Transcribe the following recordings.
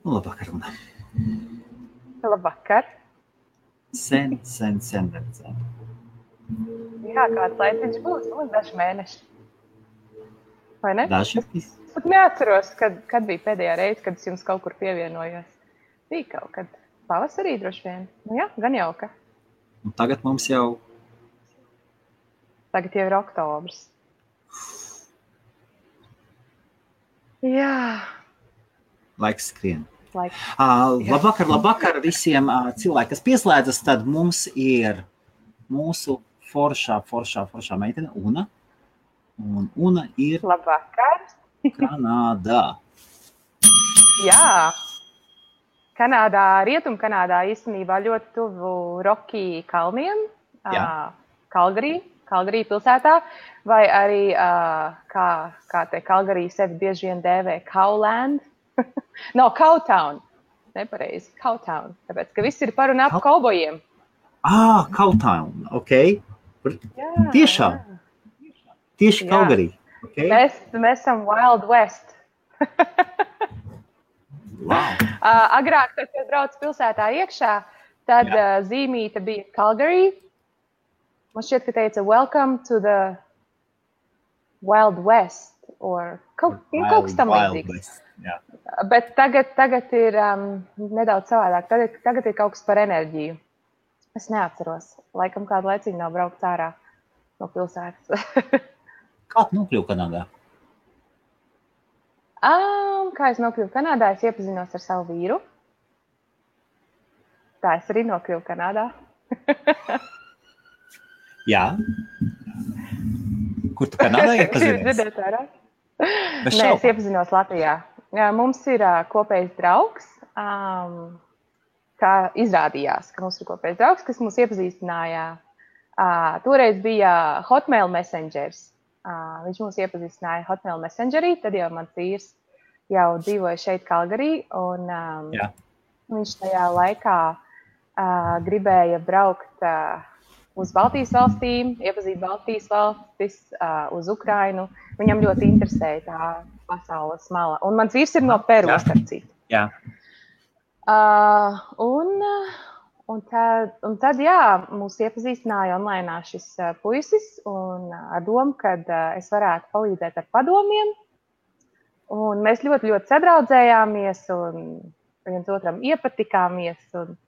Labvakar, Una. Labvakar. Sen neredzēju. Jā, kāds laiciņš būs, daži mēneši. Vai ne? Daži? Es pat neatceros, kad bija pēdējā reize, kad es jums kaut kur pievienojos. Bija kaut kad pavasarī droši vien. Nu jā, gan jauka. Un tagad mums jau... Tagad jau ir oktobrs. Jā. Laiks skrien. Laiks. Labvakar visiem cilvēki, kas pieslēdzas, tad mums ir mūsu foršā meitene Una. Un Una ir Labvakar. Kanādā. Jā. Kanādā, Rietumkanādā īstenībā ļoti tuvu Rocky kalniem. Kalgarī pilsētā. Vai arī, kā te Kalgarī sevi bieži vien dēvē Cowland. No, Cowtown. Nepareizi, Cowtown. Tāpēc, ka viss ir par un ap kaubojiem. Cowtown, ok. Jā, tiešām. Jā. Tieši Kalgarī. Okay. Mēs esam Wild West. Wow. Agrāk, kad brauc pilsētā iekšā, tad zīmīte bija Calgary. Man šķiet, ka teica Welcome to the Wild West. Kaut kas tam līdzīgs. Bet tagad ir nedaudz savādāk. Tagad ir kaut kas par enerģiju. Es neatceros. Laikam kādu laiciņu nav braukt ārā no pilsētas. Kā tu nokļuvi Kanādā? Kā es nokļuvu Kanādā? Es iepazinos ar savu vīru. Tā es arī nokļuvu Kanādā. Jā. Kur tu Kanādā iepazinies? Nē, es iepazinos Latvijā. Mums ir kopējs draugs. Kā izrādījās, ka mums ir kopējs draugs, kas mūs iepazīstināja. Toreiz bija Hotmail Messengers. Viņš mūs iepazīstināja Hotmail Messengerī, tad jau mans vīrs jau dzīvoja šeit Kalgarī, un viņš tajā laikā gribēja braukt uz Baltijas valstīm, iepazīt Baltijas valstis, uz Ukrainu. Viņam ļoti interesēja tā pasaules mala. Un mans vīrs ir no Peru, starp citu. Jā. Un tad, mūs iepazīstināja online šis puisis, un ar domu, kad es varētu palīdzēt ar padomiem. Un mēs ļoti, ļoti sadraudzējāmies, un viens otram iepatikāmies. Un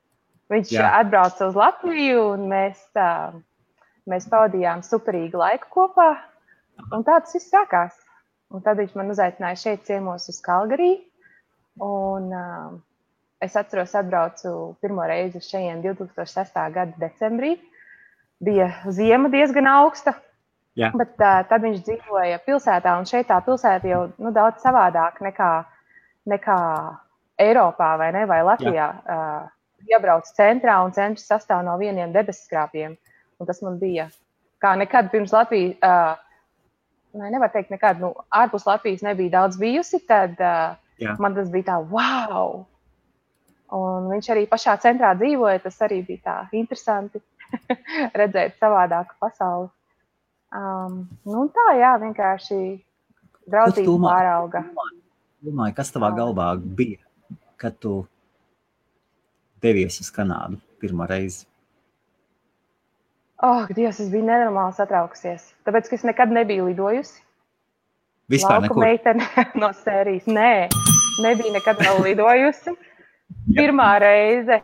viņš atbrauca uz Latviju, un mēs pavadījām superīgu laiku kopā. Un tā tas viss sākās. Un tad viņš man uzaicināja šeit ciemos uz Kalgarī. Un es atceros, atbraucu pirmo reizi uz šejien 2006. Gada decembrī. Bija ziema diezgan augsta, bet tad viņš dzīvoja pilsētā, un šeit tā pilsēta jau daudz savādāk nekā Eiropā vai Latvijā. Iebrauc centrā, un centrs sastāv no vieniem debesskrāpjiem. Un tas man bija kā nekad pirms Latvijas, nevar teikt nekad, ārpus Latvijas nebija daudz bijusi, tad man tas bija tā, wow! Un viņš arī pašā centrā dzīvoja, tas arī bija tā interesanti redzēt savādāku pasauli. Tā, vienkārši draudzība pārauga. Domāju, kas tavā galvā bija, kad tu devies uz Kanādu pirmo reizi? Dievs, es biju nenormāli satraukusies, tāpēc, ka es nekad nebiju lidojusi. Vispār Lauku nekur? meitene no sērijas. Nē, nebija nekad vēl lidojusi. Pirmā reize,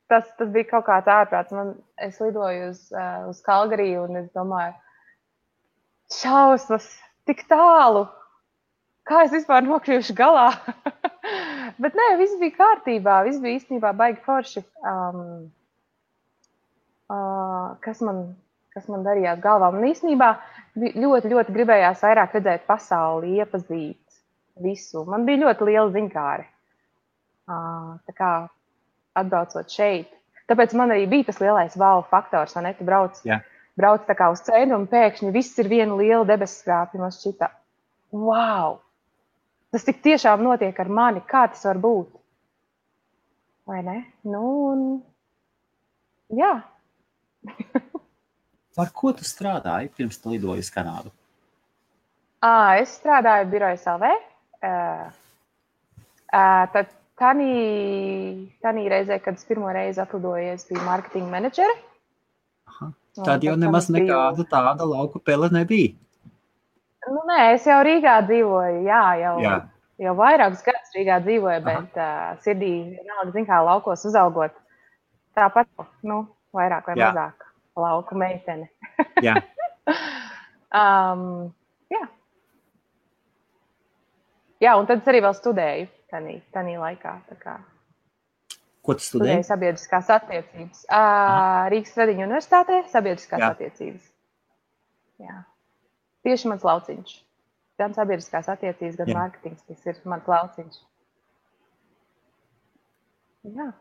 tas bija kaut kāds ārprāts. Es lidoju uz Kalgarī, un es domāju, šausmas, tik tālu. Kā es vispār nokļuvuši galā? Bet nē, viss bija kārtībā, viss bija īstenībā baigi forši. Kas man darījās galvā? Man īstenībā ļoti, ļoti gribējās vairāk redzēt pasauli, iepazīt visu. Man bija ļoti liela ziņkāre. Tā kā atbraucot šeit. Tāpēc man arī bija tas lielais wow faktors, vai ne? Tu brauc tā kā uz ceļu, un pēkšņi viss ir viena liela debesskrāpja. Man šķita, wow! Tas tik tiešām notiek ar mani, kā tas var būt? Vai ne? Jā. Par ko tu strādāji pirms tu lidoji uz Kanādu? Es strādāju Birojas LV. Tanī reizē, kad es pirmo reizi atlidoju, es biju marketinga menedžere. Aha. Tad jau nemaz nekāda tāda lauku pele nebija. Nu, nē, es jau Rīgā dzīvoju, jau vairākus gadus Rīgā dzīvoju, bet sirdī vienalga, zin kā, laukos uzaugot. Tāpat, vairāk vai mazāk lauku meitene. Jā. Jā, un tad es arī vēl studēju tanī laikā. Ko tu studēji? Studēju sabiedriskās attiecības. Rīgas Tradiņu universitātē sabiedriskās attiecības. Jā. Tieši mans lauciņš. Gan sabiedriskās attiecības, gan mārketings, tas ir mans lauciņš. Jā.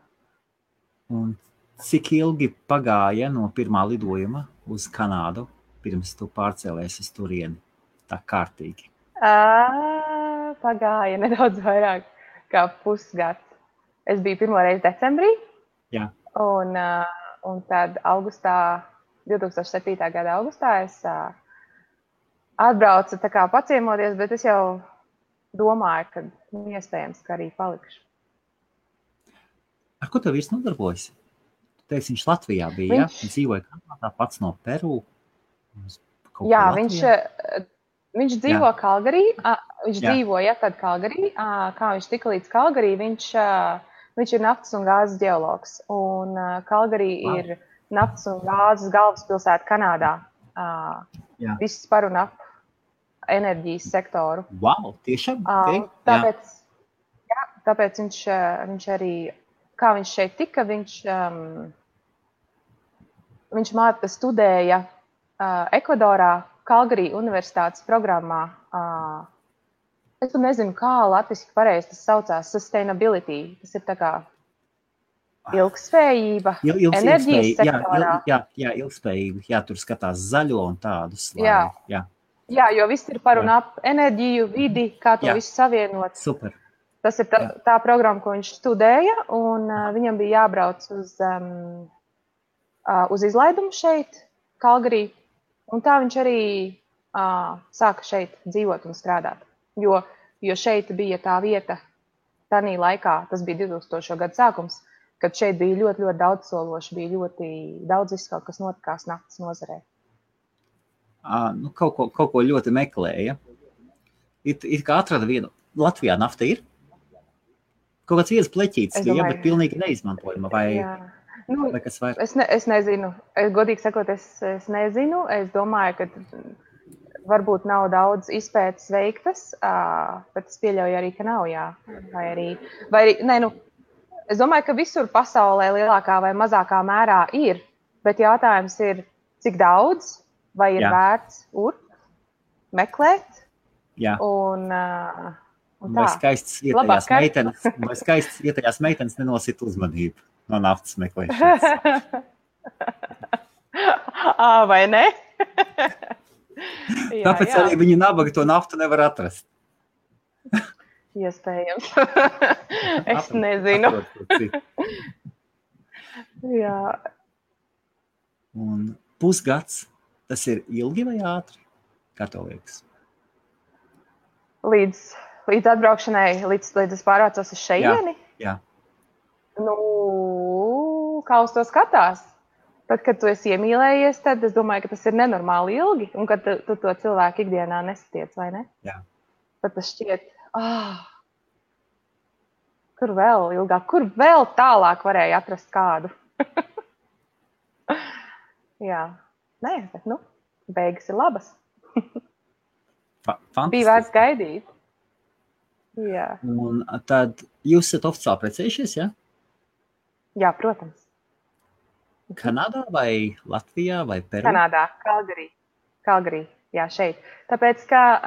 Un cik ilgi pagāja no pirmā lidojuma uz Kanādu, pirms tu pārcēlies uz turieni? Tā kārtīgi. Pagāja nedaudz vairāk kā pusgads. Es biju pirmo reizi decembrī. Jā. Un tad 2007. gada augustā es atbraucu tā kā paciemoties, bet es jau domāju, ka iespējams, ka arī palikšu. Ar ko tev vīrs nodarbojas? Tu teiksi, viņš Latvijā bija, Viņš dzīvoja Kanādā, pats no Peru. Jā, viņš dzīvo Kalgarī. Viņš dzīvoja tad Kalgarī. Kā viņš tika līdz Kalgarī, viņš ir naftas un gāzes ģeologs. Un Kalgarī ir naftas un gāzes galvaspilsēta Kanādā. Viss par un ap enerģijas sektoru. Wow, tiešām? Tāpēc viņš arī, kā viņš šeit tika, viņš studēja Ekvadorā, Kalgarī universitātes programmā. Es pat nezinu, kā latviski pareizi tas saucās, sustainability. Tas ir tā kā ilgspējība, enerģijas sektorā. Jā, ilgspējība. Jā, tur skatās zaļo un tādus. Jā, jo viss ir par un ap enerģiju, vidi, kā to visu savienot. Super. Tas ir tā programma, ko viņš studēja, un viņam bija jābrauc uz izlaidumu šeit, Kalgarī. Un tā viņš arī sāka šeit dzīvot un strādāt. Jo šeit bija tā vieta, tanī laikā, tas bija 2000. Gadu sākums, kad šeit bija ļoti, ļoti daudz sološi, bija ļoti daudz viss kaut kas notikās naftas nozarē. Kaut ko ļoti meklēja. It kā atrada vienu. Latvijā nafta ir? Kaut kāds viens pleķītis, bet pilnīgi neizmantojama. Vai kas vairāk? Es nezinu. Godīgi sakot, es nezinu. Es domāju, ka varbūt nav daudz izpētes veiktas, bet es pieļauju arī, ka nav, jā. Es domāju, ka visur pasaulē lielākā vai mazākā mērā ir, bet jautājums ir, cik daudz, vai ir vērts meklēt. Jā. Un vai skaistas ietējās meitenes nenosit uzmanību no naftas meklēšanas. Vai ne? Tāpēc arī viņi nabaga to naftu nevar atrast. Iespējams. Es nezinu. Jā. Un pusgads, tas ir ilgi vai ātri? Kā tev liekas? Līdz atbraukšanai, līdz es pārvācos uz šeieni? Jā. Kā uz to skatās? Tad, kad tu esi iemīlējies, tad es domāju, ka tas ir nenormāli ilgi, un kad tu to cilvēku ikdienā nesatiec, vai ne? Jā. Tad tas šķiet, kur vēl ilgāk, kur vēl tālāk varēja atrast kādu? Jā. Nē, bet beigas ir labas. Bija vērts gaidīt. Jā. Un tad jūs esat oficiāli precējušies, ja? Jā, protams. Kanādā vai Latvijā vai Peru? Kanādā, Kalgarī, jā, šeit. Tāpēc, ka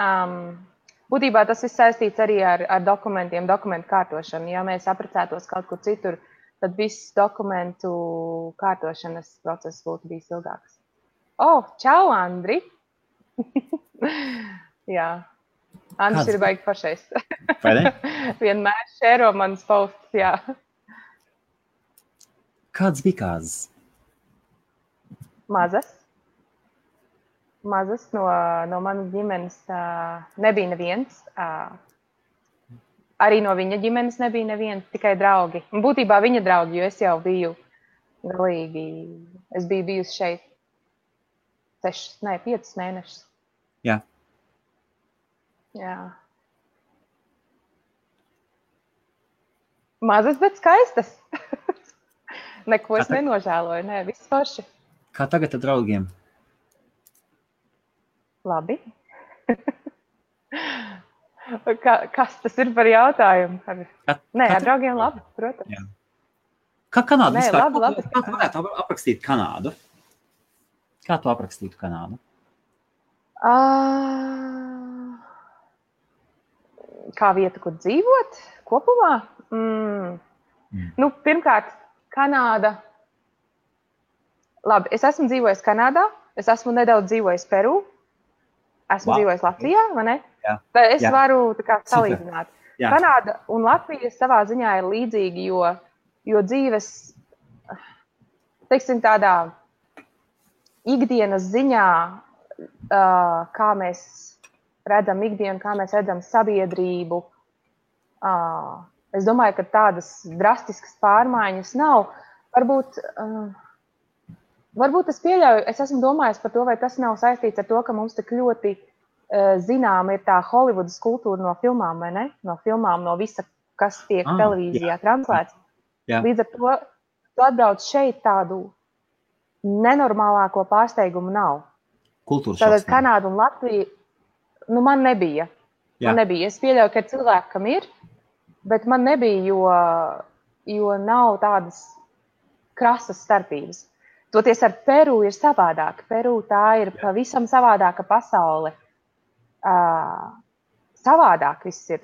būtībā tas viss saistīts arī ar dokumentu kārtošanu. Ja mēs apprecētos kaut kur citur, tad viss dokumentu kārtošanas process būtu bijis ilgāks. Čau, Andri! Jā. Andris ir baigi pašais. Vai ne? Vienmēr šēro manas posts, jā. Kāds bija kāzas? Mazas no manas ģimenes nebija neviens. arī no viņa ģimenes nebija neviena, tikai draugi. Un būtībā viņa draugi, jo es jau biju galīgi, es biju bijusi šeit 5 mēnešus. Jā. Jā. Mazas, bet skaistas. Neko es nenožēloju, nē, viss forši. Kā tagad ar draugiem? Labi. Kas tas ir par jautājumu? Nē, ar draugiem labi, protams. Jā. Kā Kanāda vispār? Labi. Kā tu varētu aprakstīt Kanādu? Kā tu aprakstītu Kanādu? Kā vieta, kur dzīvot kopumā? Nu, pirmkārt, Kanāda. Labi, es esmu dzīvojis Kanādā, es esmu nedaudz dzīvojis Peru, esmu dzīvojis Latvijā, vai ne? Jā. Tad es varu tā kā salīdzināt. Jā. Kanāda un Latvija savā ziņā ir līdzīgi, jo dzīves, teiksim, tādā ikdienas ziņā, kā mēs redzam ikdienu, kā mēs redzam sabiedrību, es domāju, ka tādas drastiskas pārmaiņas nav. Varbūt es pieļauju, es esmu domājis par to, vai tas nav saistīts ar to, ka mums tik ļoti zināma ir tā Holivudas kultūra no filmām, vai ne? No filmām, no visa, kas tiek televīzijā translēts. Jā. Līdz ar to, tu atbrauc šeit tādu nenormālāko pārsteigumu nav. Kultūras šoks. Tātad Kanāda un Latvija, nu man nebija. Man nebija. Es pieļauju, ka cilvēkam ir, bet man nebija, jo nav tādas krasas starpības. Toties ar Peru ir savādāk. Peru tā ir pavisam savādāka pasaule. Savādāk viss ir.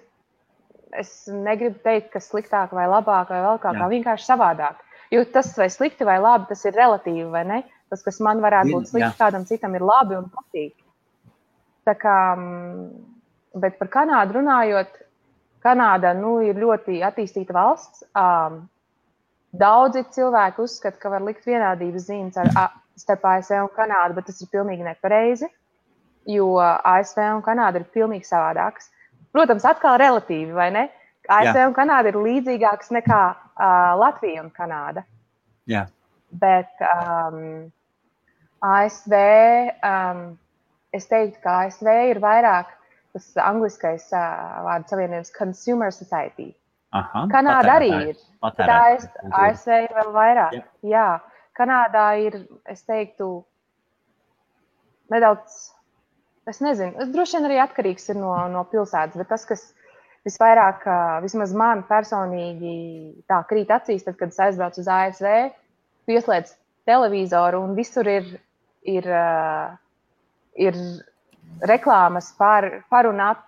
Es negribu teikt, ka sliktāk vai labāk vai vēl kā vienkārši savādāk. Jo tas vai slikti vai labi, tas ir relatīvi, vai ne? Tas, kas man varētu būt slikti, kādam citam ir labi un patīk. Tā kā, bet par Kanādu runājot, Kanāda, ir ļoti attīstīta valsts. Daudzi cilvēki uzskata, ka var likt vienādības zīmes starp ASV un Kanādu, bet tas ir pilnīgi nepareizi, jo ASV un Kanāda ir pilnīgi savādākas. Protams, atkal relatīvi, vai ne? ASV un Kanāda ir līdzīgākas nekā Latvija un Kanāda. Jā. Bet ASV, es teiktu, ka ASV ir vairāk tas angliskais vārdu savienojums consumer society. Aha, Kanāda arī ir. ASV ir vēl vairāk. Jā. Kanādā ir, es teiktu, nedaudz, es nezinu, droši vien arī atkarīgs ir no pilsētas, bet tas, kas visvairāk, vismaz man personīgi tā krīt acīs, tad, kad es aizbraucu uz ASV, pieslēdz televizoru un visur ir reklāmas par un ap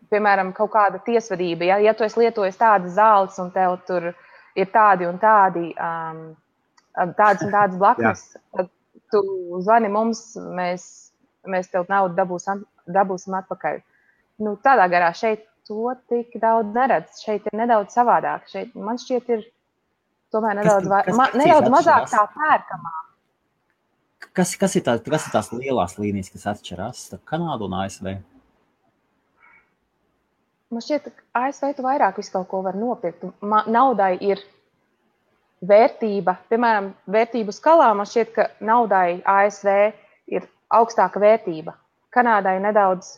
piemēram, kaut kāda tiesvedība, ja tu esi lietojis tādas zāles un tev tur ir tādi un tādi, tādas un tādas blaknes, tad tu zvani mums, mēs tev naudu dabūsim atpakaļ. Nu, tādā garā šeit to tik daudz neredz. Šeit ir nedaudz savādāk. Šeit, man šķiet, ir tomēr nedaudz mazāk tā pērkamā. Kas ir tās lielās līnijas, kas atšķirās starp Kanādu un ASV? Man šķiet, ka ASV tu vairāk visu kaut ko var nopirkt. Naudai ir vērtība. Piemēram, vērtību skalā man šķiet, ka naudai ASV ir augstāka vērtība. Kanādai nedaudz,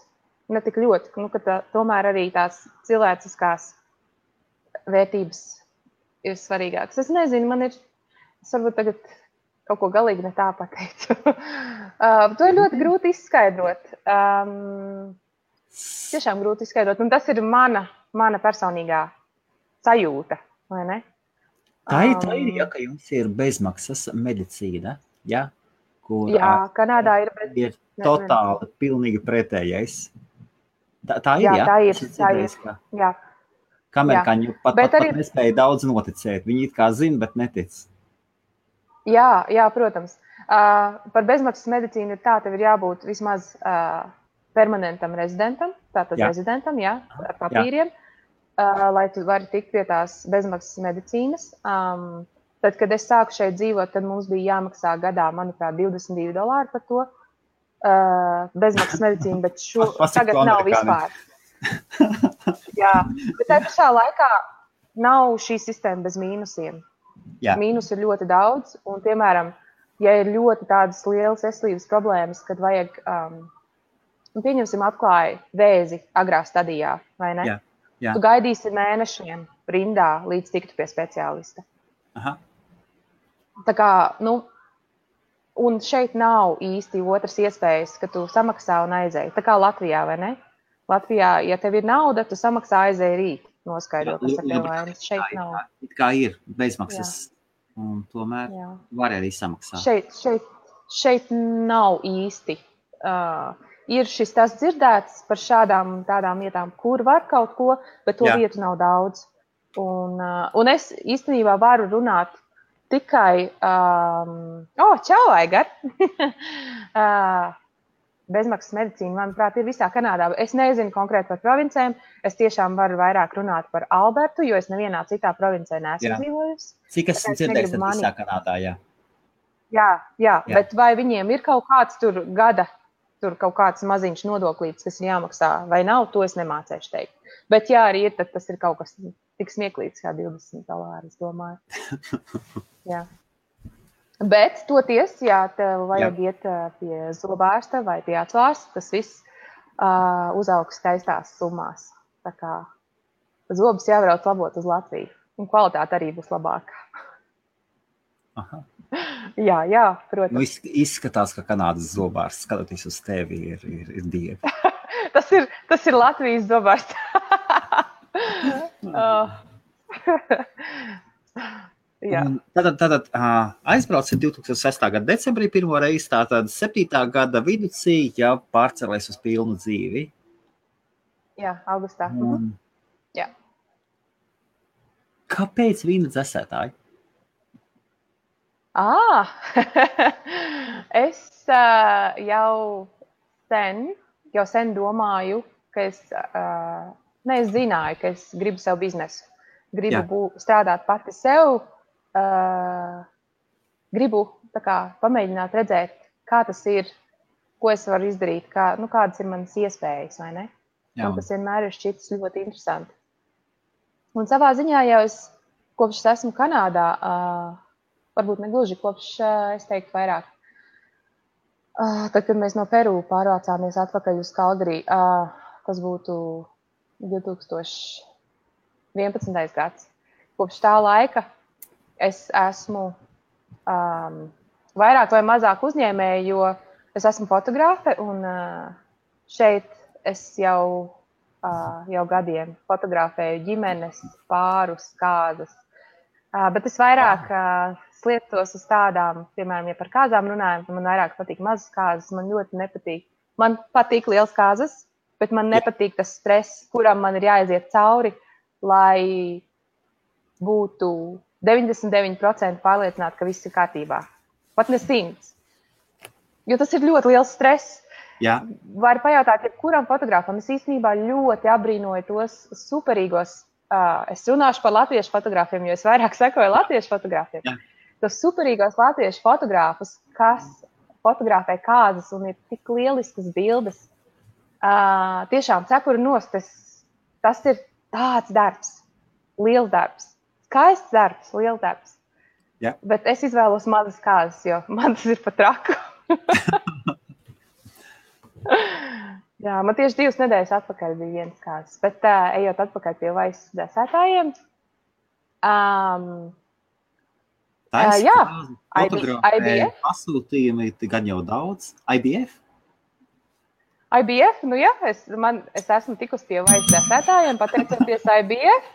ne tik ļoti, ka tomēr arī tās cilvēciskās vērtības ir svarīgākas. Es nezinu, es varbūt tagad kaut ko galīgi ne tā pateicu. To ir ļoti grūti izskaidrot. Tiešām grūti izskaidrot. Un tas ir mana personīgā sajūta, vai ne? Tā ir, ja, ka jums ir bezmaksas medicīna, ja? Kur Kanādā ir totāli, pilnīgi pretējais. Tā ir, jā? Tā ir. Jā. Kā amerikāņi pat nespēja daudz noticēt. Viņi it kā zina, bet netic. Jā, protams. Par bezmaksas medicīnu ir tā, tev ir jābūt vismaz permanentam rezidentam, tātad rezidentam, ar papīriem, lai tu vari tikt pie tās bezmaksas medicīnas. Tad, kad es sāku šeit dzīvot, tad mums bija jāmaksā gadā, manuprāt, $22 par to bezmaksas medicīnu, bet tagad nav vispār. Jā, bet tajā pašā laikā nav šī sistēma bez mīnusiem. Jā. Mīnus ir ļoti daudz, un, piemēram, ja ir ļoti tādas lielas veselības problēmas, kad vajag, pieņemsim, atklāja vēzi agrā stadijā, vai ne? Jā. Jā. Tu gaidīsi mēnešiem rindā, līdz tiktu pie speciālista. Aha. Tā kā, un šeit nav īsti otras iespējas, ka tu samaksā un aizēji. Tā kā Latvijā, vai ne? Latvijā, ja tev ir nauda, tu samaksā aizēji rīt, noskaidro, kas ar tev vainas. Šeit nav. It kā ir bezmaksas, un tomēr var arī samaksāt. Šeit nav īsti. Ir šis tas dzirdēts par šādām tādām vietām, kur var kaut ko, bet to vietu nav daudz. Un es īstenībā varu runāt tikai, čau, Aigar! Bezmaksas medicīna, manuprāt, ir visā Kanādā. Es nezinu konkrēti par provincēm. Es tiešām varu vairāk runāt par Albertu, jo es nevienā citā provincē neesmu dzīvojusi. Cik esmu dzirdējis, tad visā Kanādā, jā. Jā, bet vai viņiem ir kaut kāds tur gada, tur kaut kāds maziņš nodoklīts, kas ir jāmaksā, vai nav, to es nemācēšu teikt. Bet jā, arī ir, tad tas ir kaut kas tik smieklīgs kā $20, es domāju. Jā. Bet toties, ja tev vajag iet pie zobārsta vai pie atsvārsta, tas viss uzaugs skaistās summās. Tā kā zobus jābrauc labot uz Latviju, un kvalitāte arī būs labāka. Aha. Jā, protams. Izskatās, ka Kanādas zobārsts, skatoties uz tevi, ir dievi. tas ir Latvijas zobārsts. Tātad aizbraucis 2006. Gada decembrī pirmo reizi, tātad 7. gada viducī jau pārcelēs uz pilnu dzīvi. Jā, augustā. Jā. Kāpēc vīna dzesētāji? Es jau sen domāju, ka es zināju, ka es gribu savu biznesu. Gribu strādāt pati sev. Gribu pamēģināt redzēt, kā tas ir, ko es varu izdarīt, kādas ir manas iespējas, vai ne? Man tas vienmēr ir šķitis ļoti interesanti. Un savā ziņā jau es, kopš es esmu Kanādā, varbūt negluži kopš, es teiktu, vairāk. Tad, kad mēs no Peru pārvācāmies atpakaļ uz Kalgarī, tas būtu 2011. gads. Kopš tā laika es esmu vairāk vai mazāk uzņēmēja, jo es esmu fotogrāfe un šeit es jau gadiem fotografēju ģimenes, pārus, kāzas. Bet es vairāk sliektos uz tādām, piemēram, ja par kāzām runājam, man vairāk patīk mazas kāzas, man ļoti nepatīk. Man patīk liels kāzas, bet man nepatīk tas stress, kuram man ir jāaiziet cauri, lai būtu 99% pārliecināti, ka viss ir kārtībā. Pat ne 100. Jo tas ir ļoti liels stress. Jā. Var pajautāt, jebkuram fotogrāfam. Es īstenībā ļoti abrīnoju tos superīgos. Es runāšu par latviešu fotogrāfiem, jo es vairāk sekoju latviešu fotogrāfiem. Jā. Tos superīgos latviešu fotogrāfus, kas fotografē kāzas un ir tik lieliskas bildes. Tiešām cepuri nost. Tas ir tāds darbs. Liels darbs. Skaists darbs, liels darbs. Jā. Bet es izvēlos mazas kāzas, jo man tas ir pat traku. Jā, man tieši 2 nedēļas atpakaļ bija viens kāzas. Bet ejot atpakaļ pie vaisas dzēsētājiem. IBF. Pasūtījumi gan jau daudz. IBF? IBF, es esmu tikus pie vaisas dzēsētājiem, pateicoties IBF.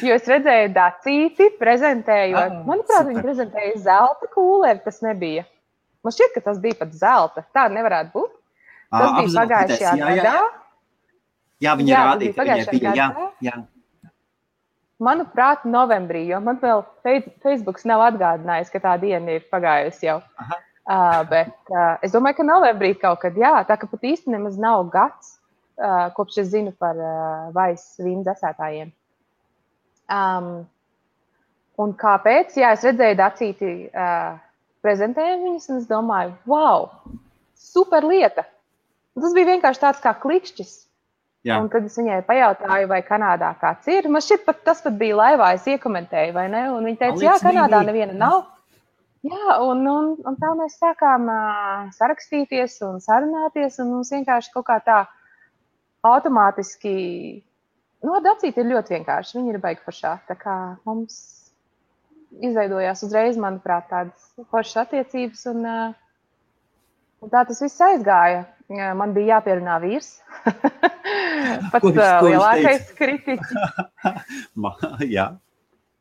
Jo es redzēju Dacīti prezentējot. Manuprāt, viņi prezentēja zelta kūleri, tas nebija. Man šķiet, ka tas bija pat zelta. Tā nevarētu būt. Tas bija pagājušajā gadā. Jā, viņi rādīja, ka viņai bija. Jā. Manuprāt, novembrī, jo man vēl Facebooks nav atgādinājis, ka tā diena ir pagājusi jau. Bet es domāju, ka novembrī kaut kad, tā ka pat īsti nemaz nav gads, kopš es zinu par vaisas vīnu dzēsētājiem. Un kāpēc? Jā, es redzēju Dacīti prezentējumu viņas, un es domāju, wow, super lieta. Un tas bija vienkārši tāds kā klikšķis. Jā. Un tad es viņai pajautāju, vai Kanādā kāds ir. Man šķiet, tas pat bija laivā, es iekomentēju, vai ne? Un viņa teica, jā, Kanādā neviena nav. Jā, un tā mēs sākām sarakstīties un sarunāties, un mums vienkārši kaut kā tā automātiski, ar Dacīti ir ļoti vienkārši, viņi ir baigi foršā, tā kā mums izveidojās uzreiz, manuprāt, tādas foršas attiecības, un tā tas viss aizgāja. Man bija jāpierunā vīrs. Pats lielākais kritiķis. Jā.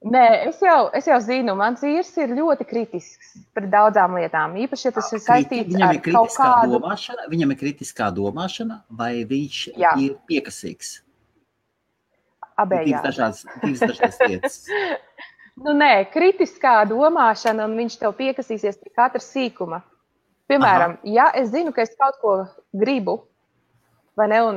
Nē, es jau zinu, mans vīrs ir ļoti kritisks par daudzām lietām. Īpaši, ja tas ir saistīts ar kaut kādu... Viņam ir kritiskā domāšana, vai viņš ir piekasīgs? Abējādi. Divas dažādas lietas. Nē, kritiskā domāšana, un viņš tev piekasīsies pie katra sīkuma. Piemēram, ja es zinu, ka es kaut ko gribu, vai ne, un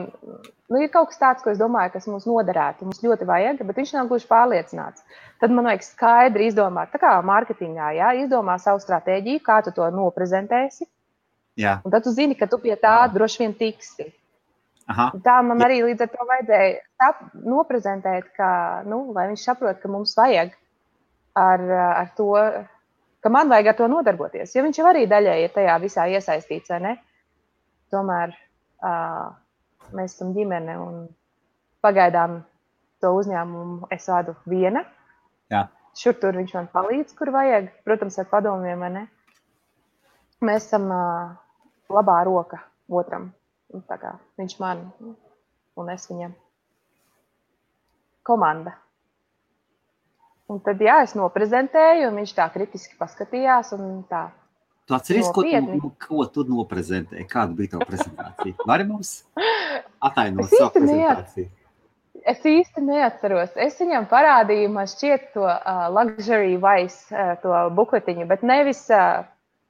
ir kaut kas tāds, ko es domāju, kas mums noderētu, mums ļoti vajag, bet viņš nav gluži pārliecināts. Tad man vajag skaidri izdomāt, tā kā mārketingā, izdomā savu stratēģiju, kā tu to noprezentēsi, un tad tu zini, ka tu pie tā droši vien tiksi. Tā man arī līdz ar to vajadzēja noprezentēt, ka, lai viņš saprot, ka mums vajag ar to, ka man vajag ar to nodarboties, jo viņš jau arī daļai ir tajā visā iesaistīts, vai ne? Tomēr mēs esam ģimene un pagaidām to uzņēmumu es vadu viena. Jā. Šur tur viņš man palīdz, kur vajag, protams, ar padomiem, vai ne? Mēs esam labā roka otram, tā kā viņš man un es viņam. Komanda. Un tad, es noprezentēju, un viņš tā kritiski paskatījās, un tā Tu atceries, ko tu noprezentēji? Kāda bija tava prezentācija? Vari mums atainot savu prezentāciju? Es īsti neatceros. Es viņam parādīju, man šķiet to Luxury Vice, to bukletiņu, bet nevis,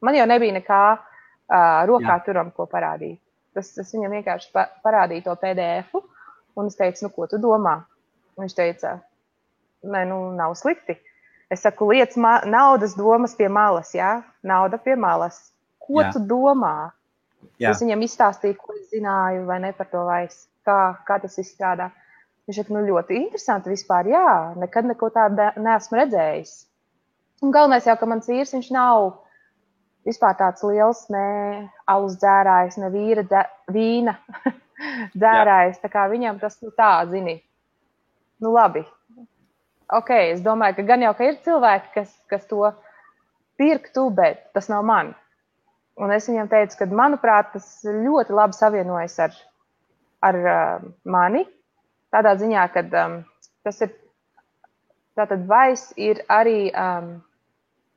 man jau nebija nekā rokā turam, ko parādīt. Es viņam vienkārši parādīju to PDF-u, un es teicu, ko tu domā? Viņš teica, nē, nav slikti. Es saku, lietas naudas domas pie malas, Nauda pie malas. Ko tu domā? Es viņam izstāstīju, ko es zināju, vai ne par to vairs, kā tas izstrādā. Viņš saka, ļoti interesanti vispār, nekad neko tādu neesmu redzējis. Un galvenais jau, ka mans vīrs, viņš nav vispār tāds liels, ne alus dzērājs, ne vīna dzērājs, tā kā viņam tas tā, zini, labi. Ok, es domāju, ka gan jau, ka ir cilvēki, kas to pirktu, bet tas nav man. Un es viņam teicu, ka, manuprāt, tas ļoti labi savienojas ar mani. Tādā ziņā, ka tas ir, tātad Vice ir arī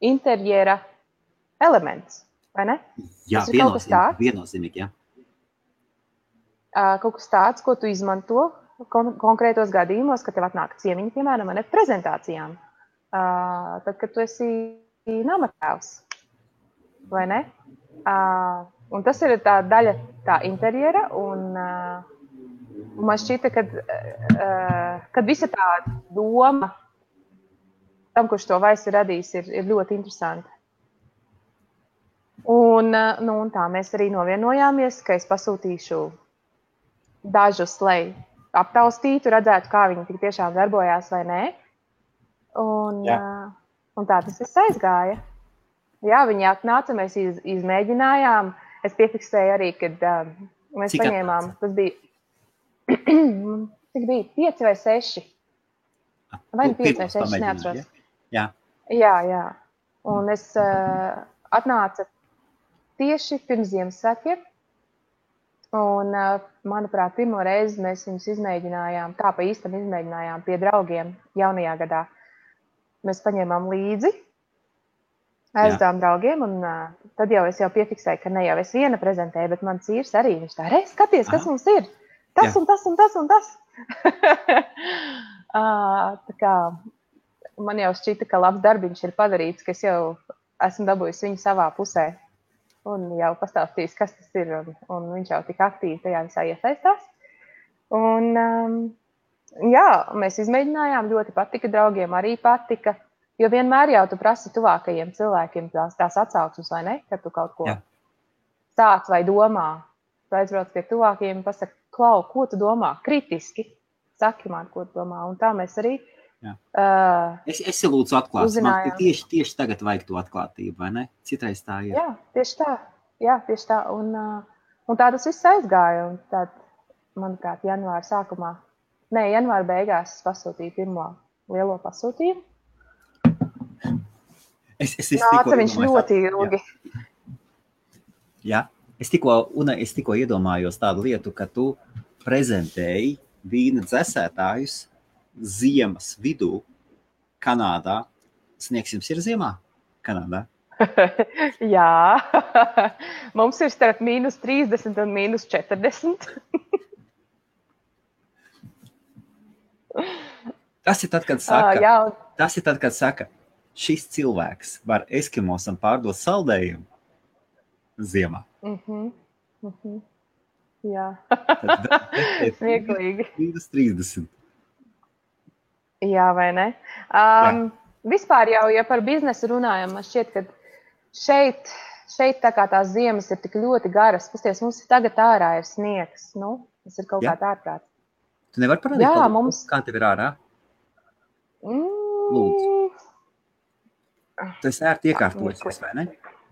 interjera elements, vai ne? Jā, viennozīmīgi, jā. Kaut kas tāds, ko tu izmanto konkrētos gadījumos, kad tev atnāk ciemiņi, piemēram, ne prezentācijām. Tad, kad tu esi namatēvs, vai ne? Un tas ir tā daļa tā interjera, un man šķita, kad visa tā doma tam, kurš to Vice ir radījis, ir ļoti interesanti. Un tā mēs arī novienojāmies, ka es pasūtīšu dažus, lai aptaustītu, redzētu, kā viņi tik tiešām darbojās vai nē. Un tā tas viss aizgāja. Jā, viņi atnāca, mēs izmēģinājām. Es piefiksēju arī, kad mēs paņēmām, tas bija, cik bija, 5 vai 6. Vai 5 vai 6, neatceros. Jā. Un es atnāca tieši pirms Ziemassvētkiem. Un, manuprāt, pirmo reizi mēs viņus izmēģinājām, tā pa īstam izmēģinājām pie draugiem jaunajā gadā. Mēs paņēmām līdzi, aizdām draugiem, un tad jau es piefiksēju, ka ne jau es viena prezentēju, bet mans vīrs arī, viņš tā, skaties, kas mums ir, tas un tas un tas un tas. Tā kā man jau šķita, ka labs darbiņš ir padarīts, ka es jau esmu dabūjusi viņu savā pusē. Un jau pastāstījis, kas tas ir, un viņš jau tik aktīvi tajā visā iesaistās. Un, mēs izmēģinājām, ļoti patika, draugiem arī patika, jo vienmēr jau tu prasi tuvākajiem cilvēkiem tās atsauksmes, vai ne, kad tu kaut ko sāc vai domā aizbrauc pie tuvākajiem un pasaka, Klau, ko tu domā? Kritiski. Saki man, ko tu domā. Un tā mēs arī Es lūdzu atklāt. Man tieši tagad vajag to atklātību, vai ne? Citreiz tā ir. Jā, tieši tā. Jā, tieši tā. Un tā tas viss aizgāja. Un tā, manuprāt, janvāra beigās es pasūtīju pirmo lielo pasūtījumu. Nāca viņš ļoti ilgi. Jā. Es tikko iedomājos tādu lietu, ka tu prezentēji vīna dzesētājus ziemas vidū Kanādā. Sniegs jums ir ziemā Kanādā? Jā. Mums ir starp -30 un -40. Tas ir tad, kad saka, šis cilvēks var eskimosam pārdot saldējumu ziemā. Jā. Smieklīgi. -30. Jā, vai ne? Vispār jau, ja par biznesu runājam, man šķiet, ka šeit tā kā tās ziemas ir tik ļoti garas. Pasties, mums tagad ārā ir sniegs. Nu, tas ir kaut kā ārprāt. Tu nevari parādīt, kā tev ir ārā? Lūdzu. Tu esi ērti iekārtojusies, vai ne?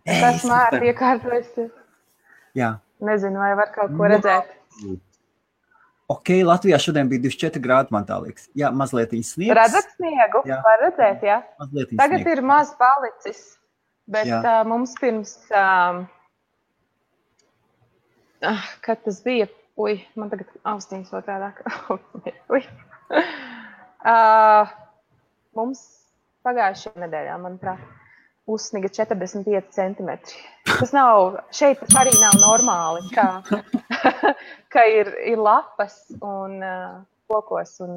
Esmu ērti iekārtojusies. Jā. Nezinu, vai var kaut ko redzēt. Ok, Latvijā šodien bija 24 grādi, man tā liekas. Jā, mazliet sniegs. Redzat sniegu? Jā. Var redzēt, jā. Tagad sniegs. Ir maz palicis, bet mums pirms, kad tas bija, man tagad austiņas otrādāk. Mums pagājušajā nedēļā, manuprāt, uzsniga 45 centimetri. Tas nav, šeit arī nav normāli, ka ir lapas un kokos un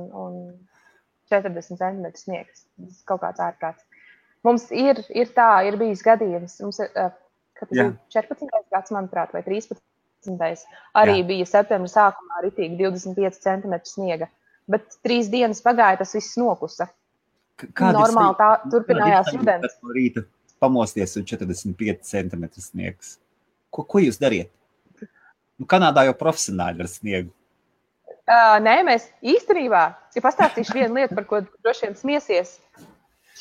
40 centimetri sniegs. Tas kaut kāds ārprāts. Mums ir bijis gadījums, mums kad bija 14. gads, manuprāt, vai 13. Arī bija septembra sākumā ritīgi 25 centimetri sniega. Bet 3 dienas pagāja, tas viss nokusa. Normāli tā turpinājās rudens. No rīta pamosties un 45 centimetri sniegs. Ko jūs dariet? Kanādā jau profesionāļi ar sniegu. Nē, mēs īstenībā, ja pastāstīšu vienu lietu, par ko droši vien smiesies,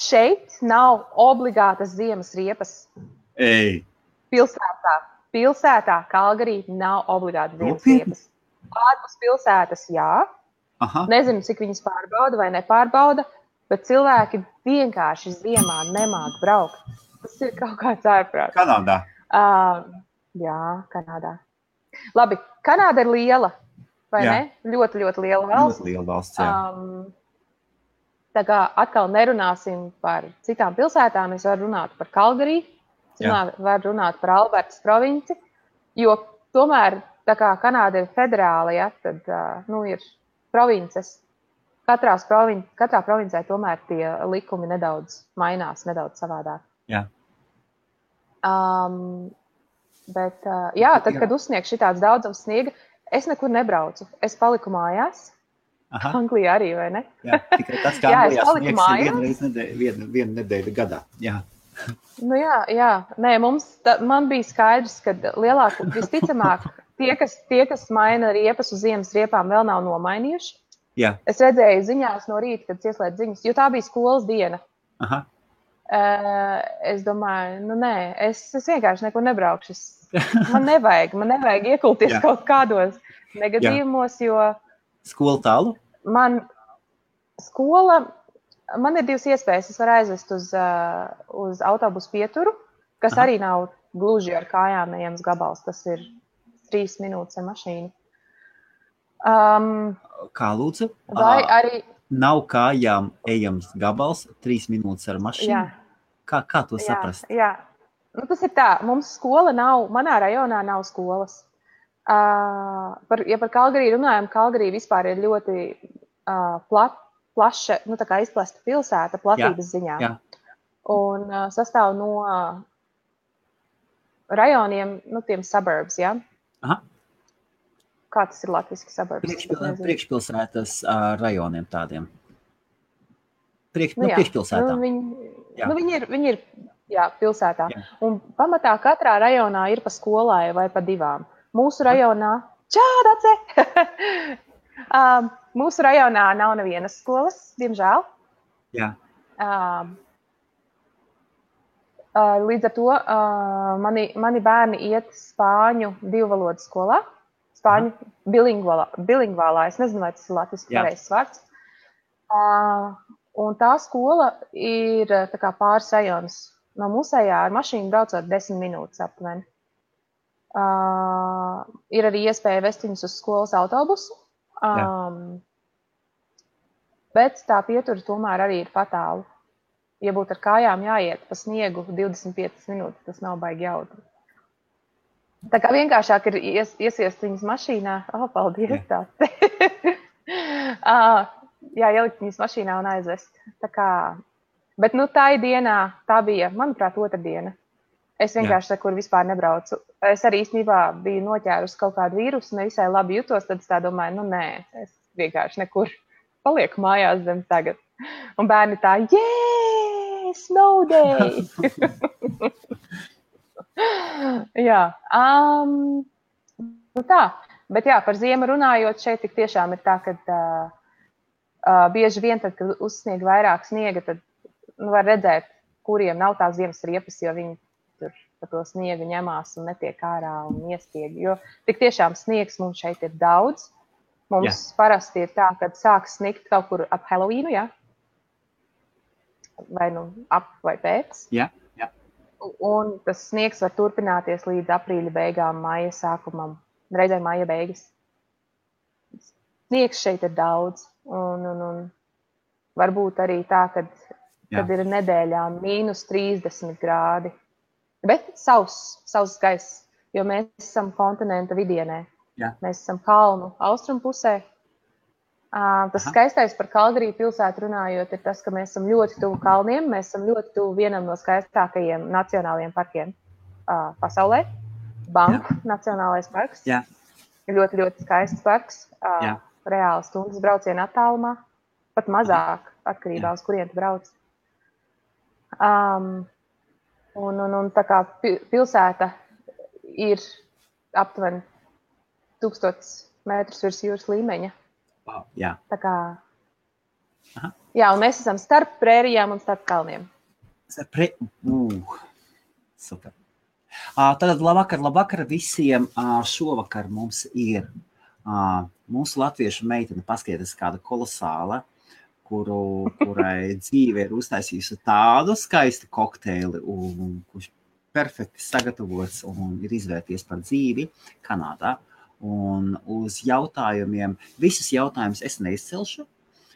šeit nav obligātas ziemas riepas. Pilsētā Kalgarī nav obligātas ziemas riepas. Ārpus pilsētas, jā. Aha. Nezinu, cik viņas pārbauda vai nepārbauda, bet cilvēki vienkārši ziemā nemāk braukt. Tas ir kaut kāds ārprāts. Kanādā? Jā, Kanādā. Labi, Kanāda ir liela, vai ne? Ļoti, ļoti liela valsts. Ļoti liela valsts, jā. Tā kā atkal nerunāsim par citām pilsētām, es varu runāt par Kalgarī, varu runāt par Albertas provinci, jo tomēr, tā kā Kanāda ir federāla, ja, tad, ir provinces. Katrā provincē tomēr tie likumi nedaudz mainās, nedaudz savādāk. Jā. Bet, tad, kad uzsniegs šitāds daudzums sniega, es nekur nebraucu. Es paliku mājās. Aha. Anglijā arī, vai ne? Jā, tikai tas, kā Anglijā sniegs ir vienu nedēļu gadā. Jā. Nu jā. Nē, man bija skaidrs, ka visticamāk tie, kas maina riepas uz ziemas riepām, vēl nav nomainījuši. Jā. Es redzēju ziņās no rīta, kad ieslēdz ziņas, jo tā bija skolas diena. Aha. Es domāju, nē, es vienkārši nekur nebraukšu. Man nevajag iekulties kaut kādos negadījumos, jo... Skola tālu? Man ir 2 iespējas. Es varu aizvest uz autobusu pieturu, kas arī nav gluži ar kājām ejams gabals. Tas ir 3 minūtes ar mašīnu. Kā lūdzu? Vai arī... Nav kājām ejams gabals, 3 minūtes ar mašīnu? Jā. Kā to saprast? Jā. Tas ir tā, mums skola nav, manā rajonā nav skolas. Ja par Kalgarī runājam, Kalgarī vispār ir ļoti plaša, tā kā izplesta pilsēta platības ziņā. Jā. Un sastāv no rajoniem, tiem suburbs, jā? Aha. Kā tas ir latviski suburbs? Priekšpilsētas rajoniem tādiem. Priekšpilsētām. Viņi ir pilsētā. Jā. Un pamatā katrā rajonā ir pa skolai vai pa 2. Mūsu rajonā, Dace! Mūsu rajonā nav nevienas skolas, diemžēl. Jā. Līdz ar to mani bērni iet spāņu divvalodu skolā, spāņu bilingvālā, es nezinu, vai tas ir latviski pareizs vārds. Un tā skola ir tā kā pāris rajonus no mūsējā, ar mašīnu braucot 10 minūtes aptuveni. Ir arī iespēja vest viņus uz skolas autobusu, bet tā pietura tomēr arī ir patālu. Ja būtu ar kājām jāiet pa sniegu 25 minūtes, tas nav baigi jautri. Tā kā vienkāršāk ir iesiest viņus mašīnā. Paldies tā. Ielikt viņus mašīnā un aizvest. Tā kā, bet tā dienā, tā bija, manuprāt, otrdiena. Es vienkārši nekur vispār nebraucu. Es arī īstenībā biju noķērusi kaut kādu vīrusu, nevisai labi jutos, tad es tā domāju, nē, es vienkārši nekur palieku mājās zem tagad. Un bērni tā, snow day! Jā, tā. Bet jā, par ziemu runājot, šeit tik tiešām ir tā, ka bieži vien tad, kad uzsnieg vairāk sniega, tad var redzēt, kuriem nav tās ziemas riepas, jo viņi tur pa to sniegu ņemās un netiek ārā un iestieg. Jo tik tiešām sniegs mums šeit ir daudz. Mums parasti ir tā, kad sāks sniegt kaut kur ap Halloweenu, jā? Vai ap vai pēc. Jā. Un tas sniegs var turpināties līdz aprīļa beigām, maija sākumam, reizē maija beigas. Sniegs šeit ir daudz. Un varbūt arī tā, kad ir nedēļā -30 grādi. Bet sauss gaiss, jo mēs esam kontinenta vidienē. Jā. Mēs esam kalnu austrumu pusē. Tas skaistais par Kalgariju pilsētu runājot ir tas, ka mēs esam ļoti tuvu kalniem. Mēs esam ļoti tuvu vienam no skaistākajiem nacionālajiem parkiem pasaulē. Banku nacionālais parks. Jā. Ļoti, ļoti skaists parks. Reāli stundas brauciena attālumā. Pat mazāk, atkarībā uz kurien tu brauc. Un tā kā pilsēta ir aptuveni 1000 metrus virs jūras līmeņa. Wow, jā. Tā kā, jā, un mēs esam starp prērijām un starp kalniem. Super. Tātad labvakar visiem. Šovakar mums ir mūsu latviešu meitene, paskatieties, kāda kolosāla, kurai dzīve ir uztaisījusi tādu skaistu kokteili, kurš perfekti sagatavots un ir izvērties par dzīvi Kanādā. Un uz jautājumiem, visus jautājumus es neizcelšu,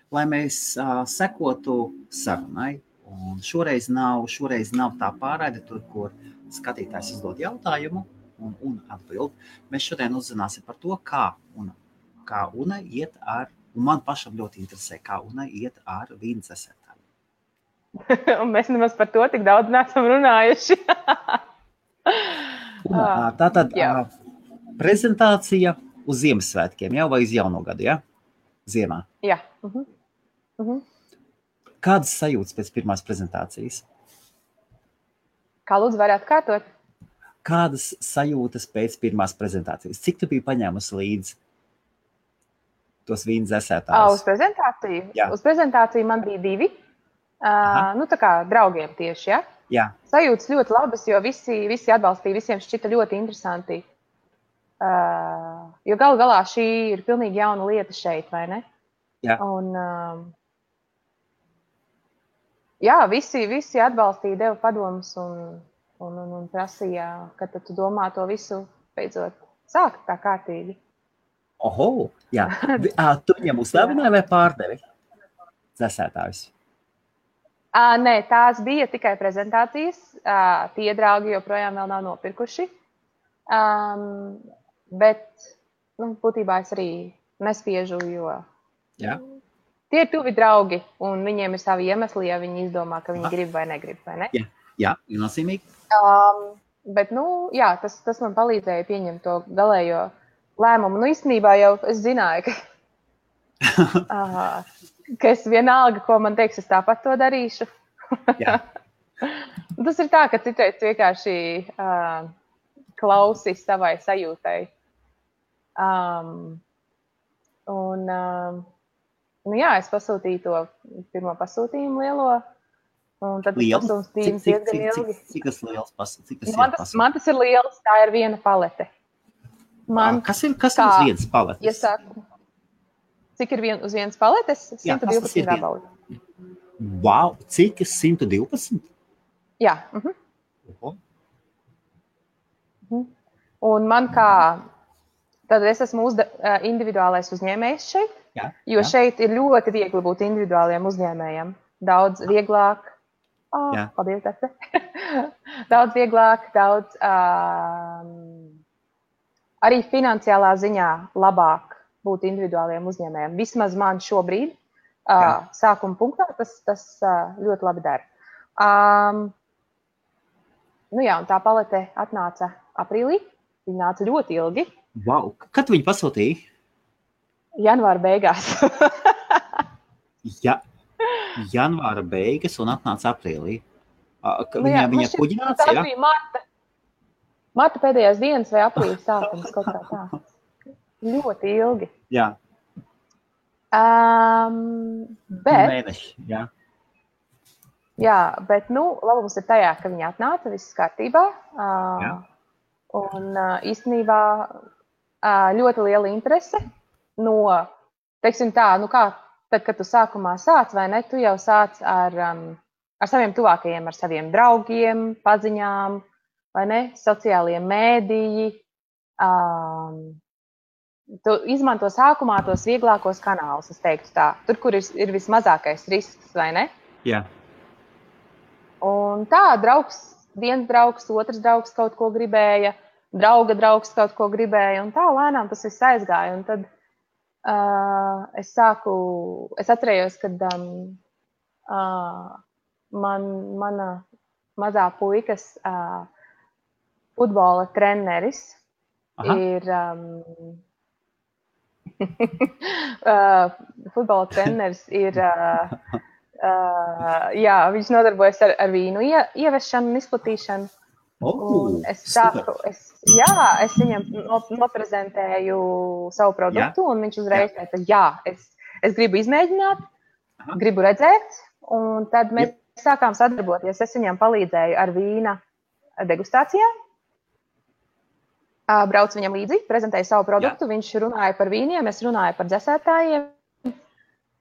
lai mēs sekotu sarunai. Un šoreiz nav tā pārraide, tur, kur skatītājs uzdod jautājumu un atbild. Mēs šodien uzzināsim par to, kā Una iet ar, un man pašam ļoti interesē, kā Una iet ar vīnu dzesētājiem. Un mēs nemaz par to tik daudz neesam runājuši. Tātad prezentācija uz Ziemassvētkiem, jau vai uz jauno gadu, ja? Ziemā. Jā. Kādas sajūtas pēc pirmās prezentācijas? Kā lūdzu varētu kārtot? Kādas sajūtas pēc pirmās prezentācijas? Cik tu biji paņēmusi līdzi tos vīnu dzesētājus? Uz prezentāciju? Jā. Uz prezentāciju man bija 2. Tā kā draugiem tieši, ja? Jā. Sajūtas ļoti labas, jo visi atbalstīja, visiem šķita ļoti interesanti. Jo galu galā šī ir pilnīgi jauna lieta šeit, vai ne? Jā. Un, jā, visi atbalstīja, deva padomus un prasīja, ka tad tu domā to visu beidzot sākt tā kārtīgi. Oho, jā. Tu viņam uzdāvināji vai pārdevi dzesētājus? Nē, tās bija tikai prezentācijas. Tie draugi joprojām vēl nav nopirkuši. Bet, būtībā es arī nespiežu, jo tie ir tuvi draugi, un viņiem ir savi iemesli, ja viņi izdomā, ka viņi grib vai negrib, vai ne? Jā, viennozīmīgi. Bet, jā, tas man palīdzēja pieņemt to galējo lēmumu. Īstenībā jau es zināju, ka es vienalga, ko man teiks, es tāpat to darīšu. Jā. Tas ir tā, ka citreiz vienkārši klausi savai sajūtai Nu jā, es pasūtīju to pirmo pasūtījumu lielo, un tad tas Liels? pasūtījums diezgan ilgi. Cik tas liels pasūtījums? Man tas ir liels, tā ir viena palete. Kas ir uz vienas paletes? Ja saku, cik ir uz vienas paletes? 112 gabali. Wow, cik? 112? Jā. Un man tad es esmu individuālais uzņēmējs šeit, jo šeit ir ļoti viegli būt individuāliem uzņēmējiem. Daudz vieglāk. Paldies, Dārte. Daudz vieglāk, arī finansiālā ziņā labāk būt individuāliem uzņēmējiem. Vismaz man šobrīd sākuma punktā tas ļoti labi dara. Nu jā, un tā palete atnāca aprīlī. Viņa nāca ļoti ilgi. Wow. Kad viņi pasūtīja? Janvāra beigās. Janvāra beigas un atnāca aprīlī. Viņa kuģināts, tā bija marta pēdējās dienas vai aprīļa sākums, kaut kā tā. Ļoti ilgi. Jā. Mēneši, jā. Jā, bet, labums ir tajā, ka viņa atnāca, viss kārtībā. Un īstenībā ļoti liela interese no, teiksim tā, kā tad, kad tu sākumā sāc, vai ne, tu jau sāc ar saviem tuvākajiem, ar saviem draugiem, paziņām, vai ne, sociālajiem mēdīji. Tu izmanto sākumā tos vieglākos kanālus, es teiktu tā. Tur, kur ir vismazākais risks, vai ne? Jā. Un tā, viens draugs, otrs draugs kaut ko gribēja, drauga draugs kaut ko gribēja, un tā lēnām tas viss aizgāja. Un tad es atcerējos, kad mana mazā puikas futbola treneris ir futbola treneris ir viņš nodarbojas ar vīnu ieviešanu un izplatīšanu. Es viņam noprezentēju savu produktu, un viņš uzreiz teica, es gribu izmēģināt, gribu redzēt, un tad mēs sākām sadarboties. Es viņam palīdzēju ar vīna degustācijām, braucu viņam līdzi, prezentēju savu produktu, viņš runāja par vīniem, es runāju par dzesētājiem.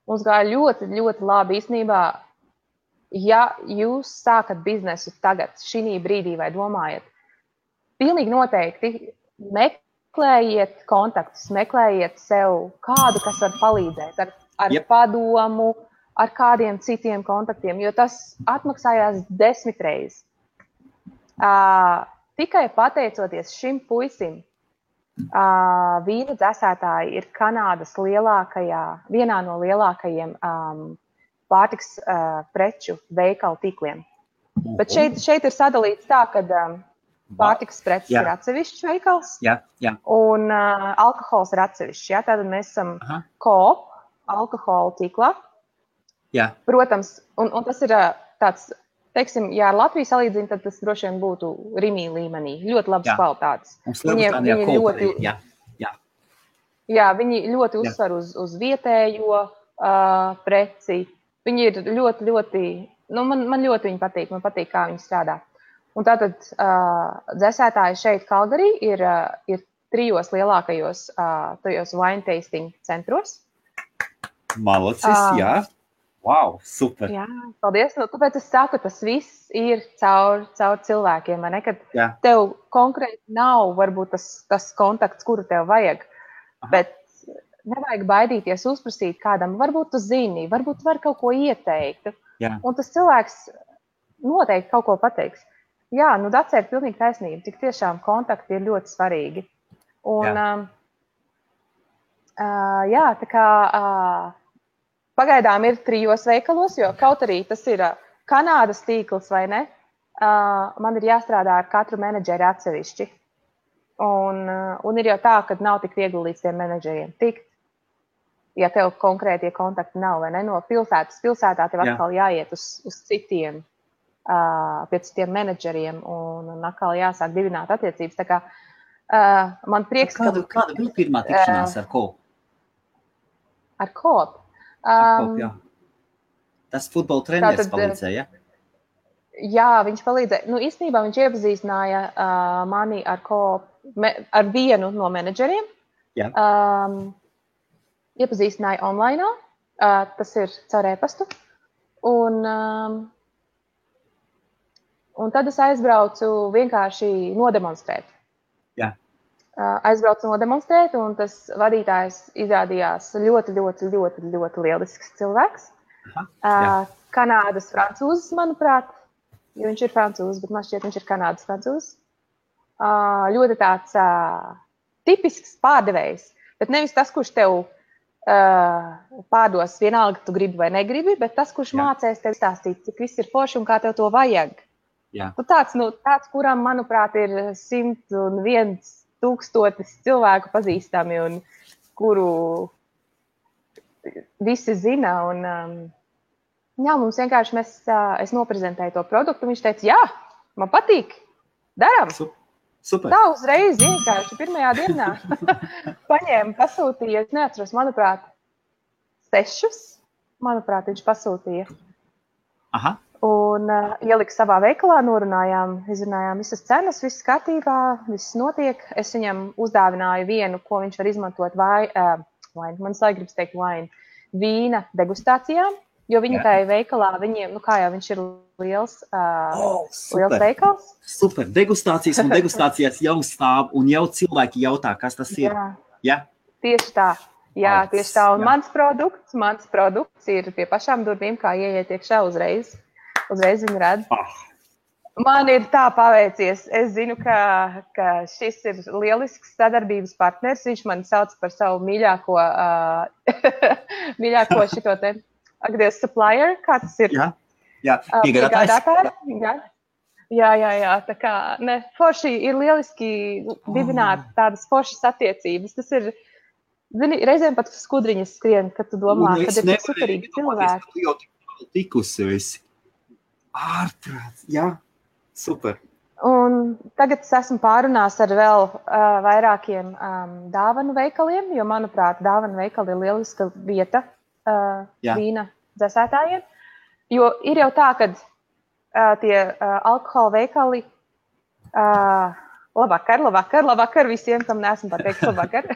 Mums gāja ļoti, ļoti labi īstenībā. Ja jūs sākat biznesu tagad, šī brīdī vai domājat, pilnīgi noteikti meklējiet kontaktus, meklējiet sev kādu, kas var palīdzēt ar padomu, ar kādiem citiem kontaktiem, jo tas atmaksājās 10 reizes. Tikai pateicoties šim puisim, vīna dzesētāji ir Kanādas vienā no lielākajiem pārtiks preču veikalu tīkliem. Bet šeit ir sadalīts tā, ka pārtiks preces ir atsevišķs veikals un alkohols ir atsevišķs. Tātad mēs esam Coop alkohola tīklā. Protams, un tas ir tāds, teiksim, ja ar Latviju salīdzina, tad tas droši vien būtu Rimī līmenī. Ļoti labas kvalitātes. Viņi ļoti uzsver uz vietējo preci. Viņi ir ļoti, ļoti, man ļoti viņi patīk, man patīk, kā viņi strādā. Un tātad dzesētāji šeit Kalgarī ir 3 lielākajos tajos wine tasting centros. Malacis, jā. Wow, super. Jā, paldies. Tāpēc es saku, tas viss ir caur cilvēkiem, vai ne? Kad tev konkrēti nav varbūt tas kontakts, kuru tev vajag, bet nevajag baidīties uzprasīt kādam, varbūt tu zini, varbūt var kaut ko ieteikt. Un tas cilvēks noteikti kaut ko pateiks. Jā, Dacē ir pilnīgi taisnība, cik tiešām kontakti ir ļoti svarīgi. Un tā kā pagaidām ir 3 veikalos, jo kaut arī tas ir Kanādas tīkls, vai ne? Man ir jāstrādā ar katru menedžeri atsevišķi. Un ir jau tā, ka nav tik viegli līdz tiem menedžeriem tikt. Ja tev konkrētie kontakti nav, vai ne? No pilsētā tev atkal jāiet uz citiem, pie citiem menedžeriem un atkal jāsāk dibināt attiecības. Tā kā Man prieks, Kāda bija pirmā tikšanās ar Kopu? Ar Kopu? Jā. Tas futbola treneris palīdzēja, ja? Jā, viņš palīdzēja. Nu, īstenībā viņš iepazīstināja mani ar Kopu, ar vienu no menedžeriem. Jā. Iepazīstināja online, tas ir caur e-pastu. Un tad es aizbraucu vienkārši nodemonstrēt. Jā. Aizbraucu nodemonstrēt, un tas vadītājs izrādījās ļoti, ļoti, ļoti, ļoti lielisks cilvēks. Kanādas francūzis, manuprāt, jo viņš ir francūzis, bet man šķiet, viņš ir Kanādas francūzis. Ļoti tāds tipisks pārdevējs, bet nevis tas, kurš tev pārdos vienalga, tu gribi vai negribi, bet tas, kurš mācēs tev stāstīt, cik viss ir forši un kā tev to vajag. Jā. Tāds, kuram, manuprāt, ir 101 tūkstotis cilvēku pazīstami un kuru visi zina. Un, mums vienkārši es noprezentēju to produktu, viņš teica, jā, man patīk, daram. Super. Tā uzreiz vienkārši pirmajā dienā paņēma, pasūtīja, es neatceros, manuprāt, 6, manuprāt, viņš pasūtīja. Aha. Un ielika savā veikalā, izrunājām visas cenas, viss kārtībā, viss notiek. Es viņam uzdāvināju vienu, ko viņš var izmantot man gribas teikt vīna degustācijām, jo viņi tajā veikalā, viņiem, kā jau viņš ir liels veikals. Super, degustācijas un degustācijas jau stāv un jau cilvēki jautā, kas tas ir. Jā. Tieši tā. Jā, tieši tā. Un mans produkts ir pie pašām durvīm, kā ieiet iekšā uzreiz. Uzreiz viņi redz. Man ir tā paveicies. Es zinu, ka šis ir lielisks sadarbības partners. Viņš mani sauc par savu mīļāko šito te supplier, kā tas ir. Jā. Piegādātājs. Jā. Tā kā, forši ir lieliski dibināt tādas foršas attiecības. Tas ir, zini, reizēm pat skudriņas skrien, kad tu domā, kad ir superīgi cilvēki. Tu jau tikusi esi. Ārprāts, jā, super. Un tagad es esmu pārunās ar vēl vairākiem dāvanu veikaliem, jo, manuprāt, dāvanu veikali ir lieliska vieta vīna dzēsētājiem. Jo ir jau tā, ka tie alkohola veikali, labvakar visiem, kam neesmu pateikt labvakar,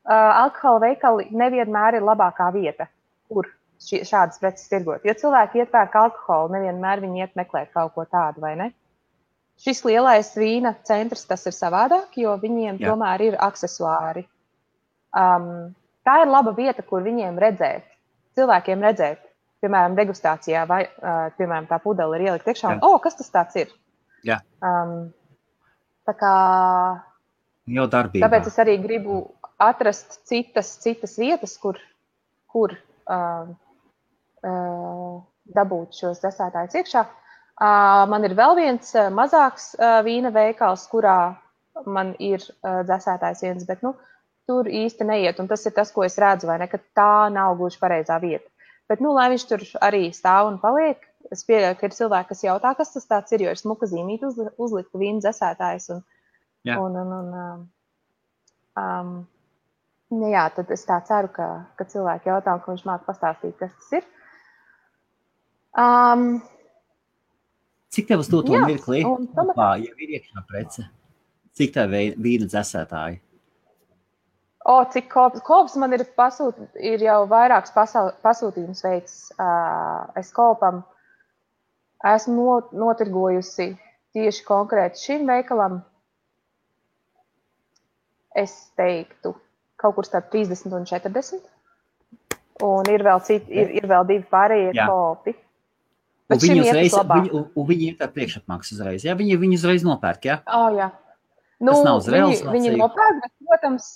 alkohola veikali nevienmēr ir labākā vieta, kur šādas preces tirgot. Jo cilvēki iepērk alkoholu, nevienmēr viņi iet meklēt kaut ko tādu, vai ne? Šis lielais vīna centrs, tas ir savādāk, jo viņiem tomēr ir aksesuāri. Tā ir laba vieta, kur viņiem redzēt, cilvēkiem redzēt, piemēram, degustācijā, vai, piemēram, tā pudele ir ielikt iekšā, un, kas tas tāds ir? Jā. Tā kā... Jau darbībā. Tāpēc es arī gribu atrast citas vietas, kur dabūt šos dzēsētājus iekšā. Man ir vēl viens mazāks vīna veikals, kurā man ir dzēsētājs viens, bet tur īsti neiet. Un tas ir tas, ko es redzu, vai ne, ka tā nav gluži pareizā vieta. Bet, lai viņš tur arī stāv un paliek, es pieļauju, ka ir cilvēki, kas jautā, kas tas tāds ir, jo ir smuka zīmīte uzlikta vīna dzēsētājs. Tad es tā ceru, ka cilvēki jautā, ka viņš māca pastāstīt, kas tas ir. Cik tev uz to mirklī? Jau ir iekšā prece? Cik tev vīna dzēsētāji? Cik kops man ir jau vairāks pasūtījums veids. Es kopam esmu notirgojusi tieši konkrēti šim veikalam. Es teiktu, kaut kur starp 30 un 40. Un ir vēl ir vēl 2 pārējie kopi. Un viņi ir tā priekšapmaksa uzreiz, jā? Viņi uzreiz nopērk, jā? Jā. Tas nav uz realizāciju. Viņi nopērk, bet, protams,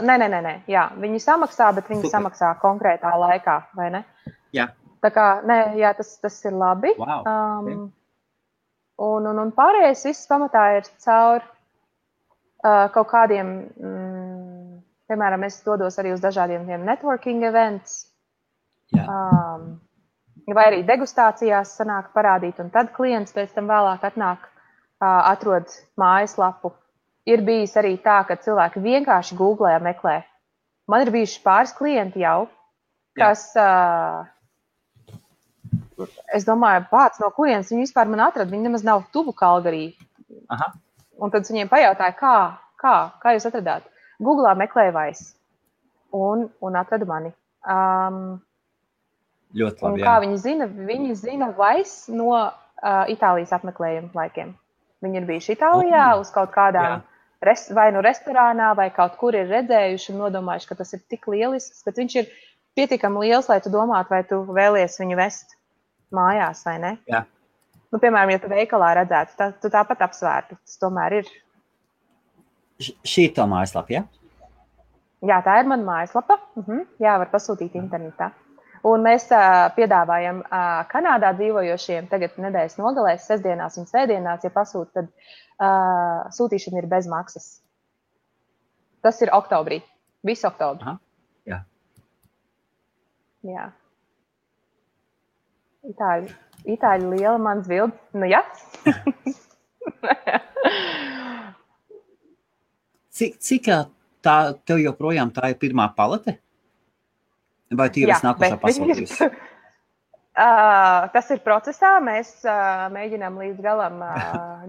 nē. Jā, viņi samaksā, bet viņi samaksā konkrētā laikā, vai ne? Jā. Tā kā, tas ir labi. Wow. Un pārējais viss pamatā ir caur kaut kādiem, piemēram, es dodos arī uz dažādiem networking events. Jā. Vai arī degustācijās sanāk parādīt, un tad klients pēc tam vēlāk atnāk, atrod mājaslapu. ir bijis arī tā, ka cilvēki vienkārši googlē meklē. Man ir bijuši pāris klienti jau, kas, es domāju, pats no kurienes viņi vispār man atrada. Viņi nemaz nav tuvu Kalgarī. Aha. Un tad viņiem pajautāja, kā jūs atradāt? Googlā meklēja Vais un atrada mani. Ļoti labi, kā viņi zina? Viņi zina Vais no Itālijas apmeklējuma laikiem. Viņi ir bijuši Itālijā uz kaut kādām vai nu restorānā, vai kaut kur ir redzējuši un nodomājuši, ka tas ir tik lielisks, bet viņš ir pietiekami liels, lai tu domātu, vai tu vēlies viņu vest mājās, vai ne? Jā. Nu, piemēram, ja tu veikalā redzētu, tu tāpat apsvērtu. Tas tomēr ir. Šī ir tā mājaslapa, ja? Jā, tā ir mana mājaslapa. Jā, var pasūtīt internetā. Un mēs piedāvājam Kanādā dzīvojošiem tagad nedēļas nogalēs, sestdienās un svētdienās, ja pasūt, tad sūtīšana ir bez maksas. Tas ir oktobrī. Visu oktobri. Jā. Jā. Itāļi liela mans bildi. Nu, jā. Cik tev joprojām tā ir pirmā palete? Vai tu jau esi nākošā pasūtījusi? Tas ir procesā. Mēs mēģinām līdz galam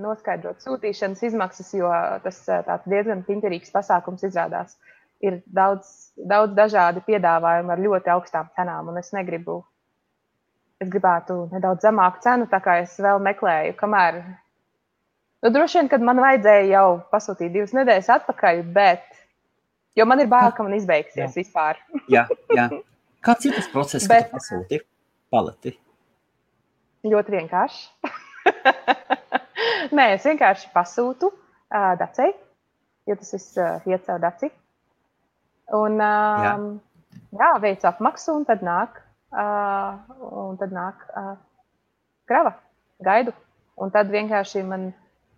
noskaidrot sūtīšanas izmaksas, jo tas tāds diezgan piņķerīgs pasākums izrādās. Ir daudz dažādi piedāvājumi ar ļoti augstām cenām, un es gribētu nedaudz zemāku cenu, tā kā es vēl meklēju, kamēr. Nu, droši vien, kad man vajadzēja jau pasūtīt 2 nedēļas atpakaļ, bet, jo man ir bail, ka man izbeigsies vispār. Jā. Kāds ir tas process, kad tu pasūti paleti? Ļoti vienkārši. Nē, es vienkārši pasūtu Dacei, jo tas viss iet caur Daci. Un veicu apmaksu, un tad nāk krava, gaidu. Un tad vienkārši man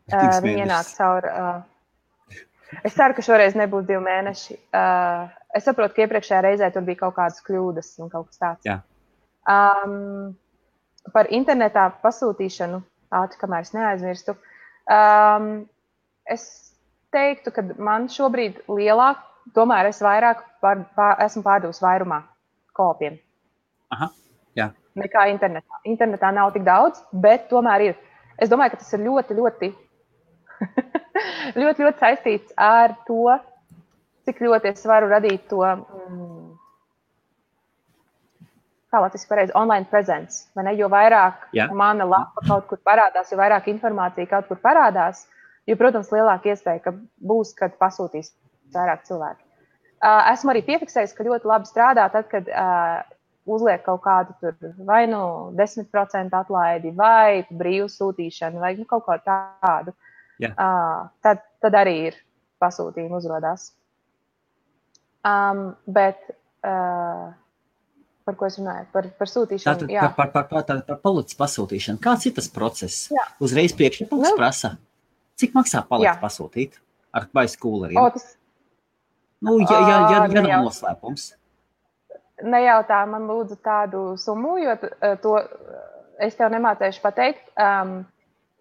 viņi ienāk caur. Es ceru, ka šoreiz nebūs 2 mēneši. Es saprotu, ka iepriekšējā reizē tur bija kaut kādas kļūdas un kaut kas tāds. Jā. Par internetā pasūtīšanu, kamēr es neaizmirstu, es teiktu, ka man šobrīd lielāk, tomēr es vairāk esmu pārdevusi vairumā koopiem. Aha, jā. Nekā internetā. Internetā nav tik daudz, bet tomēr ir. Es domāju, ka tas ir ļoti, ļoti, ļoti, ļoti saistīts ar to, cik ļoti es varu radīt to, kā latviski pareizi, online presence. Vai ne? Jo vairāk mana lapa kaut kur parādās, jo vairāk informācija kaut kur parādās, jo, protams, lielāka iespēja, ka būs, kad pasūtīs vairāk cilvēki. Esmu arī piefiksējis, ka ļoti labi strādā tad, kad uzliek kaut kādu tur vai nu 10% atlaidi, vai brīvu sūtīšanu, vai kaut ko tādu. Tad arī ir pasūtījumi uzrodās. Bet par ko es runāju? Par sūtīšanu. Par paletes pasūtīšanu. Kāds ir tas process? Uzreiz priekšlikums prasa. Cik maksā paletes pasūtīt? Vai skūleriem? Ja nav noslēpums. Nejautā man lūdzu tādu summu, jo to es tev nemācēšu pateikt,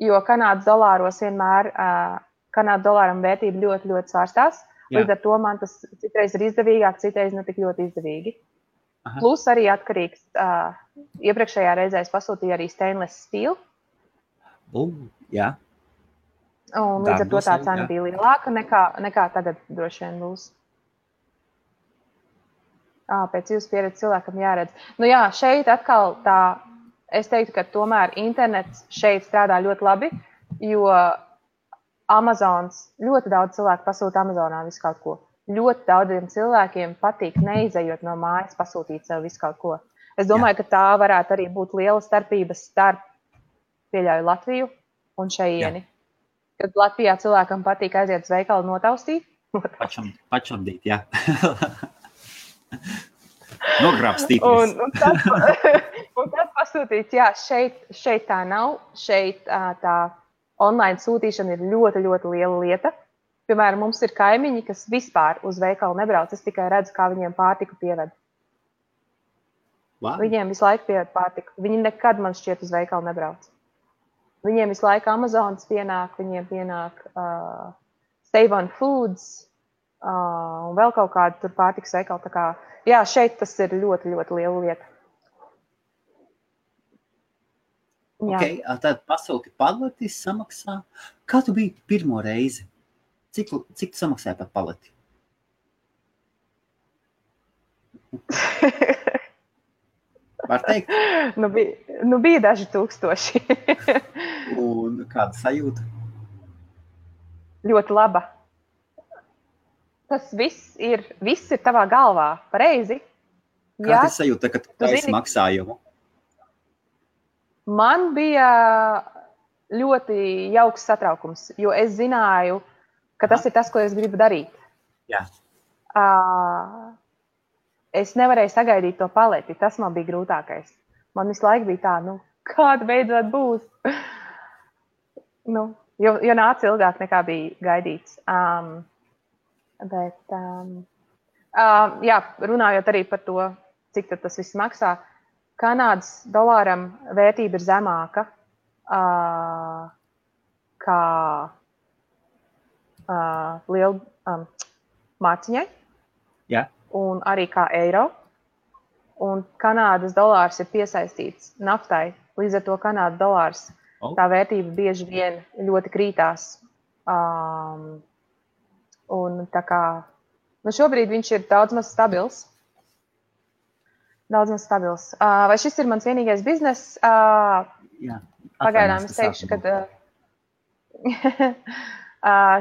jo Kanādas dolāros vienmēr, Kanādas dolāram vērtība ļoti, ļoti svārstās. Līdz ar to man tas citreiz ir izdevīgāk, citreiz ne tik ļoti izdevīgi. Aha. Plus arī atkarīgs, iepriekšējā reizē es pasūtīju arī stainless steel. Jā. Un līdz ar to tā cena bija lielāka nekā tagad droši vien būs. Pēc jūsu pieredzes cilvēkam jāredz. Nu jā, šeit atkal tā, es teiktu, ka tomēr internets šeit strādā ļoti labi, jo Amazons, ļoti daudz cilvēku pasūta Amazonā visu kaut ko. Ļoti daudziem cilvēkiem patīk neizejot no mājas pasūtīt sev visu kaut ko. Es domāju, ka tā varētu arī būt liela starpība starp, pieļauju, Latviju un šeieni. Kad Latvijā cilvēkam patīk aiziet uz veikalu notaustīt. Pačamdīt, jā. Nogrābstīties. Un tad pasūtīts, jā, šeit tā nav. Šeit tā online sūtīšana ir ļoti, ļoti liela lieta. Piemēram, mums ir kaimiņi, kas vispār uz veikalu nebrauc. Es tikai redzu, kā viņiem pārtiku pieved. Wow. Viņiem visu laiku pieved pārtiku. Viņi nekad, man šķiet, uz veikalu nebrauc. Viņiem visu laiku Amazonas pienāk, viņiem pienāk Save on Foods un vēl kaut kādu tur pārtikas veikalu. Tā kā, jā, šeit tas ir ļoti, ļoti liela lieta. Jā. Ok, tad pasūti paleti samaksā. Kā tu biji pirmo reizi? Cik tu samaksāji par paleti? Var teikt? Nu bija daži tūkstoši. Un kāda sajūta? Ļoti laba. Tas viss ir tavā galvā, pareizi. Kāda ir sajūta, kad tu taisi maksājumu? Man bija ļoti jauks satraukums, jo es zināju, ka tas ir tas, ko es gribu darīt. Jā. Es nevarēju sagaidīt to paleti, tas man bija grūtākais. Man visu laiku bija tā, kāda beidzot būs. Jo nāca ilgāk nekā bija gaidīts. Jā, runājot arī par to, cik tad tas viss maksā, Kanādas dolāram vērtība ir zemāka kā liela mārciņai. Jā. Un arī kā eiro. Un Kanādas dolārs ir piesaistīts naftai. Līdz ar to Kanādas dolārs, tā vērtība bieži vien ļoti krītās. Un tā kā, šobrīd viņš ir daudz maz stabils. Vai šis ir mans vienīgais bizness? Jā. Pagaidām es teikšu, ka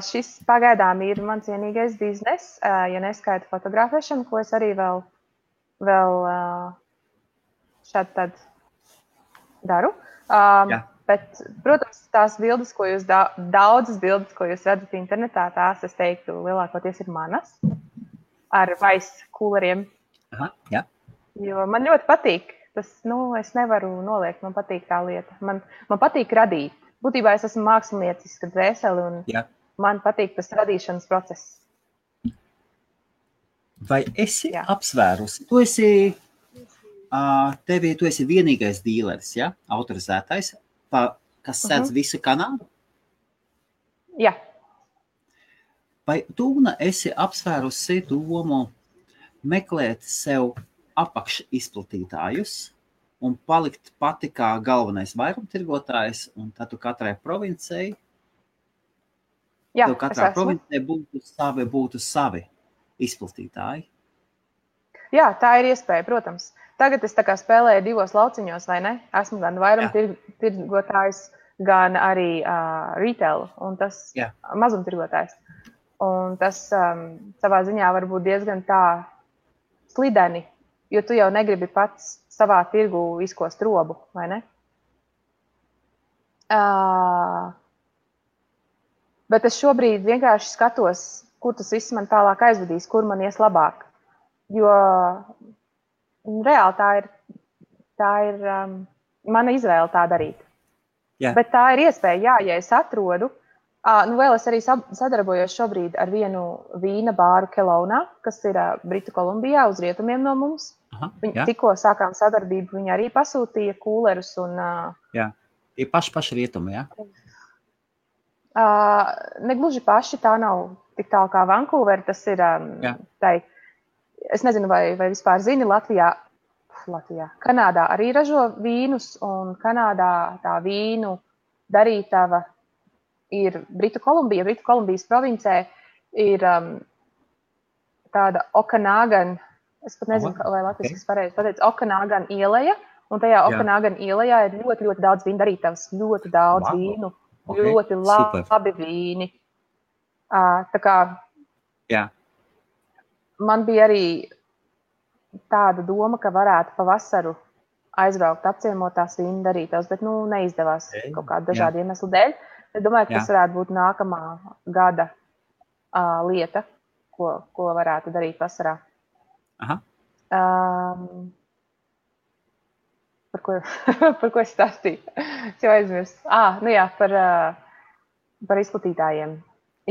šis pagaidām ir mans vienīgais bizness, ja neskaita fotografēšanu, ko es arī vēl šādi tad daru. Bet, protams, tās bildes, ko jūs daudzas bildes, ko jūs redzat internetā, tās, es teiktu, lielākoties ir manas ar vice kūleriem. Aha, jā. Jo man ļoti patīk. Tas, es nevaru noliegt, man patīk tā lieta. Man patīk radīt. Būtībā es esmu māksliniecisks dvēseli un man patīk tas radīšanas process. Vai esi apsvērusi? Tu esi vienīgais dīleris, ja? Autorizētais, kas sēdz visu Kanādu? Jā. Vai tu esi apsvērusi domu meklēt sev apakšizplatītājus un palikt pati kā galvenais vairumtirgotājs, un tad tu katrai provincei, provincei būtu savi izplatītāji? Jā, tā ir iespēja, protams. Tagad es tā kā spēlēju divos lauciņos, vai ne? Esmu gan vairumtirgotājs, gan arī retail, un tas mazumtirgotājs. Un tas savā ziņā var būt diezgan tā slideni, jo tu jau negribi pats savā tirgu izkost robu, vai ne? Bet es šobrīd vienkārši skatos, kur tas viss man tālāk aizvedīs, kur man ies labāk. Jo reāli tā ir mana izvēle tā darīt. Jā. Bet tā ir iespēja, ja es atrodu. Vēl es arī sadarbojos šobrīd ar vienu vīna bāru Kelownā, kas ir Britu Kolumbijā uz rietumiem no mums. Tikko sākām sadarbību, viņi arī pasūtīja kūlerus. Jā, tie paši rietumi, jā? Negluži paši, tā nav tik tālu kā Vancouver, tas ir es nezinu, vai vispār zini, Latvijā, Kanādā arī ražo vīnus, un Kanādā tā vīnu darītava ir Britu Kolumbija. Britu Kolumbijas provincē ir tāda Okanagan, es pat nezinu, vai latviski pareizi pateicu, Okanagan ieleja, un tajā Okanagan ielejā ir ļoti, ļoti daudz vīnu darītavas, ļoti daudz vīnu, ļoti labi vīni. Tā kā man bija arī tāda doma, ka varētu pavasaru aizbraukt, apciemot tās vīnu darītavas, bet neizdevās kaut kādu dažādu iemeslu dēļ. Es domāju, ka tas varētu būt nākamā gada lieta, ko varētu darīt vasarā. Aha. Par ko es stāstīju? Es jau aizmirstu. Par izplatītājiem.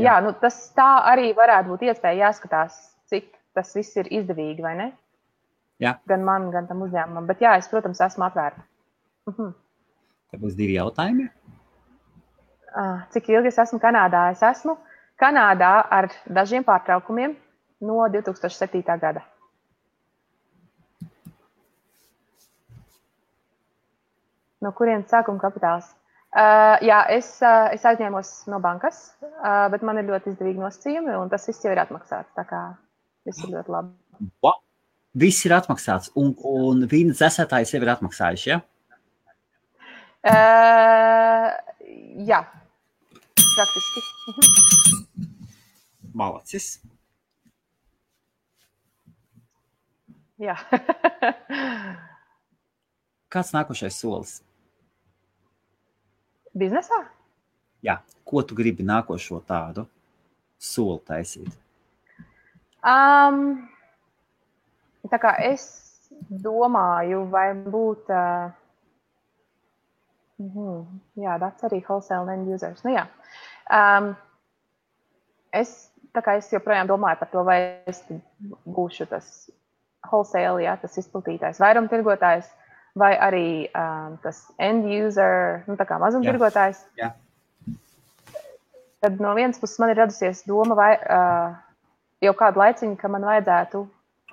Jā, tas tā arī varētu būt iespēja jāskatās, cik tas viss ir izdevīgi, vai ne? Jā. Gan man, gan tam uzņēmumam. Bet jā, es, protams, esmu atvērta. Te būs 2 jautājumi. Cik ilgi es esmu Kanādā? Es esmu Kanādā ar dažiem pārtraukumiem no 2007. gada. No kurienes sākuma kapitāls? Jā, es aizņēmos no bankas, bet man ir ļoti izdevīgi nosacījumi, un tas viss jau ir atmaksāts. Tā kā viss ir ļoti labi. Viss ir atmaksāts, un vīna dzēsētājs jau ir atmaksājuši, ja? Jā, praktiski. Malacis. Jā. Kāds nākošais solis? Biznesā? Jā, ko tu gribi nākošo tādu soli taisīt? Tā kā es domāju, vai būt... jā, that's arī wholesale end users. Nu jā. Es joprojām domāju par to, vai es būšu tas wholesale, jā, tas izplatītājs, vairumtirgotājs, vai arī tas end user, tā kā mazumtirgotājs. Jā. Tad no vienas puses man ir radusies doma, vai jau kādu laiciņu, ka man vajadzētu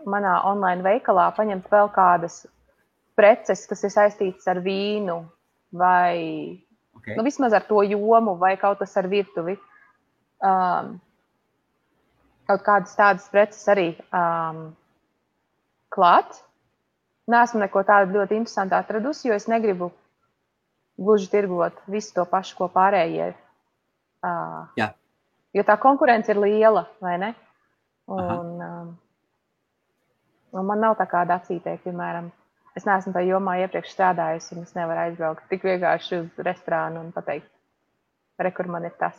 manā online veikalā paņemt vēl kādas preces, kas ir saistītas ar vīnu, vai vismaz ar to jomu, vai kaut kas ar virtuvi. Kaut kādas tādas preces arī klāt. Neesmu neko tādu ļoti interesantu atradusi, jo es negribu gluži tirgot visu to pašu, ko pārējie. Jo tā konkurence ir liela, vai ne? Un man nav tā kā dacītē, piemēram, es neesmu tā jomā iepriekš strādājusi, un es nevaru aizbraukt tik vienkārši uz restorānu un pateikt, kur man ir tas.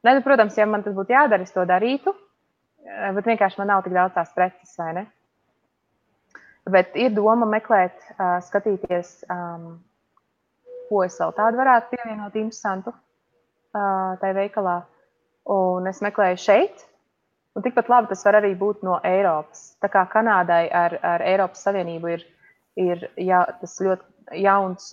Ne, protams, ja man tas būtu jādara, es to darītu, bet vienkārši man nav tik daudz tās preces, vai ne? Bet ir doma meklēt, skatīties, ko es vēl tādu varētu pievienot interesantu tai veikalā. Un es meklēju šeit, un tikpat labi tas var arī būt no Eiropas. Tā kā Kanādai ar Eiropas Savienību ir tas ļoti jauns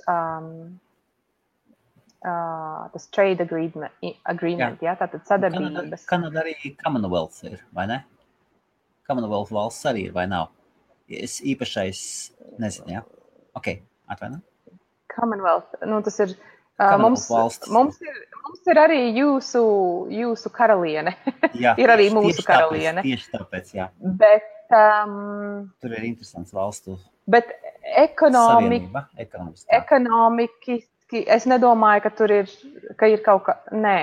tas trade agreement, jā, tātad sadarbības. Kanāda arī Commonwealth ir, vai ne? Commonwealth valsts arī ir, vai nav? Es īpašais nezinu, jā. Ok, atvaino. Commonwealth, tas ir, mums ir arī jūsu karaliene. Jā, ir arī mūsu karaliene. Tieši tāpēc, jā. Bet, tur ir interesants valstu savienība, ekonomiski, es nedomāju, ka ir kaut kā, nē.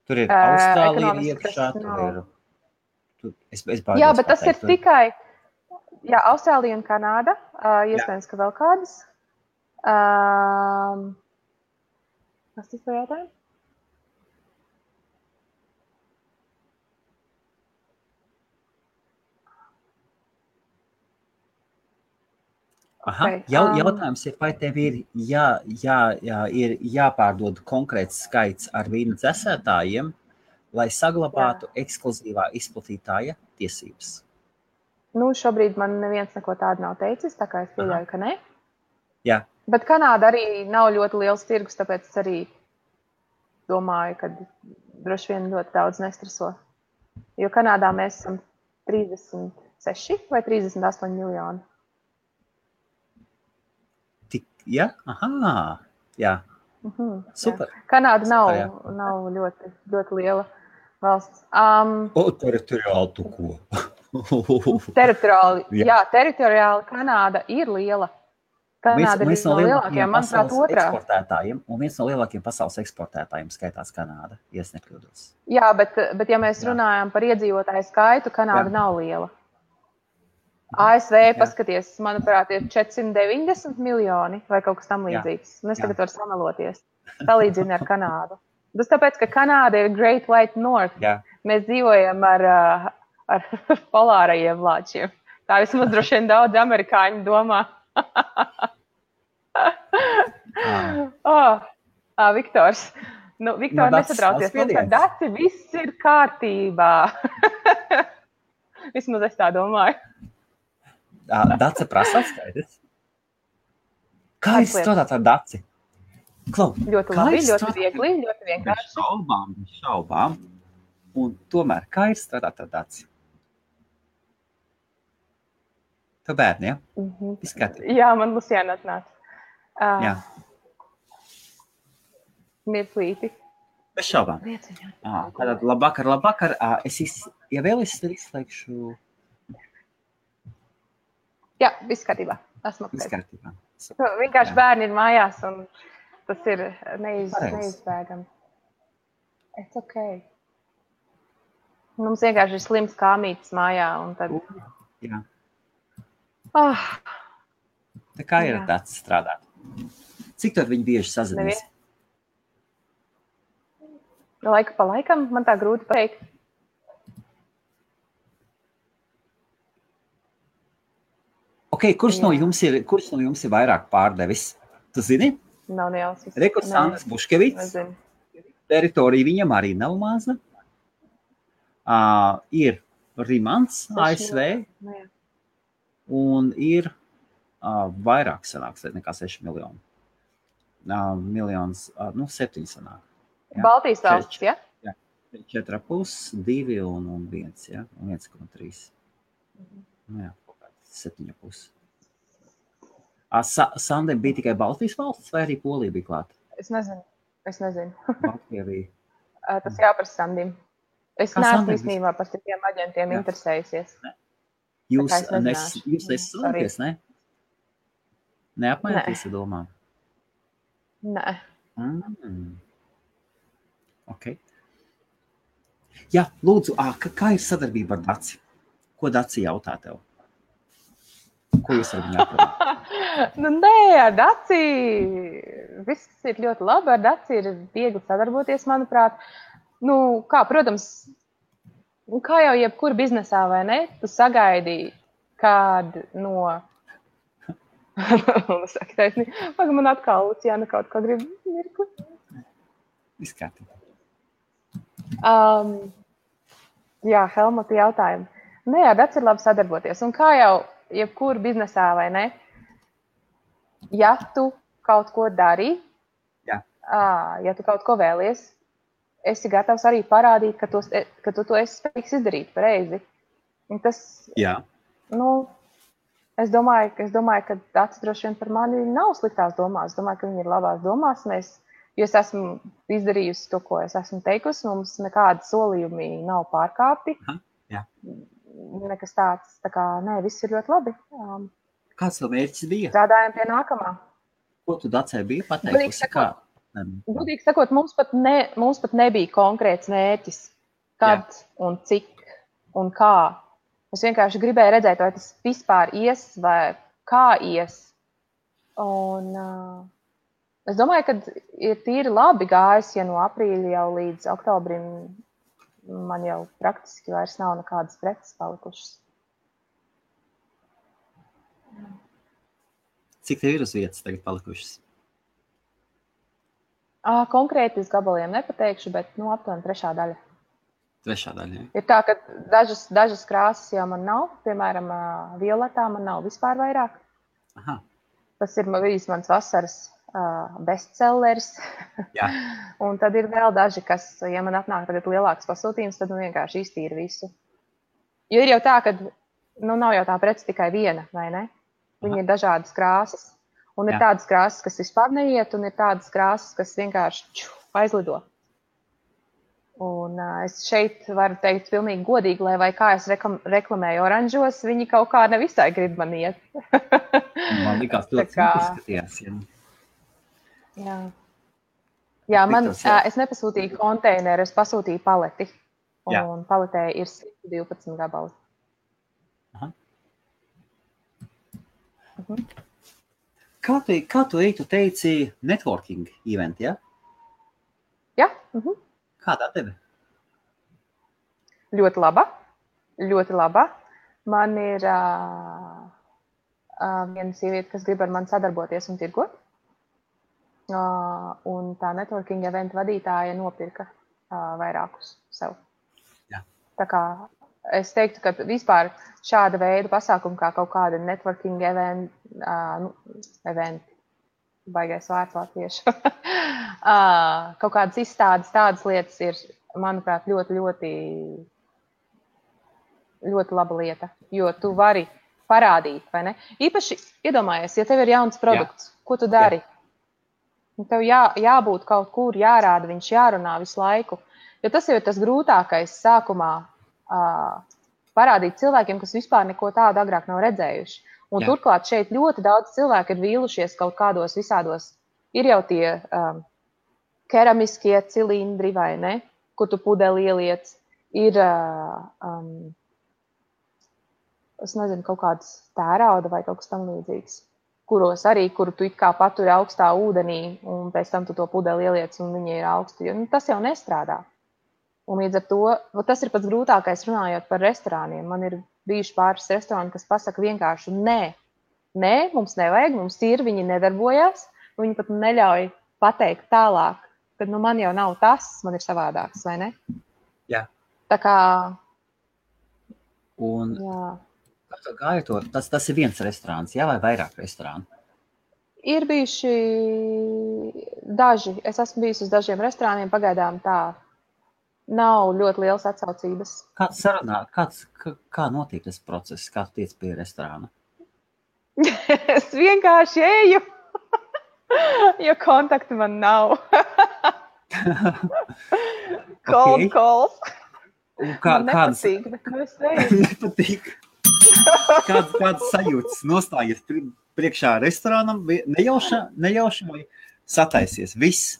Tur ir Austrālija iekšā, tur ir... Jā, bet tas ir tikai... Jā, Austrālija un Kanāda, iespējams, ka vēl kādas. Kas tas par jautājumu? Okay. Jautājums ir, vai tev ir jāpārdod konkrēts skaits ar vīna dzēsētājiem, lai saglabātu ekskluzīvā izplatītāja tiesības? Šobrīd man neviens neko tādu nav teicis, tā kā es pieļauju, ka ne. Jā. Bet Kanāda arī nav ļoti liels tirgus, tāpēc es arī domāju, ka droši vien ļoti daudz nestreso. Jo Kanādā mēs esam 36 vai 38 miljoni. Jā? Aha, jā. Super. Jā. Kanāda nav ļoti, ļoti liela valsts. Teritoriāli tu ko? Teritoriāli Kanāda ir liela. Kanāda ir viens no lielākajiem, manuprāt, eksportētājiem, un viens no lielākajiem pasaules eksportētājiem skaitās Kanāda, ja es nekļūdos. Jā, bet ja mēs runājam par iedzīvotāju skaitu, Kanāda nav liela. ASV, paskaties, manuprāt, ir 490 miljoni vai kaut kas tam līdzīgs. Un es tagad varu sameloties. Salīdzinu ar Kanādu. Tas tāpēc, ka Kanāda ir Great White North. Jā. Mēs dzīvojam ar polārajiem lāčiem. Tā vismaz droši vien daudz amerikāņu domā. Viktors. Viktor, nesatraucies. Mums ar Daci viss ir kārtībā. Vismaz es tā domāju. Dace prasa skaidrs. Kā jūs strādāt ar Daci? Klau, Ļoti kā labi, ir ļoti strādāt viegli, ļoti bez vienkārši. šaubām, un tomēr, kā ir strādāt ar Daci? Tu bērni, ja? Viss kārtībā. Jā, man Luciāna atnāca. Jā. Mirklīti. Bez šaubām. Tātad labvakar. Ja vēl es tad izslēgšu... Jā, viss kārtībā. Esmu Viss apkārt. kārtībā. Vienkārši bērni ir mājās, un tas ir neizbēgami. It's okay. Mums vienkārši ir slims kāmītis mājā, un tad... Jā. Tā kā ir tāds strādāt? Cik tad viņi bieži sazinās? Laika pa laikam, man tā grūti pateikt. Ok, kurš no jums ir vairāk pārdevis? Tu zini? Nav nejausmas. Rekurs Sandrs Buškevits. Teritorija viņam arī nav maza. Ir Rimants, ASV. Un ir vairāk sanāks nekā 6 miljoni. Miljons, 7 sanāk. Ja? Baltijas valsts, ja? Jā, 4,5, 2 un 1, ja? Un 1,3. Jā, 7,5. Sandem bija tikai Baltijas valsts vai arī Polija bija klāta? Es nezinu. Baltija bija. Tas jāprasa Sandim. Es neesmu īstenībā par citiem aģentiem interesējusies. Jūs nesadarboties, ne? Neapmaināties ar domām? Nē. Ok. Jā, lūdzu, kā ir sadarbība ar Daci? Ko Daci jautā tev? Ko jūs ar viņu aprunāt? Nē, ar Daci viss ir ļoti labi. Ar Daci ir viegli sadarboties, manuprāt. Protams, kā jau jebkur biznesā, vai ne? Tu sagaidi kādu no... Man atkal Luciāna kaut kā grib mirkli. Viss kārtībā. Jā, Helmuta jautājumu. Nē, ar Daci ir labi sadarboties. Un kā jau jebkur biznesā, vai ne? Ja tu kaut ko dari, ja tu kaut ko vēlies, esi gatavs arī parādīt, ka tu to esi spējīgs izdarīt pareizi. Un tas, es domāju, ka Daci droši vien par mani nav sliktās domās. Es domāju, ka viņi ir labās domās. Jo es esmu izdarījusi to, ko es esmu teikusi. Mums nekādi solījumi nav pārkāpti. Nekas tāds. Tā kā, viss ir ļoti labi. Kāds tev mērķis bija? Strādājam pie nākamā. Ko tu Dacei bija pateikusi? Gudīgi sakot, mums pat nebija konkrēts mērķis. Kad un cik un kā. Es vienkārši gribēju redzēt, vai tas vispār ies vai kā ies. Un es domāju, ka ir tīri labi gājis, ja no aprīļa jau līdz oktobrim man jau praktiski vairs nav nekādas preces palikušas. Cik tev ir uz vietas tagad palikušas? Konkrēti uz gabaliem nepateikšu, bet aptuveni 3. daļa. 3. daļa, jā. Ir tā, ka dažas krāsas jau man nav. Piemēram, violetā man nav vispār vairāk. Aha. Tas ir bijis mans vasaras bestsellers. Jā. Un tad ir vēl daži, kas, ja man atnāk tagad lielāks pasūtījums, tad vienkārši iztīra visu. Jo ir jau tā, ka nav jau tā prece tikai viena, vai ne? Viņi ir dažādas krāsas. Un ir tādas krāsas, kas vispār neiet, un ir tādas krāsas, kas vienkārši aizlido. Un es šeit varu teikt pilnīgi godīgi, lai kā es reklamēju oranžos, viņi kaut kā nevisai grib man iet. Man likās ļoti izskatījās. Jā, es nepasūtīju konteineru, es pasūtīju paleti. Un paletē ir 112 gabali. Aha. Kā tu teici networking event, ja? Jā. Kādā tevi? Ļoti laba. Ļoti laba. Man ir viena sieviete, kas grib ar mani sadarboties un tirgot. Un tā networking event vadītāja nopirka vairākus sev. Jā. Tā kā es teiktu, ka vispār šāda veida pasākumi kā kaut kāda networking eventi, baigais vārds latviešu. Kaut kādas izstādes, tādas lietas ir, manuprāt, ļoti laba lieta, jo tu vari parādīt, vai ne? Īpaši iedomājies, ja tev ir jauns produkts, ko tu dari? Tev jābūt kaut kur, jārāda, viņš jārunā visu laiku. Jo tas jau ir tas grūtākais sākumā parādīt cilvēkiem, kas vispār neko tādu agrāk nav redzējuši. Un turklāt šeit ļoti daudz cilvēku ir vīlušies kaut kādos visādos. Ir jau tie keramiskie cilindri, vai ne, kur tu pudeli ieliec. Ir, es nezinu, kaut kāds tērauda vai kaut kas tam līdzīgs, kuru tu it kā paturi augstā ūdenī, un pēc tam tu to pudeli ieliec, un viņi ir augsti. Tas jau nestrādā. Un līdz ar to, tas ir pats grūtākais runājot par restorāniem. Man ir bijuši pāris restorāni, kas pasaka vienkārši nē, mums nevajag, mums ir, viņi nedarbojās, viņi pat neļauj pateikt tālāk, kad man jau nav tas, man ir savādāks, vai ne? Jā. Tā kā... Un gāja to, tas ir viens restorāns, jā, vai vairāk restorāni? Ir bijuši daži, es esmu bijusi uz dažiem restorāniem, pagaidām tā. Nav ļoti liels atsaucības. Kāds sarunā, kā notiek tas process, kā tu tiec pie restorāna? Es vienkārši eju, jo kontaktu man nav. Cold calls. Man nepatīk, bet es eju. Nepatīk. Kādas sajūtas nostājies priekšā restorānam, nejauši vai sataisies? Viss.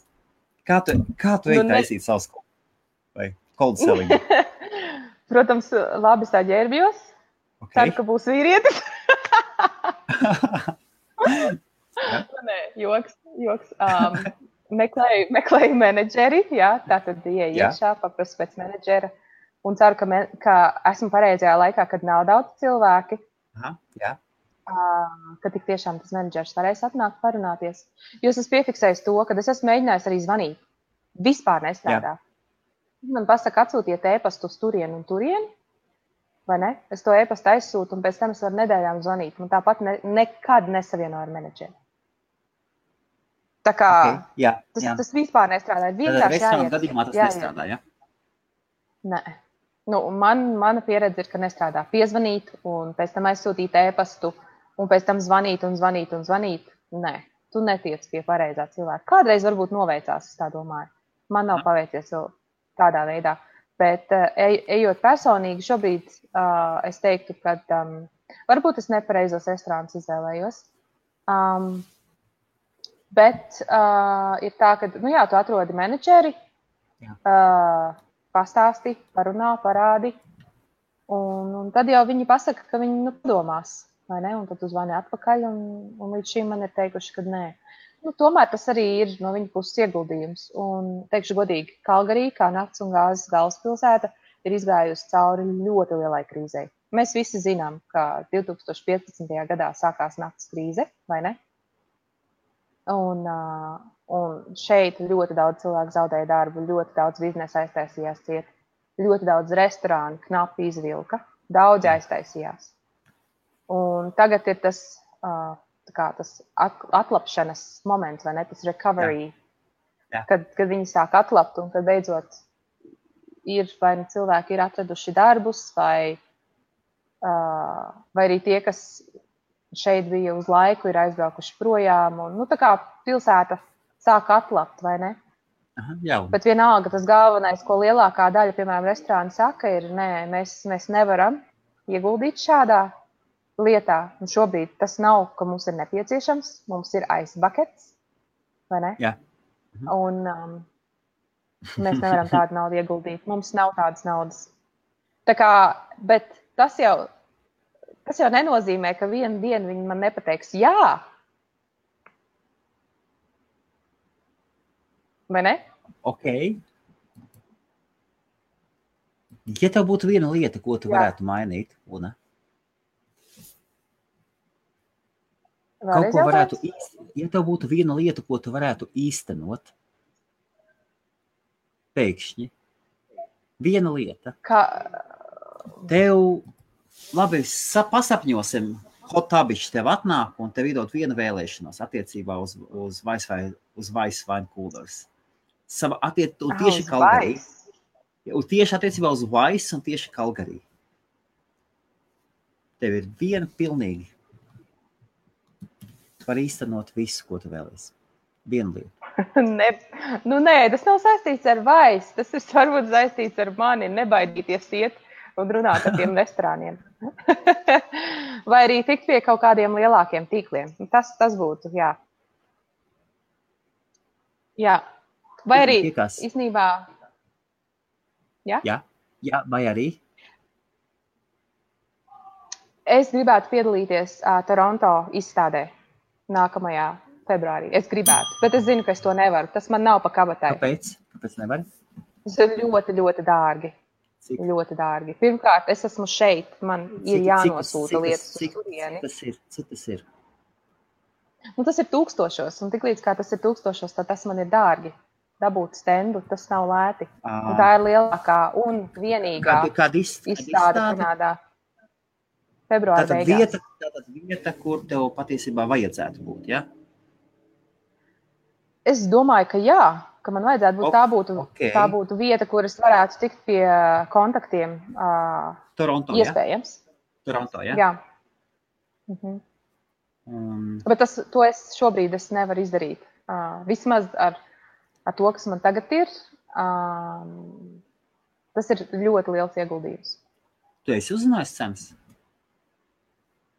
Kā tu ej taisīt savus vai cold selling? Protams, labi saģērbjos. Ceru, ka būs vīrietis. Nē, joks. Meklēju menedžeri, jā, tātad iekšā, paprasu pēc menedžera. Un ceru, ka esmu pareizajā laikā, kad nav daudz cilvēki. Ka tik tiešām tas menedžers varēs atnākt parunāties. Jo es esmu piefiksējis to, ka es esmu mēģinājis arī zvanīt. Vispār nestrādā. Man pasaka, atsūtiet e-pastu uz turienu un turienu, vai ne? Es to e-pastu aizsūtu, un pēc tam es varu nedēļām zvanīt. Man tāpat nekad nesavieno ar menedžeri. Tā kā tas vispār nestrādā. Vienkārši jāiet. Gadījumā tas nestrādā, ja? Nē. Mana pieredze ir, ka nestrādā. Piezvanīt un pēc tam aizsūtīt e-pastu un pēc tam zvanīt. Nē, tu netiec pie pareizā cilvēka. Kādreiz varbūt noveicās, es tā domāju. Man nav paveicies vēl tādā veidā. Bet ejot personīgi, šobrīd es teiktu, ka varbūt es nepareizos restorānus izvēlējos. Bet ir tā, ka, tu atrodi menedžeri, pastāsti, parunā, parādi, un tad jau viņi pasaka, ka viņi padomās, vai ne? Un tad uzvani atpakaļ, un līdz šim man ir teikuši, ka nē. Tomēr tas arī ir no viņa puses ieguldījums. Un, teikšu godīgi, Kalgarī, kā nakts un gāzes galvaspilsēta, ir izgājusi cauri ļoti lielai krīzei. Mēs visi zinām, ka 2015. gadā sākās nakts krīze, vai ne? Un šeit ļoti daudz cilvēku zaudēja darbu, ļoti daudz biznesa aiztaisījās ciet, ļoti daudz restorānu knapi izvilka, daudz aiztaisījās. Un tagad ir tas atlapšanas moments, vai ne, tas recovery, kad viņi sāk atlapt un kad beidzot vai cilvēki ir atraduši darbus, vai arī tie, kas šeit bija uz laiku, ir aizbraukuši projām, un tā kā pilsēta sāk atlapt, vai ne? Bet vienalga tas galvenais, ko lielākā daļa, piemēram, restorāni saka, ir, nē, mēs nevaram ieguldīt šādā lietā. Un šobrīd tas nav, ka mums ir nepieciešams, mums ir ice buckets, vai ne? Jā. Un mēs nevaram tādu naudu ieguldīt. Mums nav tādas naudas. Tā kā, bet tas jau nenozīmē, ka vienu dienu viņi man nepateiks jā. Vai ne? Ok. Ja tev būtu viena lieta, ko tu varētu mainīt, un kaut ko varētu ja tev būtu viena lieta, ko tu varētu īstenot, pēkšņi, Viena lieta. Kā... Tev, labi, pasapņosim, Hotabišs tev atnāk un tev iedod vienu vēlēšanos attiecībā uz Vice Wine Coolers. Tieši Kalgarī. Tieši attiecībā uz Vice un tieši Kalgarī. Tev ir viena pilnīgi. Var īstenot visu, ko tu vēlies. Vienu lietu. Nē, tas nav saistīts ar Vice. Tas ir varbūt saistīts ar mani. Nebaidīties iet un runāt ar tiem restorāniem. Vai arī tikt pie kaut kādiem lielākiem tīkliem. Tas būtu, jā. Jā. Vai arī, īstenībā... Jā, vai arī? Es gribētu piedalīties Toronto izstādē nākamajā februārī. Es gribētu, bet es zinu, ka es to nevaru. Tas man nav pa kabatai. Kāpēc? Kāpēc nevari? Tas ir ļoti, ļoti dārgi. Cik? Ļoti dārgi. Pirmkārt, es esmu šeit. Man ir jānosūta lietas uz turieni. Cik tas ir? Tas ir 1000. Un tiklīdz kā tas ir 1000, tad tas man ir dārgi. Dabūt stendu, tas nav lēti. Un tā ir lielākā un vienīgā izstāde Kanādā. Februāra beigās. Tātad vieta, kur tev patiesībā vajadzētu būt, ja? Es domāju, ka jā, ka man vajadzētu būt. Tā būtu vieta, kur es varētu tikt pie kontaktiem. Toronto, iespējams. Ja? Toronto, ja? Jā. Bet to šobrīd es nevaru izdarīt. Vismaz ar to, kas man tagad ir, tas ir ļoti liels ieguldījums. Tu esi uzzinājis cenas?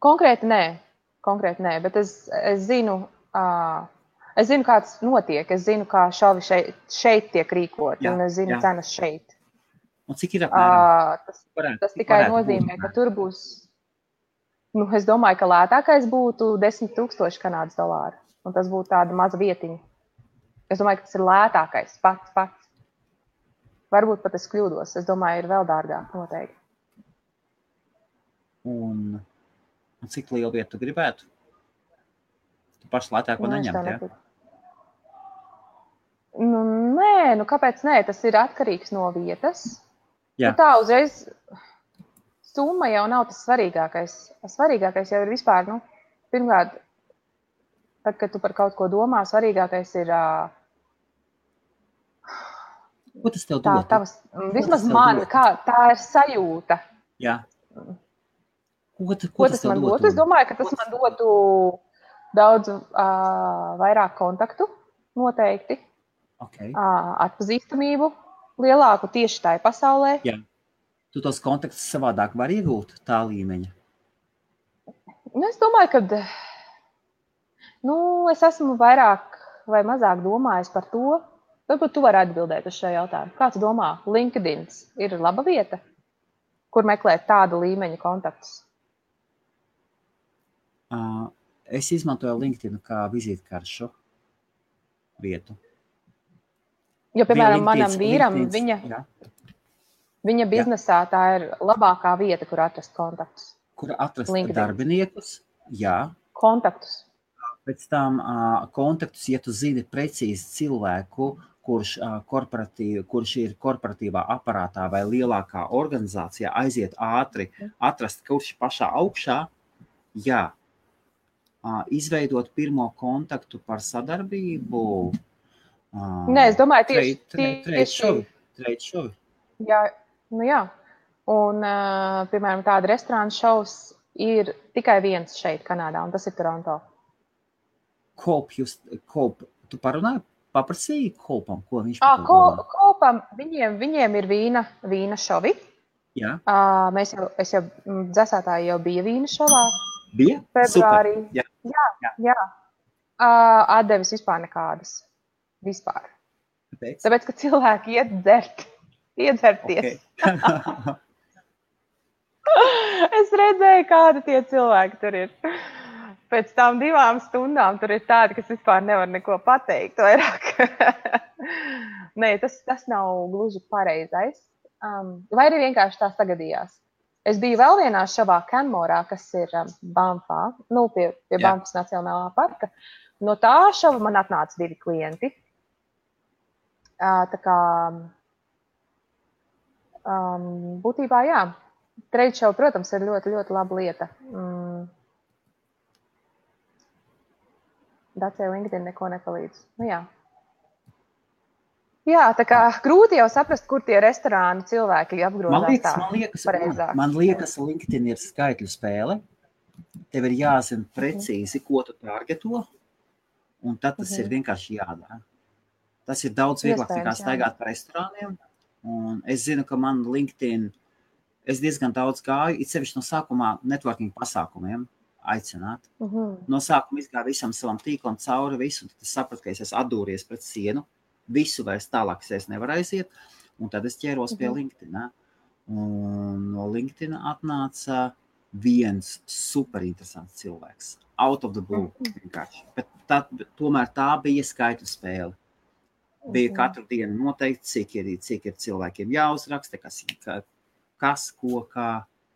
Konkrēti nē, bet es zinu, kā tas notiek. Es zinu, kā šovi šeit tiek rīkot, un es zinu cenas šeit. Un cik ir apmēram? Tas tikai nozīmē, ka tur būs, es domāju, ka lētākais būtu 10,000 Kanādas dolāru, un tas būtu tāda maza vietiņa. Es domāju, ka tas ir lētākais pats. Varbūt pat es kļūdos. Es domāju, ir vēl dārgāk noteikti. Un cik lielu vietu tu gribētu? Tu paši lētāko neņemt, ja? Nē, kāpēc nē? Tas ir atkarīgs no vietas. Jā. Tā uzreiz summa jau nav tas svarīgākais. Svarīgākais jau ir vispār, pirmkārt, tad, kad tu par kaut ko domā, svarīgākais ir... Ko tas tev dod? Vismaz man, tā ir sajūta. Jā. Ko tas man dod? Es domāju, ka tas man dotu daudz vairāk kontaktu, noteikti. Okay. Atpazīstamību lielāku tieši tajā pasaulē. Jā. Tu tos kontaktus savādāk var iegūt tā līmeņa? Es domāju, ka es esmu vairāk vai mazāk domājis par to. Varbūt tu vari atbildēt uz šo jautājumu. Kā tu domā, LinkedIn ir laba vieta, kur meklēt tādu līmeņa kontaktus? Es izmantoju LinkedIn kā vizītkaršu vietu. Jo, piemēram, manam vīram, viņa biznesā tā ir labākā vieta, kur atrast kontaktus. Kur atrast darbiniekus, jā. Kontaktus. Pēc tam kontaktus, ja tu zini precīzi cilvēku, kurš ir korporatīvā aparātā vai lielākā organizācijā, aiziet ātri, atrast, kurš pašā augšā, jā. Izveidot pirmo kontaktu par sadarbību. Nē, es domāju, Trade show. Jā, jā. Un, piemēram, tāda restorāna šovs ir tikai viens šeit Kanādā, un tas ir Toronto. Tu parunāji, paprasīji Kolpam, ko viņš par to domā? Kolpam, viņiem ir vīna šovi. Jā. Es jau dzesētāji jau bija vīna šovā. Bija? Februārī. Super. Jā. Atdevis vispār nekādas. Vispār. Tāpēc, ka cilvēki iedzerties. Okay. Es redzēju, kādi tie cilvēki tur ir. Pēc tām 2 stundām tur ir tādi, kas vispār nevar neko pateikt vairāk. Nē, tas nav gluži pareizais. Vai arī vienkārši tā sagadījās. Es biju vēl vienā šovā Canmorā, kas ir Banffā, pie Banffas Nacionālā parka. No tā šova man atnāca 2 klienti. Tā kā būtībā, jā, trade show, protams, ir ļoti, ļoti laba lieta. Dacē LinkedIn neko nepalīdz. Nu, jā. Jā, tā kā grūti jau saprast, kur tie restorānu cilvēki apgrozās tā pareizāk. Man liekas, LinkedIn ir skaitļu spēle. Tev ir jāzina precīzi, ko tu targeto, un tad tas ir vienkārši jādara. Tas ir daudz vieglāk nekā staigāt pa restorāniem. Un es zinu, ka man LinkedIn, es diezgan daudz gāju, it sevišķi no sākumā networking pasākumiem aicināt. No sākuma izgāju visam savam tīklam cauri visu, un tad es sapratu, ka es esmu atdūries pret sienu, visu vairs tālāk es nevaru aiziet, un tad es ķēros pie LinkedIn. Un no LinkedIn atnāca viens super interesants cilvēks. Out of the blue vienkārši. Bet tomēr tā bija skaitļu spēle. Bija katru dienu noteikti, cik ir cilvēkiem jāuzraksta, kas, ko, kā.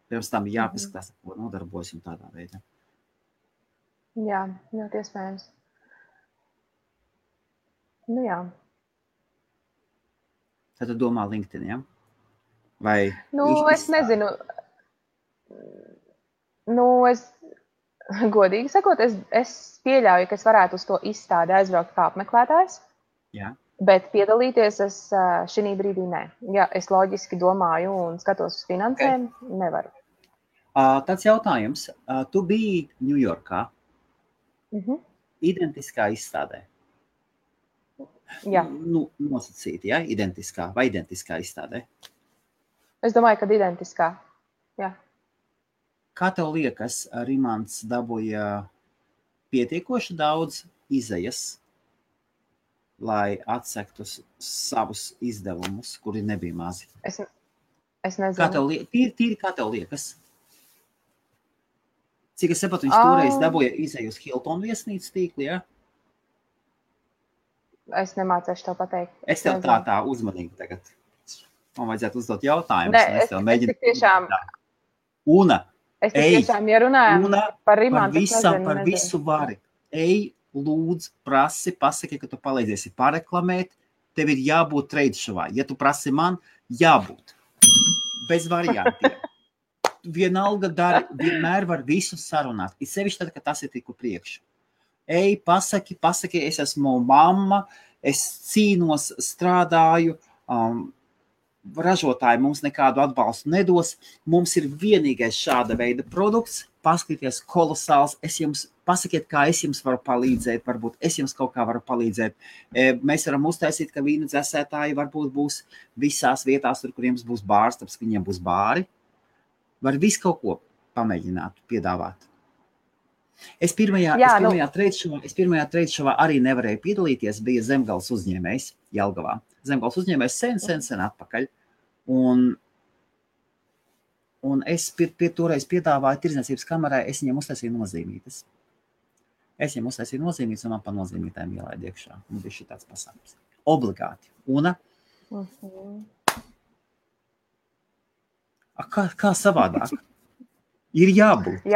Pirms tam jāpaskatās, ko nodarbojas un tādā veidā. Jā, ļoti iespējams. Nu jā. Tad tu domā LinkedIn, ja? Vai? Nu, es nezinu. Nu, godīgi sakot, es pieļauju, ka es varētu uz to izstādi aizbraukt kā apmeklētājs. Jā. Bet piedalīties es šī brīdī nē. Ja es loģiski domāju un skatos uz finansēm, nevaru. Tāds jautājums. Tu biji Ņujorkā identiskā izstādē? Jā. Nu, nosacīti, ja? Identiskā vai identiskā izstādē? Es domāju, ka identiskā. Jā. Kā tev liekas, Rimants dabūja pietiekoši daudz izejas, lai atsektu savus izdevumus, kuri nebija mazi? Es nezinu. Tīri kā tev liekas? Cik es sapratu, viņš toreiz dabūja izeju uz Hilton viesnīcas tīkli, ja? Es nemācēšu tev pateikt. Es tev tā uzmanīgi tagad. Man vajadzētu uzdot jautājumus. Nē, es tik tiešām... Una, es tik tiešām, ja runājam par Rimantu, par visu vari. Ej, lūdzu, prasi, pasaki, ka tu palīdziesi pareklamēt. Tev ir jābūt trade showā. Ja tu prasi man, jābūt. Bez variantiem. Vienalga dari, vienmēr var visu sarunāt. Ir sevišķi tad, ka tas ir tiku priekšu. Ej, pasaki, es esmu mamma, es cīnos, strādāju, ražotāji mums nekādu atbalstu nedos. Mums ir vienīgais šāda veida produkts, paskaties kolosāls, pasakiet, kā es jums varu palīdzēt, varbūt es jums kaut kā varu palīdzēt. Mēs varam uztaisīt, ka vīnu dzēsētāji varbūt būs visās vietās, tur, kur jums būs bārs, tāpēc, ka viņiem būs bāri. Var visu kaut ko pamēģināt, piedāvāt. Es pirmajā trade showā arī nevarēju piedalīties, bija Zemgales uzņēmējs Jelgavā. Zemgales uzņēmējs sen atpakaļ. Un es toreiz piedāvāju tirdzniecības kamerai, es viņiem uztaisīju nozīmītes. Un man pa nozīmītēm ielaid iekšā. Un bija šī tāds pasākums. Obligāti. Una? Kā savādāk? Ir jābūt.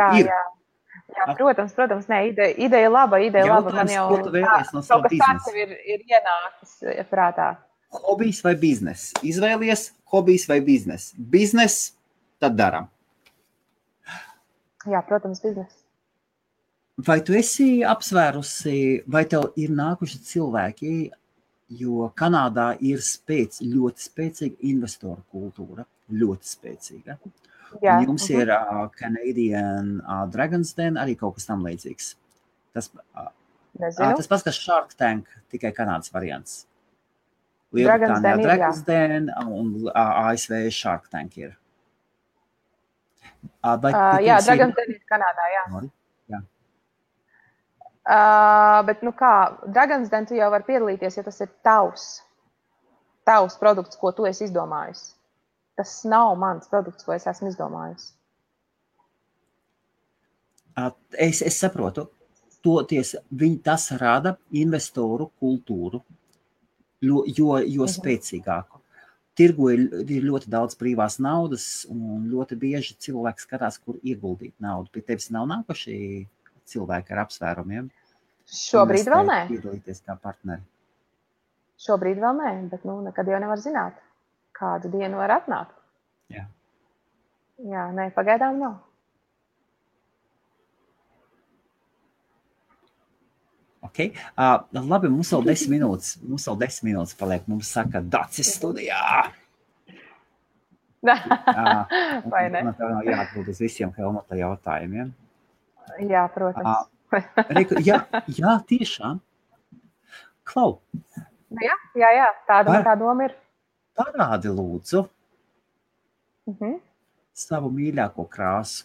Jā, protams, nē, ideja laba. Man jau ko tu vēlies no sava biznesa? Ir ienācis prātā. Hobijs vai biznes? Izvēlies hobijs vai biznes? Biznes, tad daram. Jā, protams, biznes. Vai tu esi apsvērusi, vai tev ir nākuši cilvēki, jo Kanādā ir ļoti spēcīga investoru kultūra, ļoti spēcīga. Jā. Jums ir Canadian Dragon's Den, arī kaut kas tam līdzīgs. Tas pats, kas Shark Tank, tikai Kanādas variants. Lielbritānijā Dragon's Den un ASV Shark Tank ir. Jā, Dragon's Den ir Kanādā, jā. Bet, kā, Dragon's Den tu jau var piedalīties, ja tas ir tavs produkts, ko tu esi izdomājis. Tas nav mans produkts, ko es esmu izdomājis. Es saprotu, tas rada investoru kultūru, jo spēcīgāku. Tirgu ir ļoti daudz brīvās naudas, un ļoti bieži cilvēki skatās, kur ieguldīt naudu. Pie tevis nav nākuši cilvēki ar apsvērumiem? Šobrīd vēl nē. Piedalīties kā partneri. Šobrīd vēl nē, bet nekad jau nevar zināt, kādu dienu var atnākt. Jā. Jā, nē, pagaidām nav. Okay. Labi, mums vēl 10 minūtes. Mums vēl 10 minūtes paliek. Mums saka, Dacis studijā. Vai ne? Man tev nav jāatbild uz visiem Helmuta jautājumiem. Jā, protams. Jā, tiešām. Klau. Jā, tāda tā doma ir. Parādi lūdzu savu mīļāko krāsu.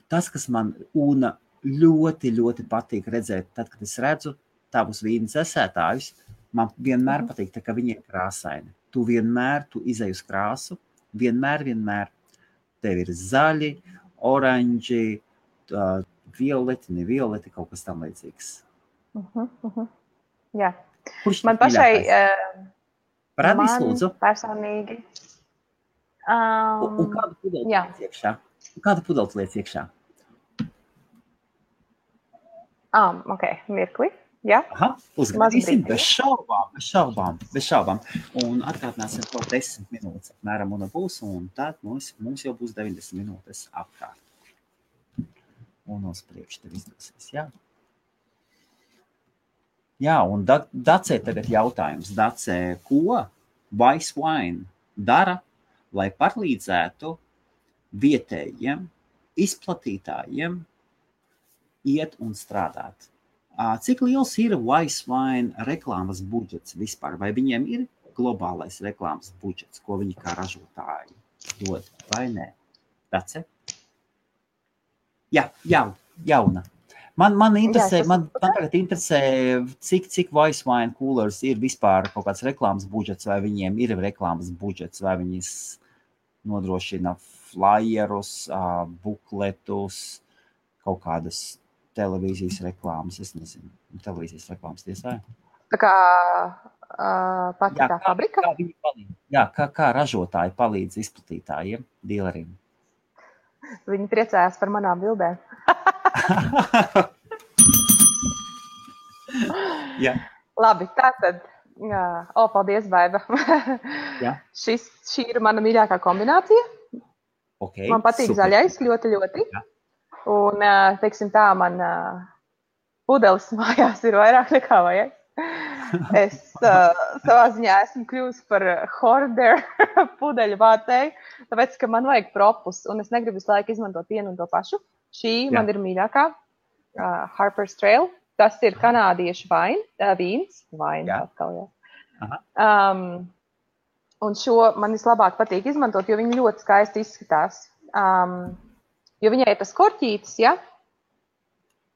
Tas, kas man Una ļoti, ļoti patīk redzēt, tad, kad es redzu tavus vīnas esētājus, man vienmēr patīk, ka viņi ir krāsaini. Tu izej uz krāsu, vienmēr. Tev ir zaļi, oranži, violeti, ne violeti, kaut kas tam līdzīgs. Jā. Kurš man pašai... Parādīs, lūdzu. Personīgi. Un kādu pudeli liec iekšā? Kādu pudeli liec iekšā? Ok, mirkli. Jā. Aha, uzgadīsim bez šaubām. Un atkārtināsim to 10 minūtes apmēram un būs, un tad mums jau būs 90 minūtes apkārt. Un uz priekšu tev izdosies, jā. Jā, un Dacē tagad jautājums. Dacē, ko Vice Wine dara, lai palīdzētu vietējiem izplatītājiem iet un strādāt? Cik liels ir Vice Wine reklāmas budžets vispār? Vai viņiem ir globālais reklāmas budžets, ko viņi kā ražotāji dod, vai nē? Dacē? Jā, jauna. Man tagad interesē, cik Vice Wine Coolers ir vispār kaut kāds reklāmas budžets, vai viņiem ir reklāmas budžets, vai viņi nodrošina flyerus, bukletus, kaut kādas televīzijas reklāmas, es nezinu, televīzijas reklāmas tiesā. Tā kā pati tā fabrika? Kā viņi palīdz? Jā, kā ražotāji palīdz izplatītājiem, dīleriem? Viņi priecājās par manām bildēm. Jā. Labi, tātad. Paldies, Baiba. Šī ir mana mīļākā kombinācija. Okay, man patīk super. Zaļais ļoti, ļoti. Jā. Un, teiksim tā, man pudelis mājās ir vairāk nekā vajag. Es savā ziņā esmu kļuvusi par hoarder pudeļu vācēju, tāpēc, ka man vajag propus, un es negribu visu laiku izmantot vienu un to pašu. Šī man ir mīļākā, Harper's Trail. Tas ir kanādiešu vīns. Atkal, jā. Un šo man vislabāk patīk izmantot, jo viņi ļoti skaisti izskatās. Jo viņai ir tas korķītis, ja?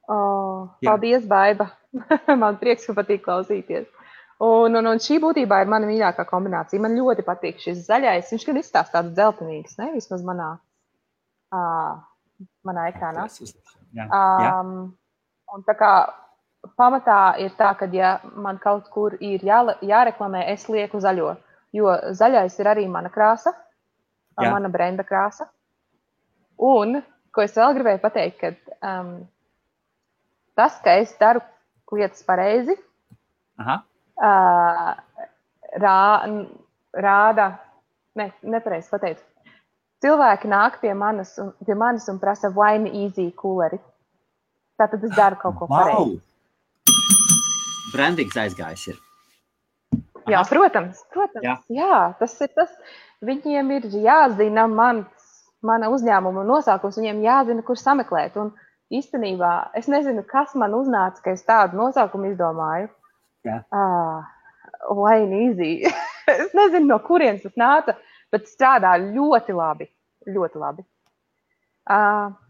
Paldies, Baiba. Man prieks, ka patīk klausīties. Un šī būtībā ir mana mīļākā kombinācija. Man ļoti patīk šis zaļais. Viņš gan izstāst tāds dzeltenīgs, ne? Vismaz manā ekrānā. Un tā kā pamatā ir tā, ka ja man kaut kur ir jāreklamē, es lieku zaļo. Jo zaļais ir arī mana krāsa, mana brenda krāsa. Un, ko es vēl gribēju pateikt, ka tas, ka es daru lietas pareizi, rāda, nepareizi pateicu. Cilvēki nāk pie manis un prasa Wine Easy cooleri. Tātad es daru kaut ko pareizi. Brandings aizgājis ir. Jā, protams. Jā, tas ir tas. Viņiem ir jāzina mana uzņēmuma nosaukums, viņiem jāzina, kur sameklēt. Un īstenībā es nezinu, kas man uznāca, ka es tādu nosaukumu izdomāju. Wine Easy. Es nezinu, no kurienes tas nāca, bet strādā ļoti labi. Ļoti labi.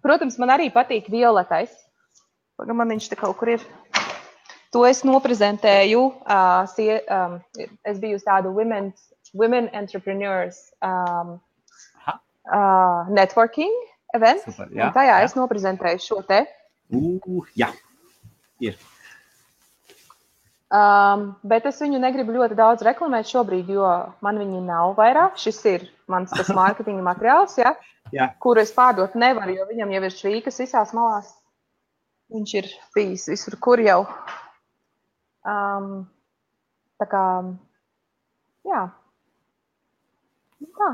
Protams, man arī patīk violetais. Man viņš te kaut kur ir. To es noprezentēju. Es biju uz tādu Women Entrepreneurs networking event. Super, jā, un tajā es noprezentēju šo te. Jā, ir. Bet es viņu negribu ļoti daudz reklamēt šobrīd, jo man viņi nav vairāk. Šis ir mans tas mārketinga materiāls, kuru es pārdot nevaru, jo viņam jau ir švīkas visās malās. Viņš ir bijis visur, kur jau. Tā kā, jā. Tā.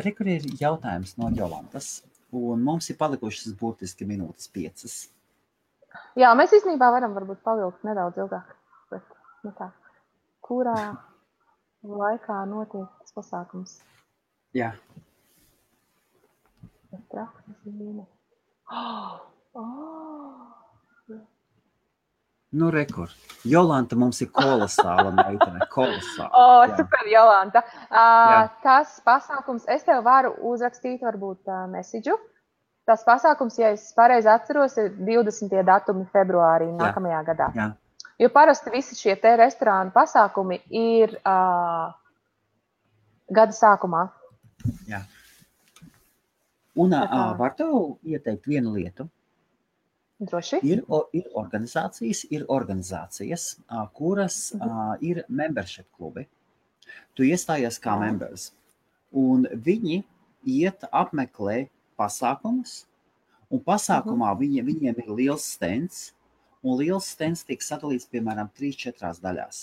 Rekur ir jautājums no Jolantas, un mums ir palikušas burtiski minūtes 5. Jā, mēs īstenībā varam varbūt pavilkt nedaudz ilgāk. Bet, nu tā, kurā laikā notiek tas pasākums? Jā. Nu, rekur. Jolanta mums ir kolosāla meitene. Kolosāla. Super, Jolanta. Tas pasākums, es tev varu uzrakstīt varbūt mesidžu. Tas pasākums, ja es pareizi atceros, ir 20. datumi februārī nākamajā gadā. Jā. Jo parasti visi šie te restorānu pasākumi ir gada sākumā. Jā. Un var tev ieteikt vienu lietu? Droši. Ir organizācijas, kuras ir membership klubi. Tu iestājies kā members. Un viņi apmeklē pasākumus, un pasākumā viņiem ir liels stends, un liels stends tiek sadalīts, piemēram, 3-4 daļās.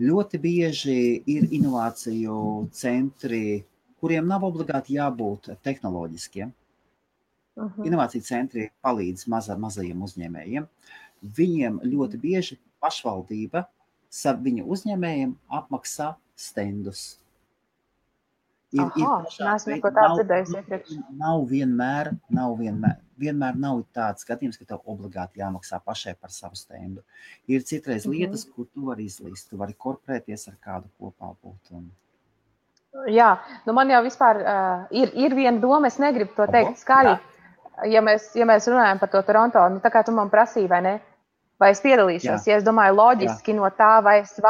Ļoti bieži ir inovāciju centri, kuriem nav obligāti jābūt tehnoloģiskiem. Inovāciju centri palīdz mazajiem uzņēmējiem. Viņiem ļoti bieži pašvaldība viņu uzņēmējiem apmaksā stendus. Neesmu neko tādu dzirdējis iepriekš. Vienmēr nav tāds skatījums, ka tev obligāti jāmaksā pašai par savu stendu. Ir citreiz lietas, kur tu vari izlīst, tu vari korporēties ar kādu kopā būt. Jā, nu man jau vispār ir viena doma, es negribu to teikt skaļi. Ja mēs runājam par to Toronto, nu tā kā tu man prasīji, vai ne? Vai es piedalīšos? Ja es domāju loģiski no tā, vai es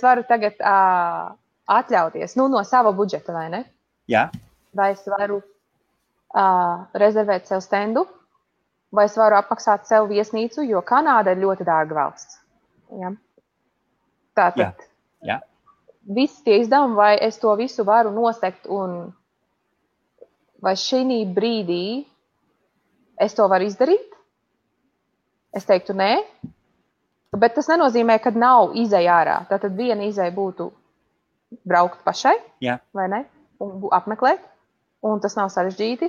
varu tagad atļauties, nu no sava budžeta, vai ne? Jā. Vai es varu rezervēt sev stendu, vai es varu apmaksāt sev viesnīcu, jo Kanāda ir ļoti dārga valsts. Ja? Tātad visi tie izdevumi, vai es to visu varu nosegt un vai šī brīdī es to varu izdarīt? Es teiktu nē, bet tas nenozīmē, ka nav izeja ārā. Tātad viena izeja būtu braukt pašai, vai ne? Un apmeklēt, un tas nav sarežģīti.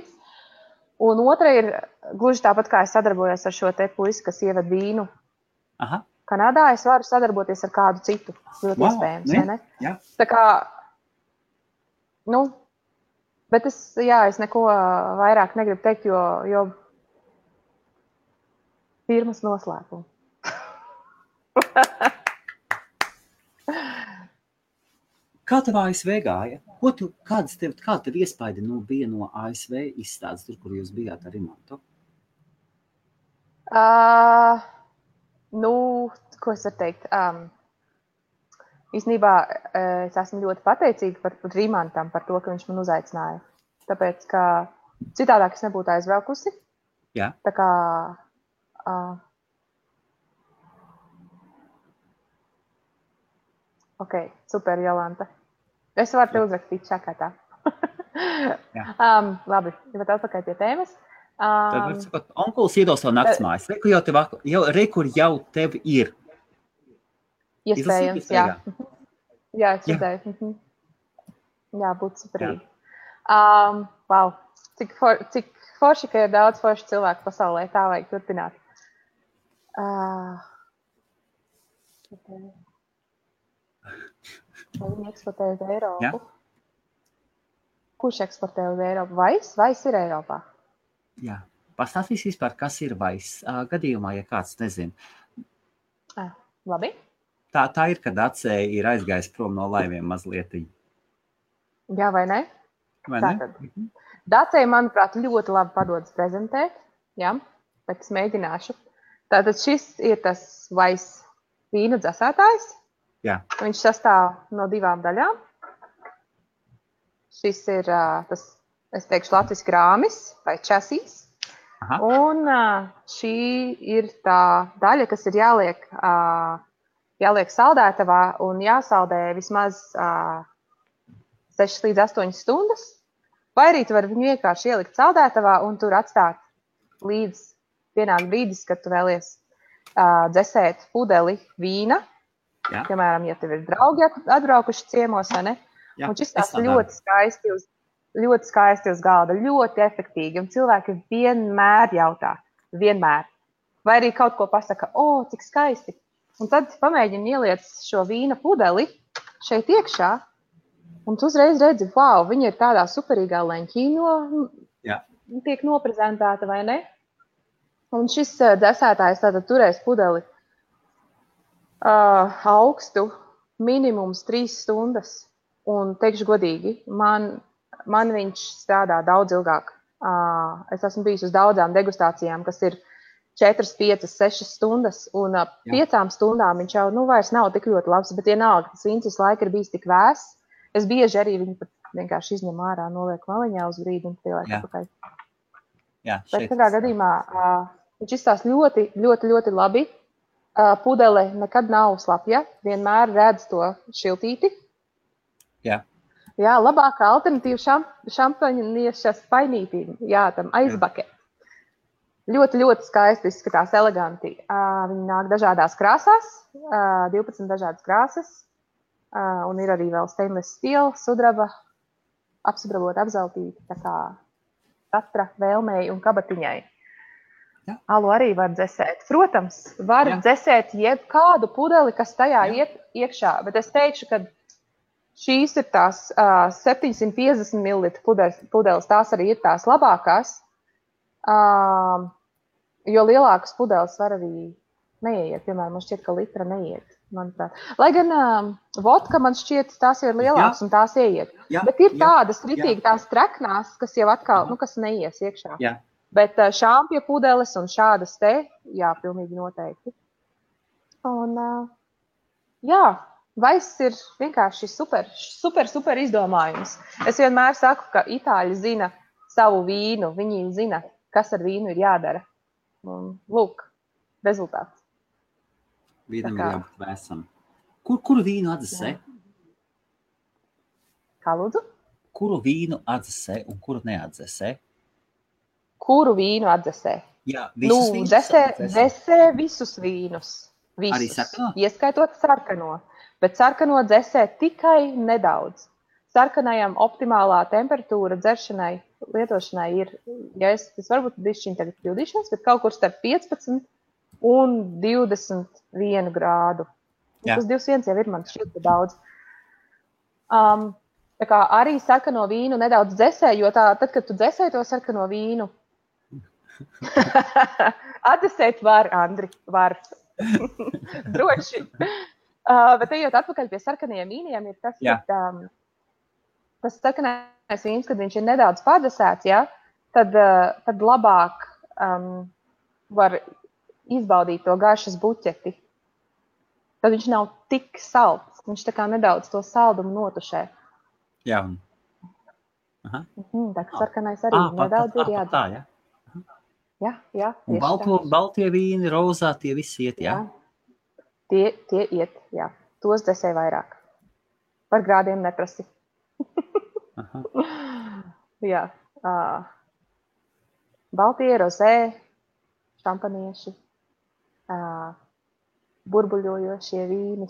Un otra ir gluži tāpat, kā es sadarbojos ar šo te puisi, kas ieved vīnu. Kanādā es varu sadarboties ar kādu citu, ļoti iespējams, vai ne? Jā. Tā kā, nu, bet es neko vairāk negribu teikt, jo firmas noslēpuma. Kā tev ASV gāja? Kāda tev iespaidi bija no ASV izstādes, tur, kur jūs bijāt ar Imantu? Ko es varu teikt? Īstenībā es esmu ļoti pateicīga par Rimantam, par to, ka viņš man uzaicināja. Tāpēc, ka citādāk es nebūtu aizbraukusi. Jā. Tā kā... Ok, super, Jolanta. Es varu te uzrakstīt čakatā. Labi, bet atpakaļ pie tēmas. Tad var sakot, onkulis iedos savu naktsmājas. Rekur jau tev ir. Iespējams, jā. Jā, es redzēju. Jā, būtu superīgi. Wow, cik forši, ka ir daudz forši cilvēku pasaulē, tā vajag turpināt. Vai viņi eksportē uz Eiropu? Jā. Kurš eksportē uz Eiropu? Vais ir Eiropā? Jā. Pastāstīs vispār, kas ir Vais. Gadījumā, ja kāds nezin. Labi. Tā ir, kad Acēja ir aizgājis prom no laiviem mazliet. Jā, vai ne? Tātad. Dacēja, manuprāt, ļoti labi padodas prezentēt. Jā, bet es mēģināšu. Tātad šis ir tas Vais vīnu dzesētājs. Jā. Viņš sastāv no 2 daļām. Šis ir tas, es teikšu, latviski rāmis vai časīs. Un šī ir tā daļa, kas ir jāliek saldētavā un jāsaldē vismaz 6 līdz 8 stundas. Vai arī tu vari viņu vienkārši ielikt saldētavā un tur atstāt līdz pienāk brīdis, kad tu vēlies dzesēt pudeli vīna. Jā. Piemēram, ja tev ir draugi atbraukuši ciemos, vai ne? Jā, un šis tās ļoti skaisti ļoti skaisti uz galda, ļoti efektīvi. Un cilvēki vienmēr jautā, vienmēr. Vai arī kaut ko pasaka, cik skaisti. Un tad pamēģini ieliec šo vīna pudeli šeit iekšā, un tu uzreiz redzi, wow, viņa ir tādā superīgā leņķī tiek noprezentēta, vai ne? Un šis dzesētājs tātad turēs pudeli augstu minimums 3 stundas. Un teikšu godīgi, man viņš strādā daudz ilgāk. Es esmu bijis uz daudzām degustācijām, kas ir 4, 5, 6 stundas, un 5 stundām viņš jau vairs nav tik ļoti labs, bet vienalga, tas vīns visu laiku ir bijis tik vēss. Es bieži arī viņu pat vienkārši izņem ārā, noliek maliņā uz brīdi un pieliek atpakaļ. Bet katrā gadījumā viņš izstās ļoti, ļoti, ļoti labi. Pudele nekad nav slapja, vienmēr redz to šiltīti. Jā, labākā alternatīva šampaņieša spainītīm, tam aizbake. Ļoti, ļoti skaisti izskatās, eleganti. Viņi nāk dažādās krāsās, 12 dažādas krāsas, un ir arī vēl stainless steel, sudraba, apsudrabot, apzeltīti, tā kā katra vēlmei un kabatiņai. Alu arī var dzesēt. Protams, var dzesēt jebkādu pudeli, kas tajā iet iekšā, bet es teikšu, ka šīs ir tās 750 ml pudeles, tās arī ir tās labākās. Jo lielākas pudeles var arī neiet. Piemēram, man šķiet, ka litra neiet, manuprāt. Lai gan vodka, man šķiet, tās ir lielākas un tās ieiet. Bet ir tādas ritīgi, tās treknās, kas jau atkal, kas neies iekšā. Bet šāmpja pudeles un šādas te, pilnīgi noteikti. Un, vaiss ir vienkārši super izdomājums. Es vienmēr saku, ka itāļi zina savu vīnu, viņi zina, kas ar vīnu ir jādara. Un, lūk, rezultāts. Vīnam ir jābūt vēsam. Kuru vīnu atdzesē? Kā lūdzu? Kuru vīnu atdzesē un kuru neatdzesē? Kuru vīnu atdzesē? Jā, visus vīnus dzesē visus vīnus. Visus. Arī sarkano? Ieskaitot sarkano. Bet sarkano dzesē tikai nedaudz. Sarkanajam optimālā temperatūra dzeršanai, lietošanai ir, es varbūt bišķiņ tagad kļūdīšos, bet kaut kur starp 15 un 21 grādu. Tas 21 jau ir man šķiet daudz. Tā kā arī sarkano vīnu nedaudz dzesē, jo tad, kad tu dzesē to sarkano vīnu, atdzesēt var, Andri, var. Droši. Bet ejot atpakaļ pie sarkanajiem vīniem, ir tas, tas sarkanais vīns, kad viņš ir nedaudz padesēts, tad labāk var izbaudīt to garšas buķeti. Tad viņš nav tik salds. Viņš tā kā nedaudz to saldumu notušē. Jā. Tā kā sarkanais arī nedaudz ir jādara. Jā. Un baltie vīni, rozā, tie visi iet, Tie iet, Tos dzesē vairāk. Par grādiem neprasi. Baltie, rozē, šampanieši, burbuļojošie vīni.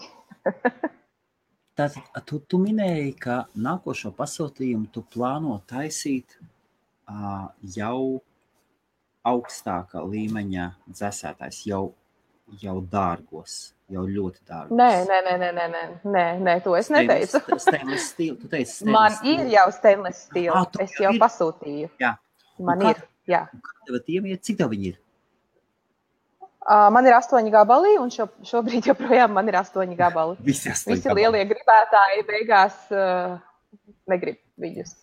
Tātad tu minēji, ka nākošo pasūtījumu tu plāno taisīt jau augstākā līmeņa dzesētājs, jau dārgos, jau ļoti dārgos. Nē, to es neteicu. Stainless steel, tu teici stainless Man steel. ir jau stainless steel, es jau pasūtīju. Jā. Man ir, jā. Cik tev viņi ir? Man ir 8 gabali, un šobrīd joprojām man ir 8 gabali. Visi lielie gribētāji beigās negrib viņus.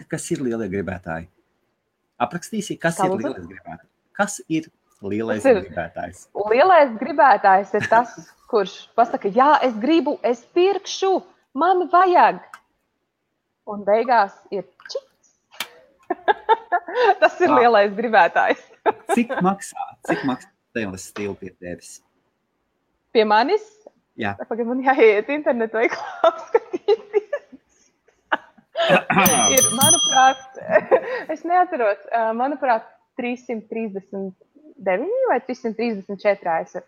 Kas ir lielie gribētāji? Aprakstīsi, kas ir lielais gribētājs? Kas ir lielais gribētājs? Lielais gribētājs ir tas, kurš pasaka, es gribu, es pirkšu, man vajag. Un beigās ir čips. Tas ir lielais gribētājs. Cik maksā stainless steel pie tevis? Pie manis? Jā. Pagaid, man jāiet internetu veiklā apskatīties. Ir, manuprāt, es neatceros, manuprāt, 339 vai 334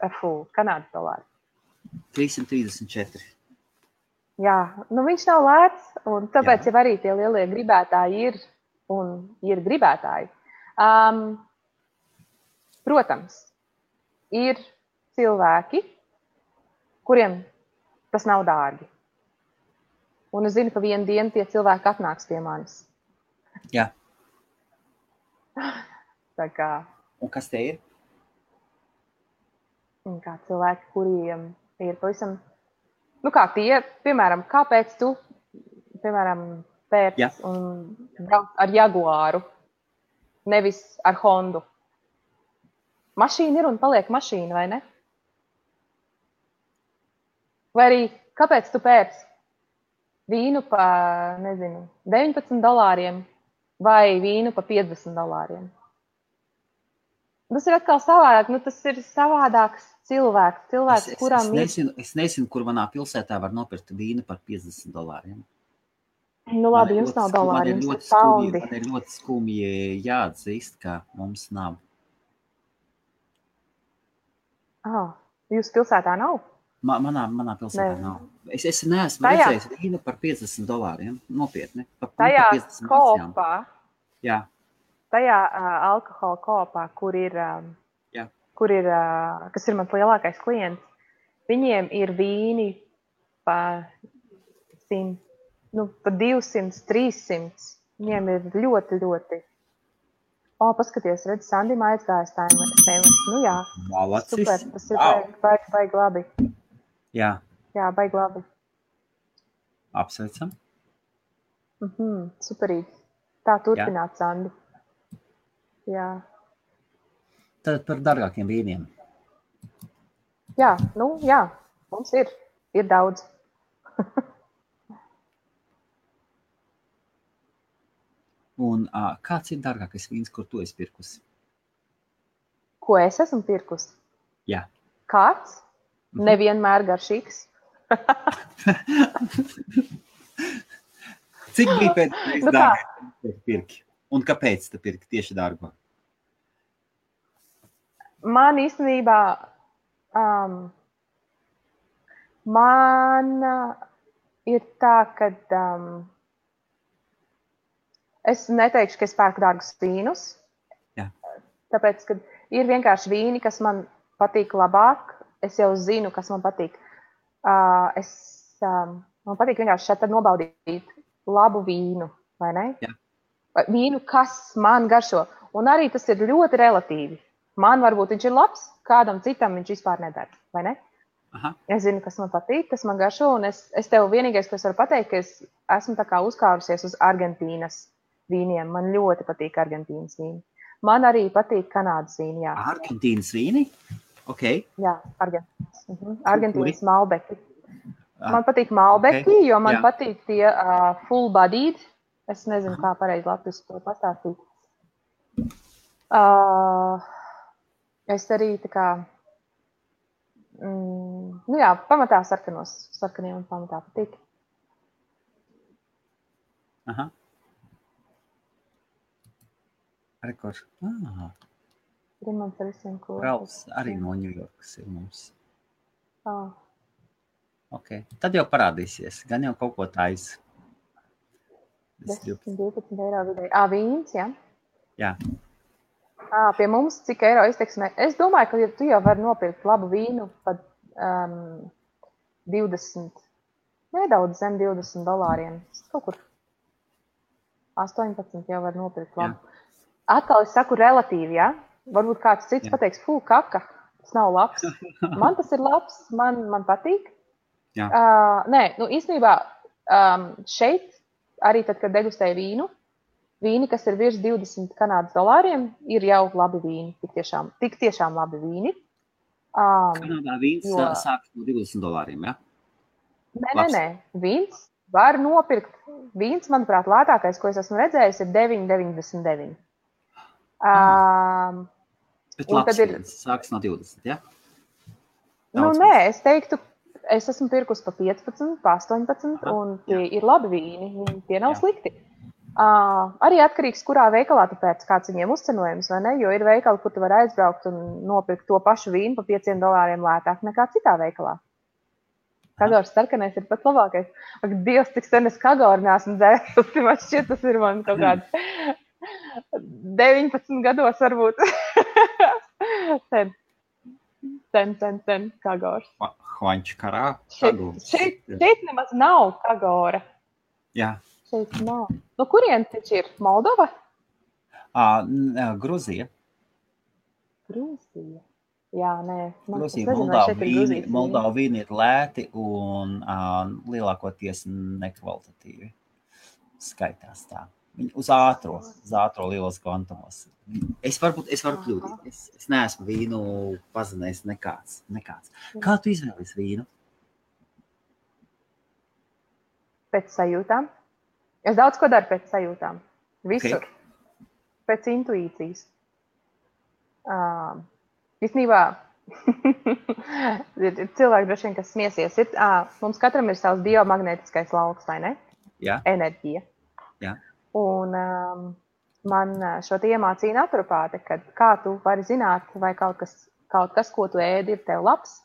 Kanādas dolāri. 334. Jā, nu viņš nav lēts, un tāpēc jau arī tie lielie gribētāji ir un ir gribētāji. Protams, ir cilvēki, kuriem tas nav dārgi. Un es zinu, ka vienu dienu tie cilvēki atnāks pie manis. Jā. Tā kā. Un kas te ir? Un kā cilvēki, kuriem ir pavisam, nu kā tie, piemēram, kāpēc tu, piemēram, pēc un brauc ar Jaguāru, nevis ar Hondu. Mašīna ir un paliek mašīna, vai ne? Vai arī, kāpēc tu pēc vīnu pa, nezinu, $19 vai vīnu pa $50? Tas ir atkal savādāk, nu tas ir savādāks cilvēks, kuram es nezinu, kur manā pilsētā var nopirkt vīnu par $50. Nu labi, jums nav dolāri, jums ir paundi. Man ir ļoti skumji jāatzīst, ka mums nav. Jūsu pilsētā nav? Manā pilsētā nav. Es neesmu redzējis vīnu par $50. Nopietni. Tajā kopā. Jā. Tajā alkohola kopā, kur ir, kas ir mans lielākais klients, viņiem ir vīni pa 100, pa 200, 300. Viņiem ir ļoti, ļoti. Paskaties, redz, Sandim aizgājas tā SMS. Nu jā, Malacis. Super, tas ir baigi labi. Jā. Jā, baigi labi. Apsveicam. Superīgi. Tā turpināt, Sandi. Jā. Tad par dārgākiem vīniem. Jā, mums ir daudz. Un kāds ir dārgākais vīns, kur tu esi pirkusi? Ko es esmu pirkusi? Jā. Kāds? Nevienmēr garšīgs. Cik bija pēc dārgākais pirki? Un kāpēc tu pirki tieši dārgo? Man īstenībā, man ir tā, ka es neteikšu, ka es pērku dārgus vīnus. Jā. Tāpēc, ka ir vienkārši vīni, kas man patīk labāk. Es jau zinu, kas man patīk. Man patīk vienkārši šeit nobaudīt labu vīnu, vai ne? Jā. Vīnu, kas man garšo. Un arī tas ir ļoti relatīvi. Man varbūt viņš ir labs, kādam citam viņš vispār nedara, vai ne? Aha. Es zinu, kas man patīk, kas man garšo, un es tev vienīgais, ko es varu pateikt, ka es esmu tā kā uzkārusies uz Argentīnas vīniem. Man ļoti patīk Argentīnas vīni. Man arī patīk Kanādas vīni, jā. Argentīnas vīni? Ok. Jā, Argentīnas Malbeki. Man patīk Malbeki, jo man patīk tie full bodied. Es nezinu, kā pareizi latviski to pastāstīt. Es arī tā kā, pamatā sarkaniem un pamatā patīk. Aha. Rekords. Rimants ar visiem kopā. Rauls arī no Ņujorkas ir mums. Ok. Tad jau parādīsies. Gan jau kaut ko taisa. 10-12 eiro vidēji. Vīns, jā? Jā. Pie mums cik eiro izteiksmē? Es domāju, ka tu jau vari nopirkt labu vīnu pat 20, nedaudz zem $20. Kaut kur 18 jau var nopirkt labu. Jā. Atkal es saku relatīvi, jā? Varbūt kāds cits pateiks, kaka, tas nav labs. Man tas ir labs, man patīk. Jā. Īstenībā šeit arī tad, kad degustēju vīni, kas ir virs $20 Kanādas, ir jau labi vīni, tik tiešām labi vīni. Kanādā vīns sākas no $20, ja? Nē, vīns var nopirkt. Vīns, manuprāt, lētākais, ko es esmu redzējis, ir $9,99. Bet labs vīns sākas no 20, ja? Nē, es teiktu, es esmu pirkus pa 15, pa 18, un tie ir labi vīni, tie nav slikti. Arī atkarīgs, kurā veikalā tu pēc kāds viņiem uzcenojums, vai ne? Jo ir veikali, kur tu vari aizbraukt un nopirkt to pašu vīnu pa $5 lētāk nekā citā veikalā. Kagors sarkanais ir pats labākais. Ak, Dievs, cik sen es kagoru neesmu dzērusi. Man šķiet, tas ir man kaut kāds 19 gados varbūt. Sen kagors. Hvaņķu karā. Šeit nemaz nav kagora. Jā. Šeit nav. No kurien taču ir? Moldova? Gruzija. Gruzija. Jā, nē. Gruzija, Moldova vīni ir lēti un lielākoties nekvalitatīvi skaitās tā. Viņi uz ātro lielos kvantumos. Es varu kļūdīt. Es neesmu vīnu pazinējis nekāds. Kā tu izvēlies vīnu? Pēc sajūtām. Es daudz ko daru pēc sajūtām. Visur. Okay. Pēc intuīcijas. Īstenībā ir cilvēki droši vien, kas smiesies. Mums katram ir savs biomagnētiskais lauks, vai ne? Jā. Enerģija. Jā. Un man šo te iemācīja naturopāte, kad kā tu vari zināt, vai kaut kas, ko tu ēdi, ir tev labs.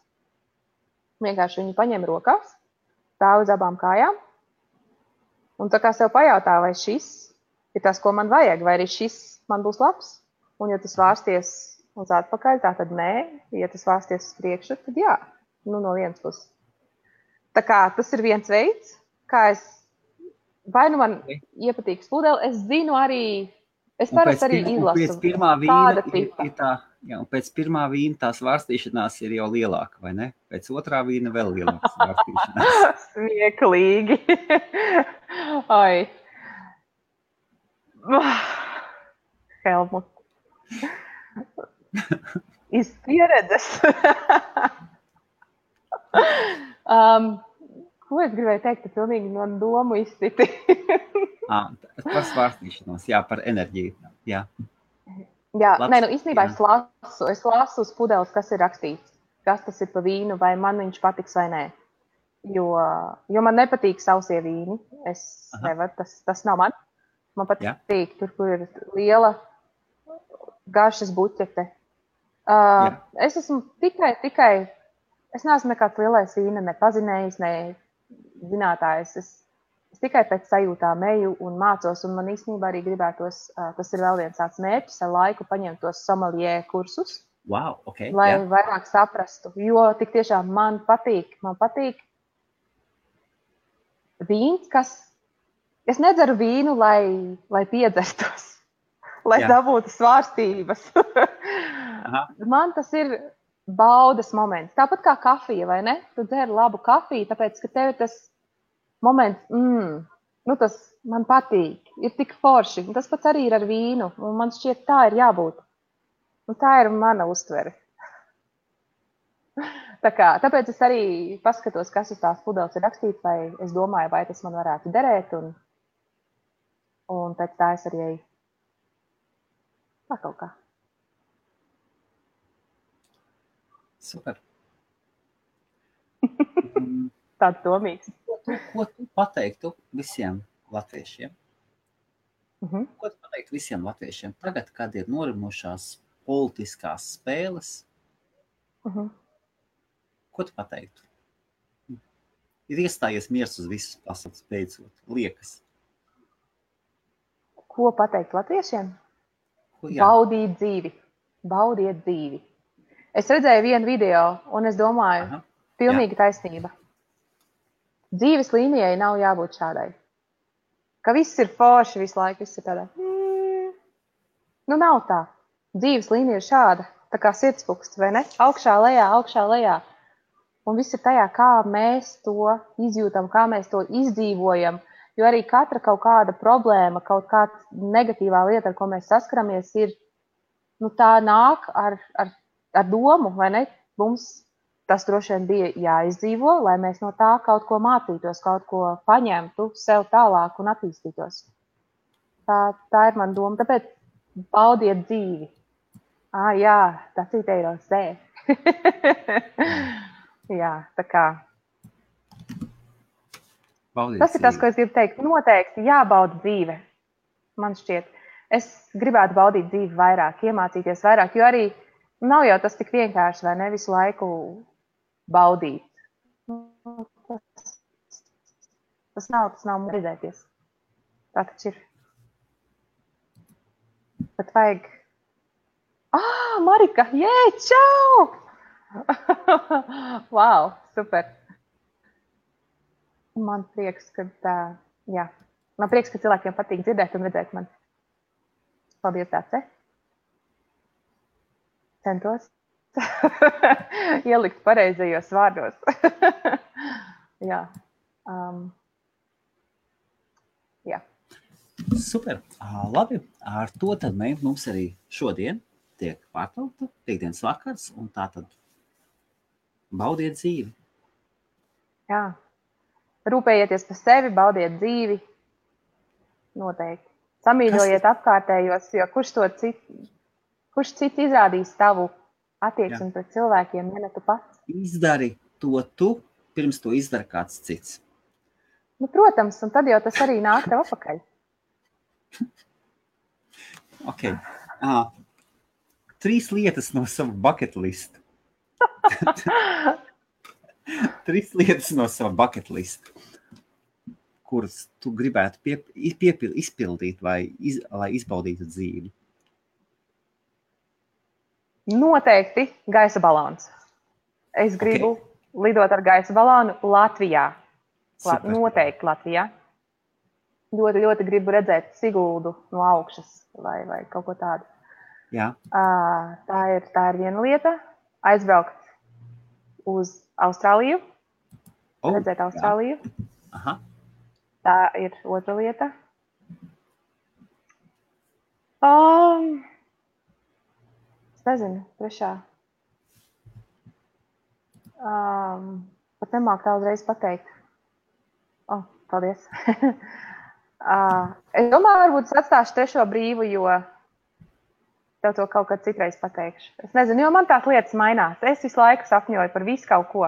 Vienkārši viņu paņem rokās, stāv uz abām kājām. Un tā kā sev pajautā, vai šis ir tas, ko man vajag, vai arī šis man būs labs. Un ja tas vārsties uz atpakaļ, tā tad nē. Ja tas vārsties uz priekšu, tad jā. No vienas puses. Tā kā tas ir viens veids, kā es, vai nu man iepatīk spudeli, es zinu arī, es parasti arī izlasu. Pēc pirmā vīna pēc pirmā vīna tās vārstīšanās ir jau lielāka, vai ne? Pēc otrā vīna vēl lielākas vārstīšanās. Smieklīgi. Ai. Helmut. Iz pieredzes. Ko es gribēju teikt, ka pilnīgi no domu izsiti. Par svārstīšanos, jā, par enerģiju. Jā, īstenībā es lasu uz pudeles, kas ir rakstīts, kas tas ir pa vīnu, vai man viņš patiks vai nē. Jo man nepatīk sausie vīni. Es nevaru, tas nav man. Man patīk tur, kur ir liela garšas buķete. Es esmu tikai, es neesmu nekāds lielais vīna, ne pazinējis, ne zinātājs. Es tikai pēc sajūtām eju un mācos, un man īstenībā arī gribētos, tas ir vēl viens tāds mērķis, ar laiku paņemt tos sommelier kursus, wow, okay, lai vairāk saprastu. Jo tik tiešām man patīk vīns, es nedzeru vīnu, lai piedzertos, lai dabūtu svārstības. Man tas ir baudas moments. Tāpat kā kafija, vai ne? Tu dzer labu kafiju, tāpēc, ka tev tas moments, tas man patīk, ir tik forši. Un tas pats arī ir ar vīnu, un man šķiet, tā ir jābūt. Un tā ir mana uztvere. Tāpēc es arī paskatos, kas uz tās pudeles ir rakstīts, vai es domāju, vai tas man varētu derēt, un pēc tā es arī eju. Tā kaut kā. Super. Tāds domīgs. Ko tu pateiktu visiem latviešiem? Ko tu pateiktu visiem latviešiem? Tagad, kad ir norimušās politiskās spēles, ko tu pateiktu? Ir iestājies miers uz visas pasaules beidzot, liekas. Ko pateikt latviešiem? Baudīt dzīvi. Baudiet dzīvi. Es redzēju vienu video, un es domāju, pilnīgi taisnība. Dzīves līnijai nav jābūt šādai. Ka viss ir forši visu laiku, viss ir tādā. Nav tā. Dzīves līnija ir šāda, tā kā sirdspuksts, vai ne? Augšā, lejā. Un viss ir tajā, kā mēs to izjūtam, kā mēs to izdzīvojam. Jo arī katra kaut kāda problēma, kaut kāda negatīvā lieta, ar ko mēs saskaramies, ir, tā nāk ar domu, vai ne? Mums tas droši vien bija jāizdzīvo, lai mēs no tā kaut ko mācītos, kaut ko paņemtu sev tālāk un attīstītos. Tā ir mana doma. Tāpēc baudiet dzīvi. Jā, tas ir teiros sē. Jā, tā kā. Baudiet tas ir tas, ko es gribu teikt. Noteikti jābauda dzīve. Man šķiet. Es gribētu baudīt dzīvi vairāk, iemācīties vairāk, jo arī nav jau tas tik vienkārši, vai ne visu laiku baudīt. Tas nav redzēties. Tā taču ir. Bet vajag... Marika! Čau! Wow, super! Man prieks, ka cilvēkiem patīk dzirdēt un redzēt mani. Paldies, Dāce! Centos ielikt pareizajos vārdos. Jā. Jā. Super. Labi. Ar to tad mums arī šodien tiek pārtraukta piekdienas vakars, un tā tad baudiet dzīvi. Jā. Rūpējieties par sevi, baudiet dzīvi. Noteikti. Samīļojiet apkārtējos, jo kurš cits izrādīs tavu attieksmi pret cilvēkiem, ja ne tu pats? Izdari to tu, pirms to izdara kāds cits. Nu, protams, un tad jau tas arī nāk tev apakaļ. Ok. 3 lietas no sava bucket list. 3 lietas no sava bucket list, kuras tu gribētu izpildīt vai lai izbaudītu dzīvi. Noteikti gaisa balons. Es gribu lidot ar gaisa balonu Latvijā. Noteikti Latvijā. Ļoti, ļoti gribu redzēt Siguldu no augšas vai kaut ko tādu. Jā. Tā ir viena lieta. Aizbraukt uz Austrāliju. Redzēt Austrāliju. Aha. Tā ir otra lieta. Es nezinu, trešā. Pat nemāk tā uzreiz pateikt. Paldies. Es domāju, varbūt es atstāšu trešo brīvu, jo tev to kaut kad citreiz pateikšu. Es nezinu, jo man tās lietas mainās. Es visu laiku sapņoju par visu kaut ko.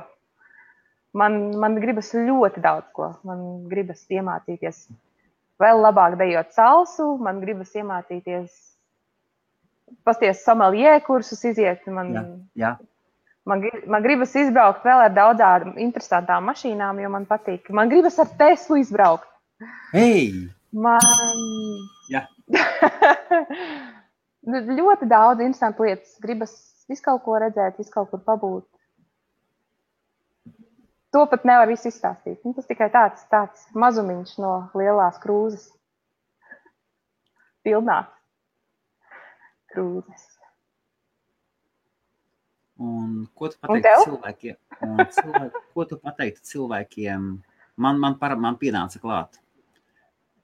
Man gribas ļoti daudz ko. Man gribas iemācīties vēl labāk dejot salsu, man gribas iemācīties pasties someljē kursus iziet. Man gribas izbraukt vēl ar daudzām interesantām mašīnām, jo man patīk. Man gribas ar Teslu izbraukt. Hei! Jā. Ļoti daudz interesantu lietas. Gribas visu kaut ko redzēt, visu kaut kur pabūt. To pat nevar visu izstāstīt. Tas tikai tāds mazumiņš no lielās krūzes. Pilnās krūzes. Un ko tu pateiktu cilvēkiem? Ko tu pateiktu cilvēkiem? Man pienāca klāt.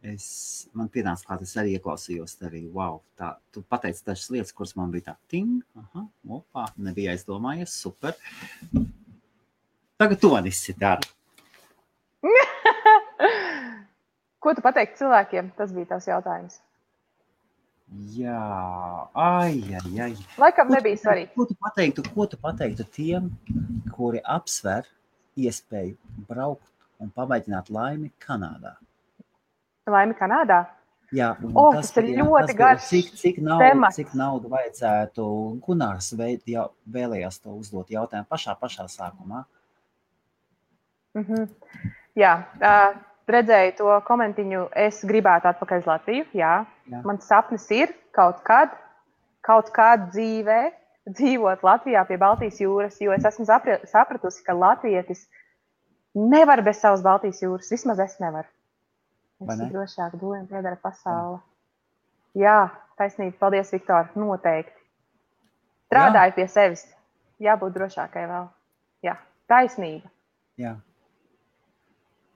Es arī ieklausījos arī, wow, tā, tu pateici dažas lietas, kuras man bija tā, ting, nebija aizdomājies, super. Tagad to visi dara. Ko tu pateiktu cilvēkiem? Tas bija tavs jautājums. Jā, Laikam nebija svarīgi. Ko tu pateiktu tiem, kuri apsver iespēju braukt un pamēģināt laimi Kanādā? Laimi Kanādā? Jā, tas ir ļoti garš temats. Cik naudu vajadzētu? Gunārs vēlējās to uzdot jautājumu pašā sākumā. Jā, redzēju to komentiņu, es gribētu atpakaļ uz Latviju, jā. Mans sapnis ir kaut kad dzīvē dzīvot Latvijā pie Baltijas jūras, jo es esmu sapratusi, ka latvietis nevar bez savas Baltijas jūras, vismaz es nevaru. Es drošāk domāju, piedara pasaule. Jā, taisnība, paldies, Viktor, noteikti. Strādāju pie sevis, jābūt drošākai vēl. Jā, taisnība. Jā.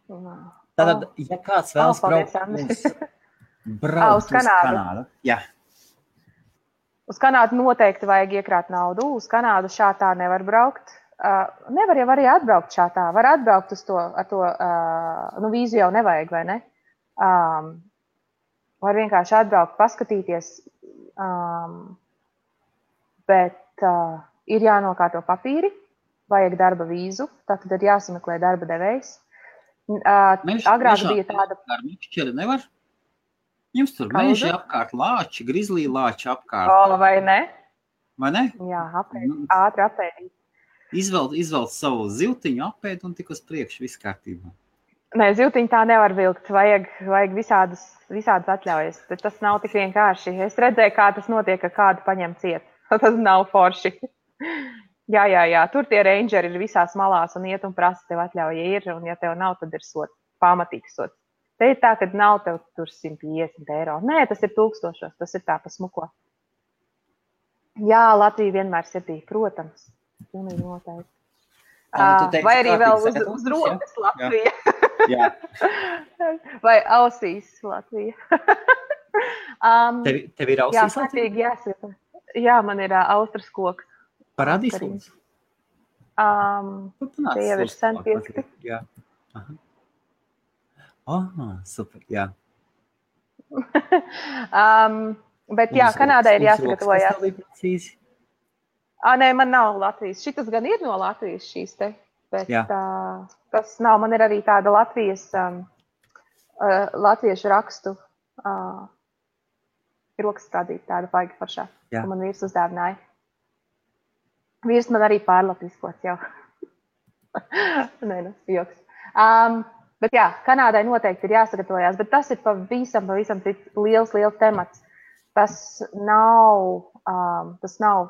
Tātad, ja kāds vēlas braukt uz Kanādu. Jā. Uz Kanādu noteikti vajag iekrāt naudu. Uz Kanādu šātā nevar braukt. Nevar jau arī atbraukt šātā. Var atbraukt uz to, vīzu jau nevajag, vai ne? Var vienkārši atbraukt, paskatīties. Bet ir jānokārto papīri, vajag darba vīzu, tātad ir jāsameklē darba devējs. Agrāk bija tāda... Ar mišķeli nevar? Jums tur meži apkārt, lāči, grizlī lāči apkārt. Vai ne? Vai ne? Jā, ātri apēdīt. Izvelc savu ziltiņu, apēd un tik uz priekšu, viss kārtībā. Nē, ziltiņu tā nevar vilkt. Vajag visādas atļaujas. Tas nav tik vienkārši. Es redzēju, kā tas notiek, ka kādu paņem ciet. Tas nav forši. Jā. Tur tie rangeri ir visās malās un iet un prasa, tev atļauja ir. Un ja tev nav, tad ir sots. Pamatīgs sots. Te ir tā, ka nav tev tur 150 eiro. Nē, tas ir 1000. Tas ir tā pa smuko. Jā, Latvija vienmēr sirdī, protams. Pilnīgi noteikti. Vai arī vēl uz rokas Latvija. Jā. Vai ausīs Latvija. Tev ir ausīs Latvija? Jā, kārtīgi jāsaka. Jā, man ir austras koks. Parādīs mums? Tie jau ir sen pieskati. Jā. Super, jā. Bet jā, Kanādai ir jāsagatavojās. Nē, man nav Latvijas. Šitas gan ir no Latvijas šīs te, bet tas nav. Man ir arī tāda latviešu rakstu rokas stādīta, tāda baigi foršā, ko man vīrs uzdāvināja. Vīrs man arī pārlatviskots jau. Nē, joks. Bet jā, Kanādai noteikti ir jāsagatavojās, bet tas ir pavisam liels temats. Tas nav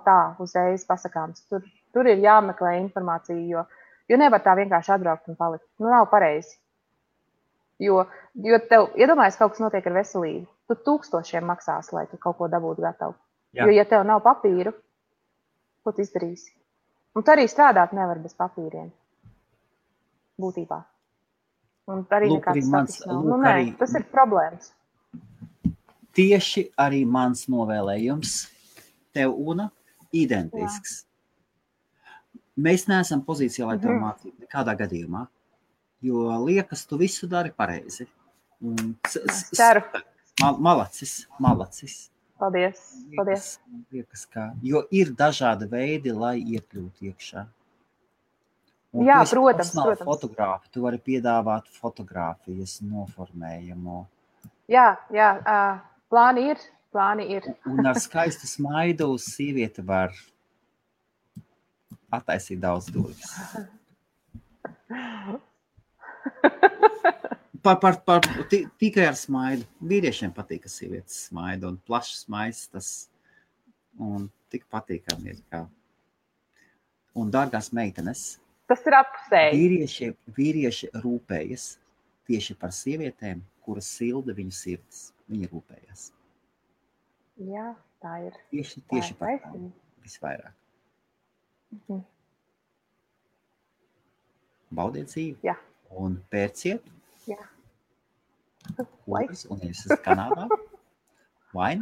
tā uzreiz pasakāms. Tur ir jāmeklē informācija, jo nevar tā vienkārši atbraukt un palikt. Nav pareizi. Jo tev, iedomājies, kaut kas notiek ar veselību. Tu 1000 maksās, lai tu kaut ko dabūtu gatavu. Jo, ja tev nav papīru, ko tu izdarīsi? Un tu arī strādāt nevar bez papīriem. Būtībā. Un arī nekāds status nav. Tas ir problēmas. Tieši arī mans novēlējums tev, Una, identisks. Mēs neesam pozīcijā, lai tev mācītu nekādā gadījumā, jo liekas, tu visu dari pareizi. Es ceru. Malacis. Paldies. Liekas, jo ir dažādi veidi, lai iekļūtu iekšā. Un jā, protams. Fotogrāfi, tu vari piedāvāt fotogrāfijas noformējumu. Jā, plāni ir. Un ar skaistu smaidu sieviete var attaisīt daudz durvis. Tikai ar smaidu. Vīriešiem patīk, ka sievietes smaida un plašs smaids tas un tik patīkami ir kā. Un dārgās meitenes. Tas ir apsēji. Vīrieši rūpējas tieši par sievietēm, kuras silda viņu sirds. Viņi rūpējas. Jā, tā ir. Tieši par tām visvairāk. Baudiet dzīvi. Jā. Un pērciet. Jā. Kuras un es esmu Kanādā. Vai?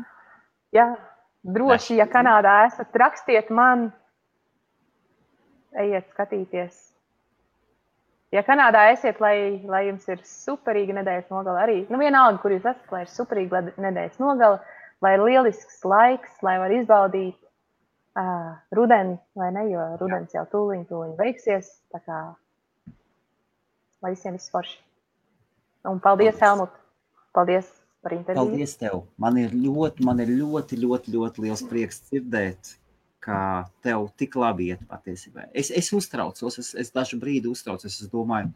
Jā, droši, ja Kanādā esat, rakstiet man. Ejiet skatīties. Ja Kanādā esiet, lai jums ir superīga nedēļas nogala arī, vienalga, kur jūs esat, lai ir superīga nedēļas nogala, lai ir lielisks laiks, lai var izbaudīt rudeni, vai ne, jo rudens jau tūliņ beigsies, tā kā lai visiem viss forši. Un paldies, Helmut. Paldies par interviju. Paldies tev. Man ir ļoti liels prieks dzirdēt, kā tev tik labi iet patiesībā. Es uztraucos, es dažu brīdi uztraucos, es domāju,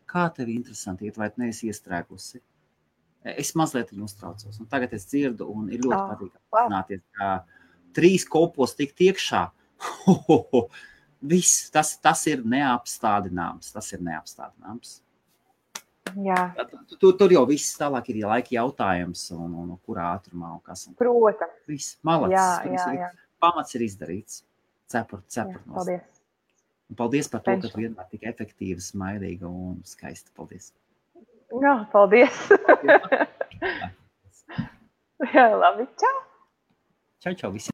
kā tev interesanti iet, vai tu neesi iestrēgusi. Es mazliet uztraucos, un tagad es dzirdu, un ir ļoti patīkami zināties, kā 3 kopos tikt iekšā. Viss, tas ir neapstādināms, Jā. Tur jau viss tālāk ir laika jautājums, un kurā ātrumā, un kas. Protams. Viss, malacis. Jā. Pamats ir izdarīts. Cepur Paldies. Un paldies par to, ka tu vienmēr tik efektīvi, smaidīga un skaista. Paldies. Jā, paldies. Jā, labi. Čau. Čau visiem.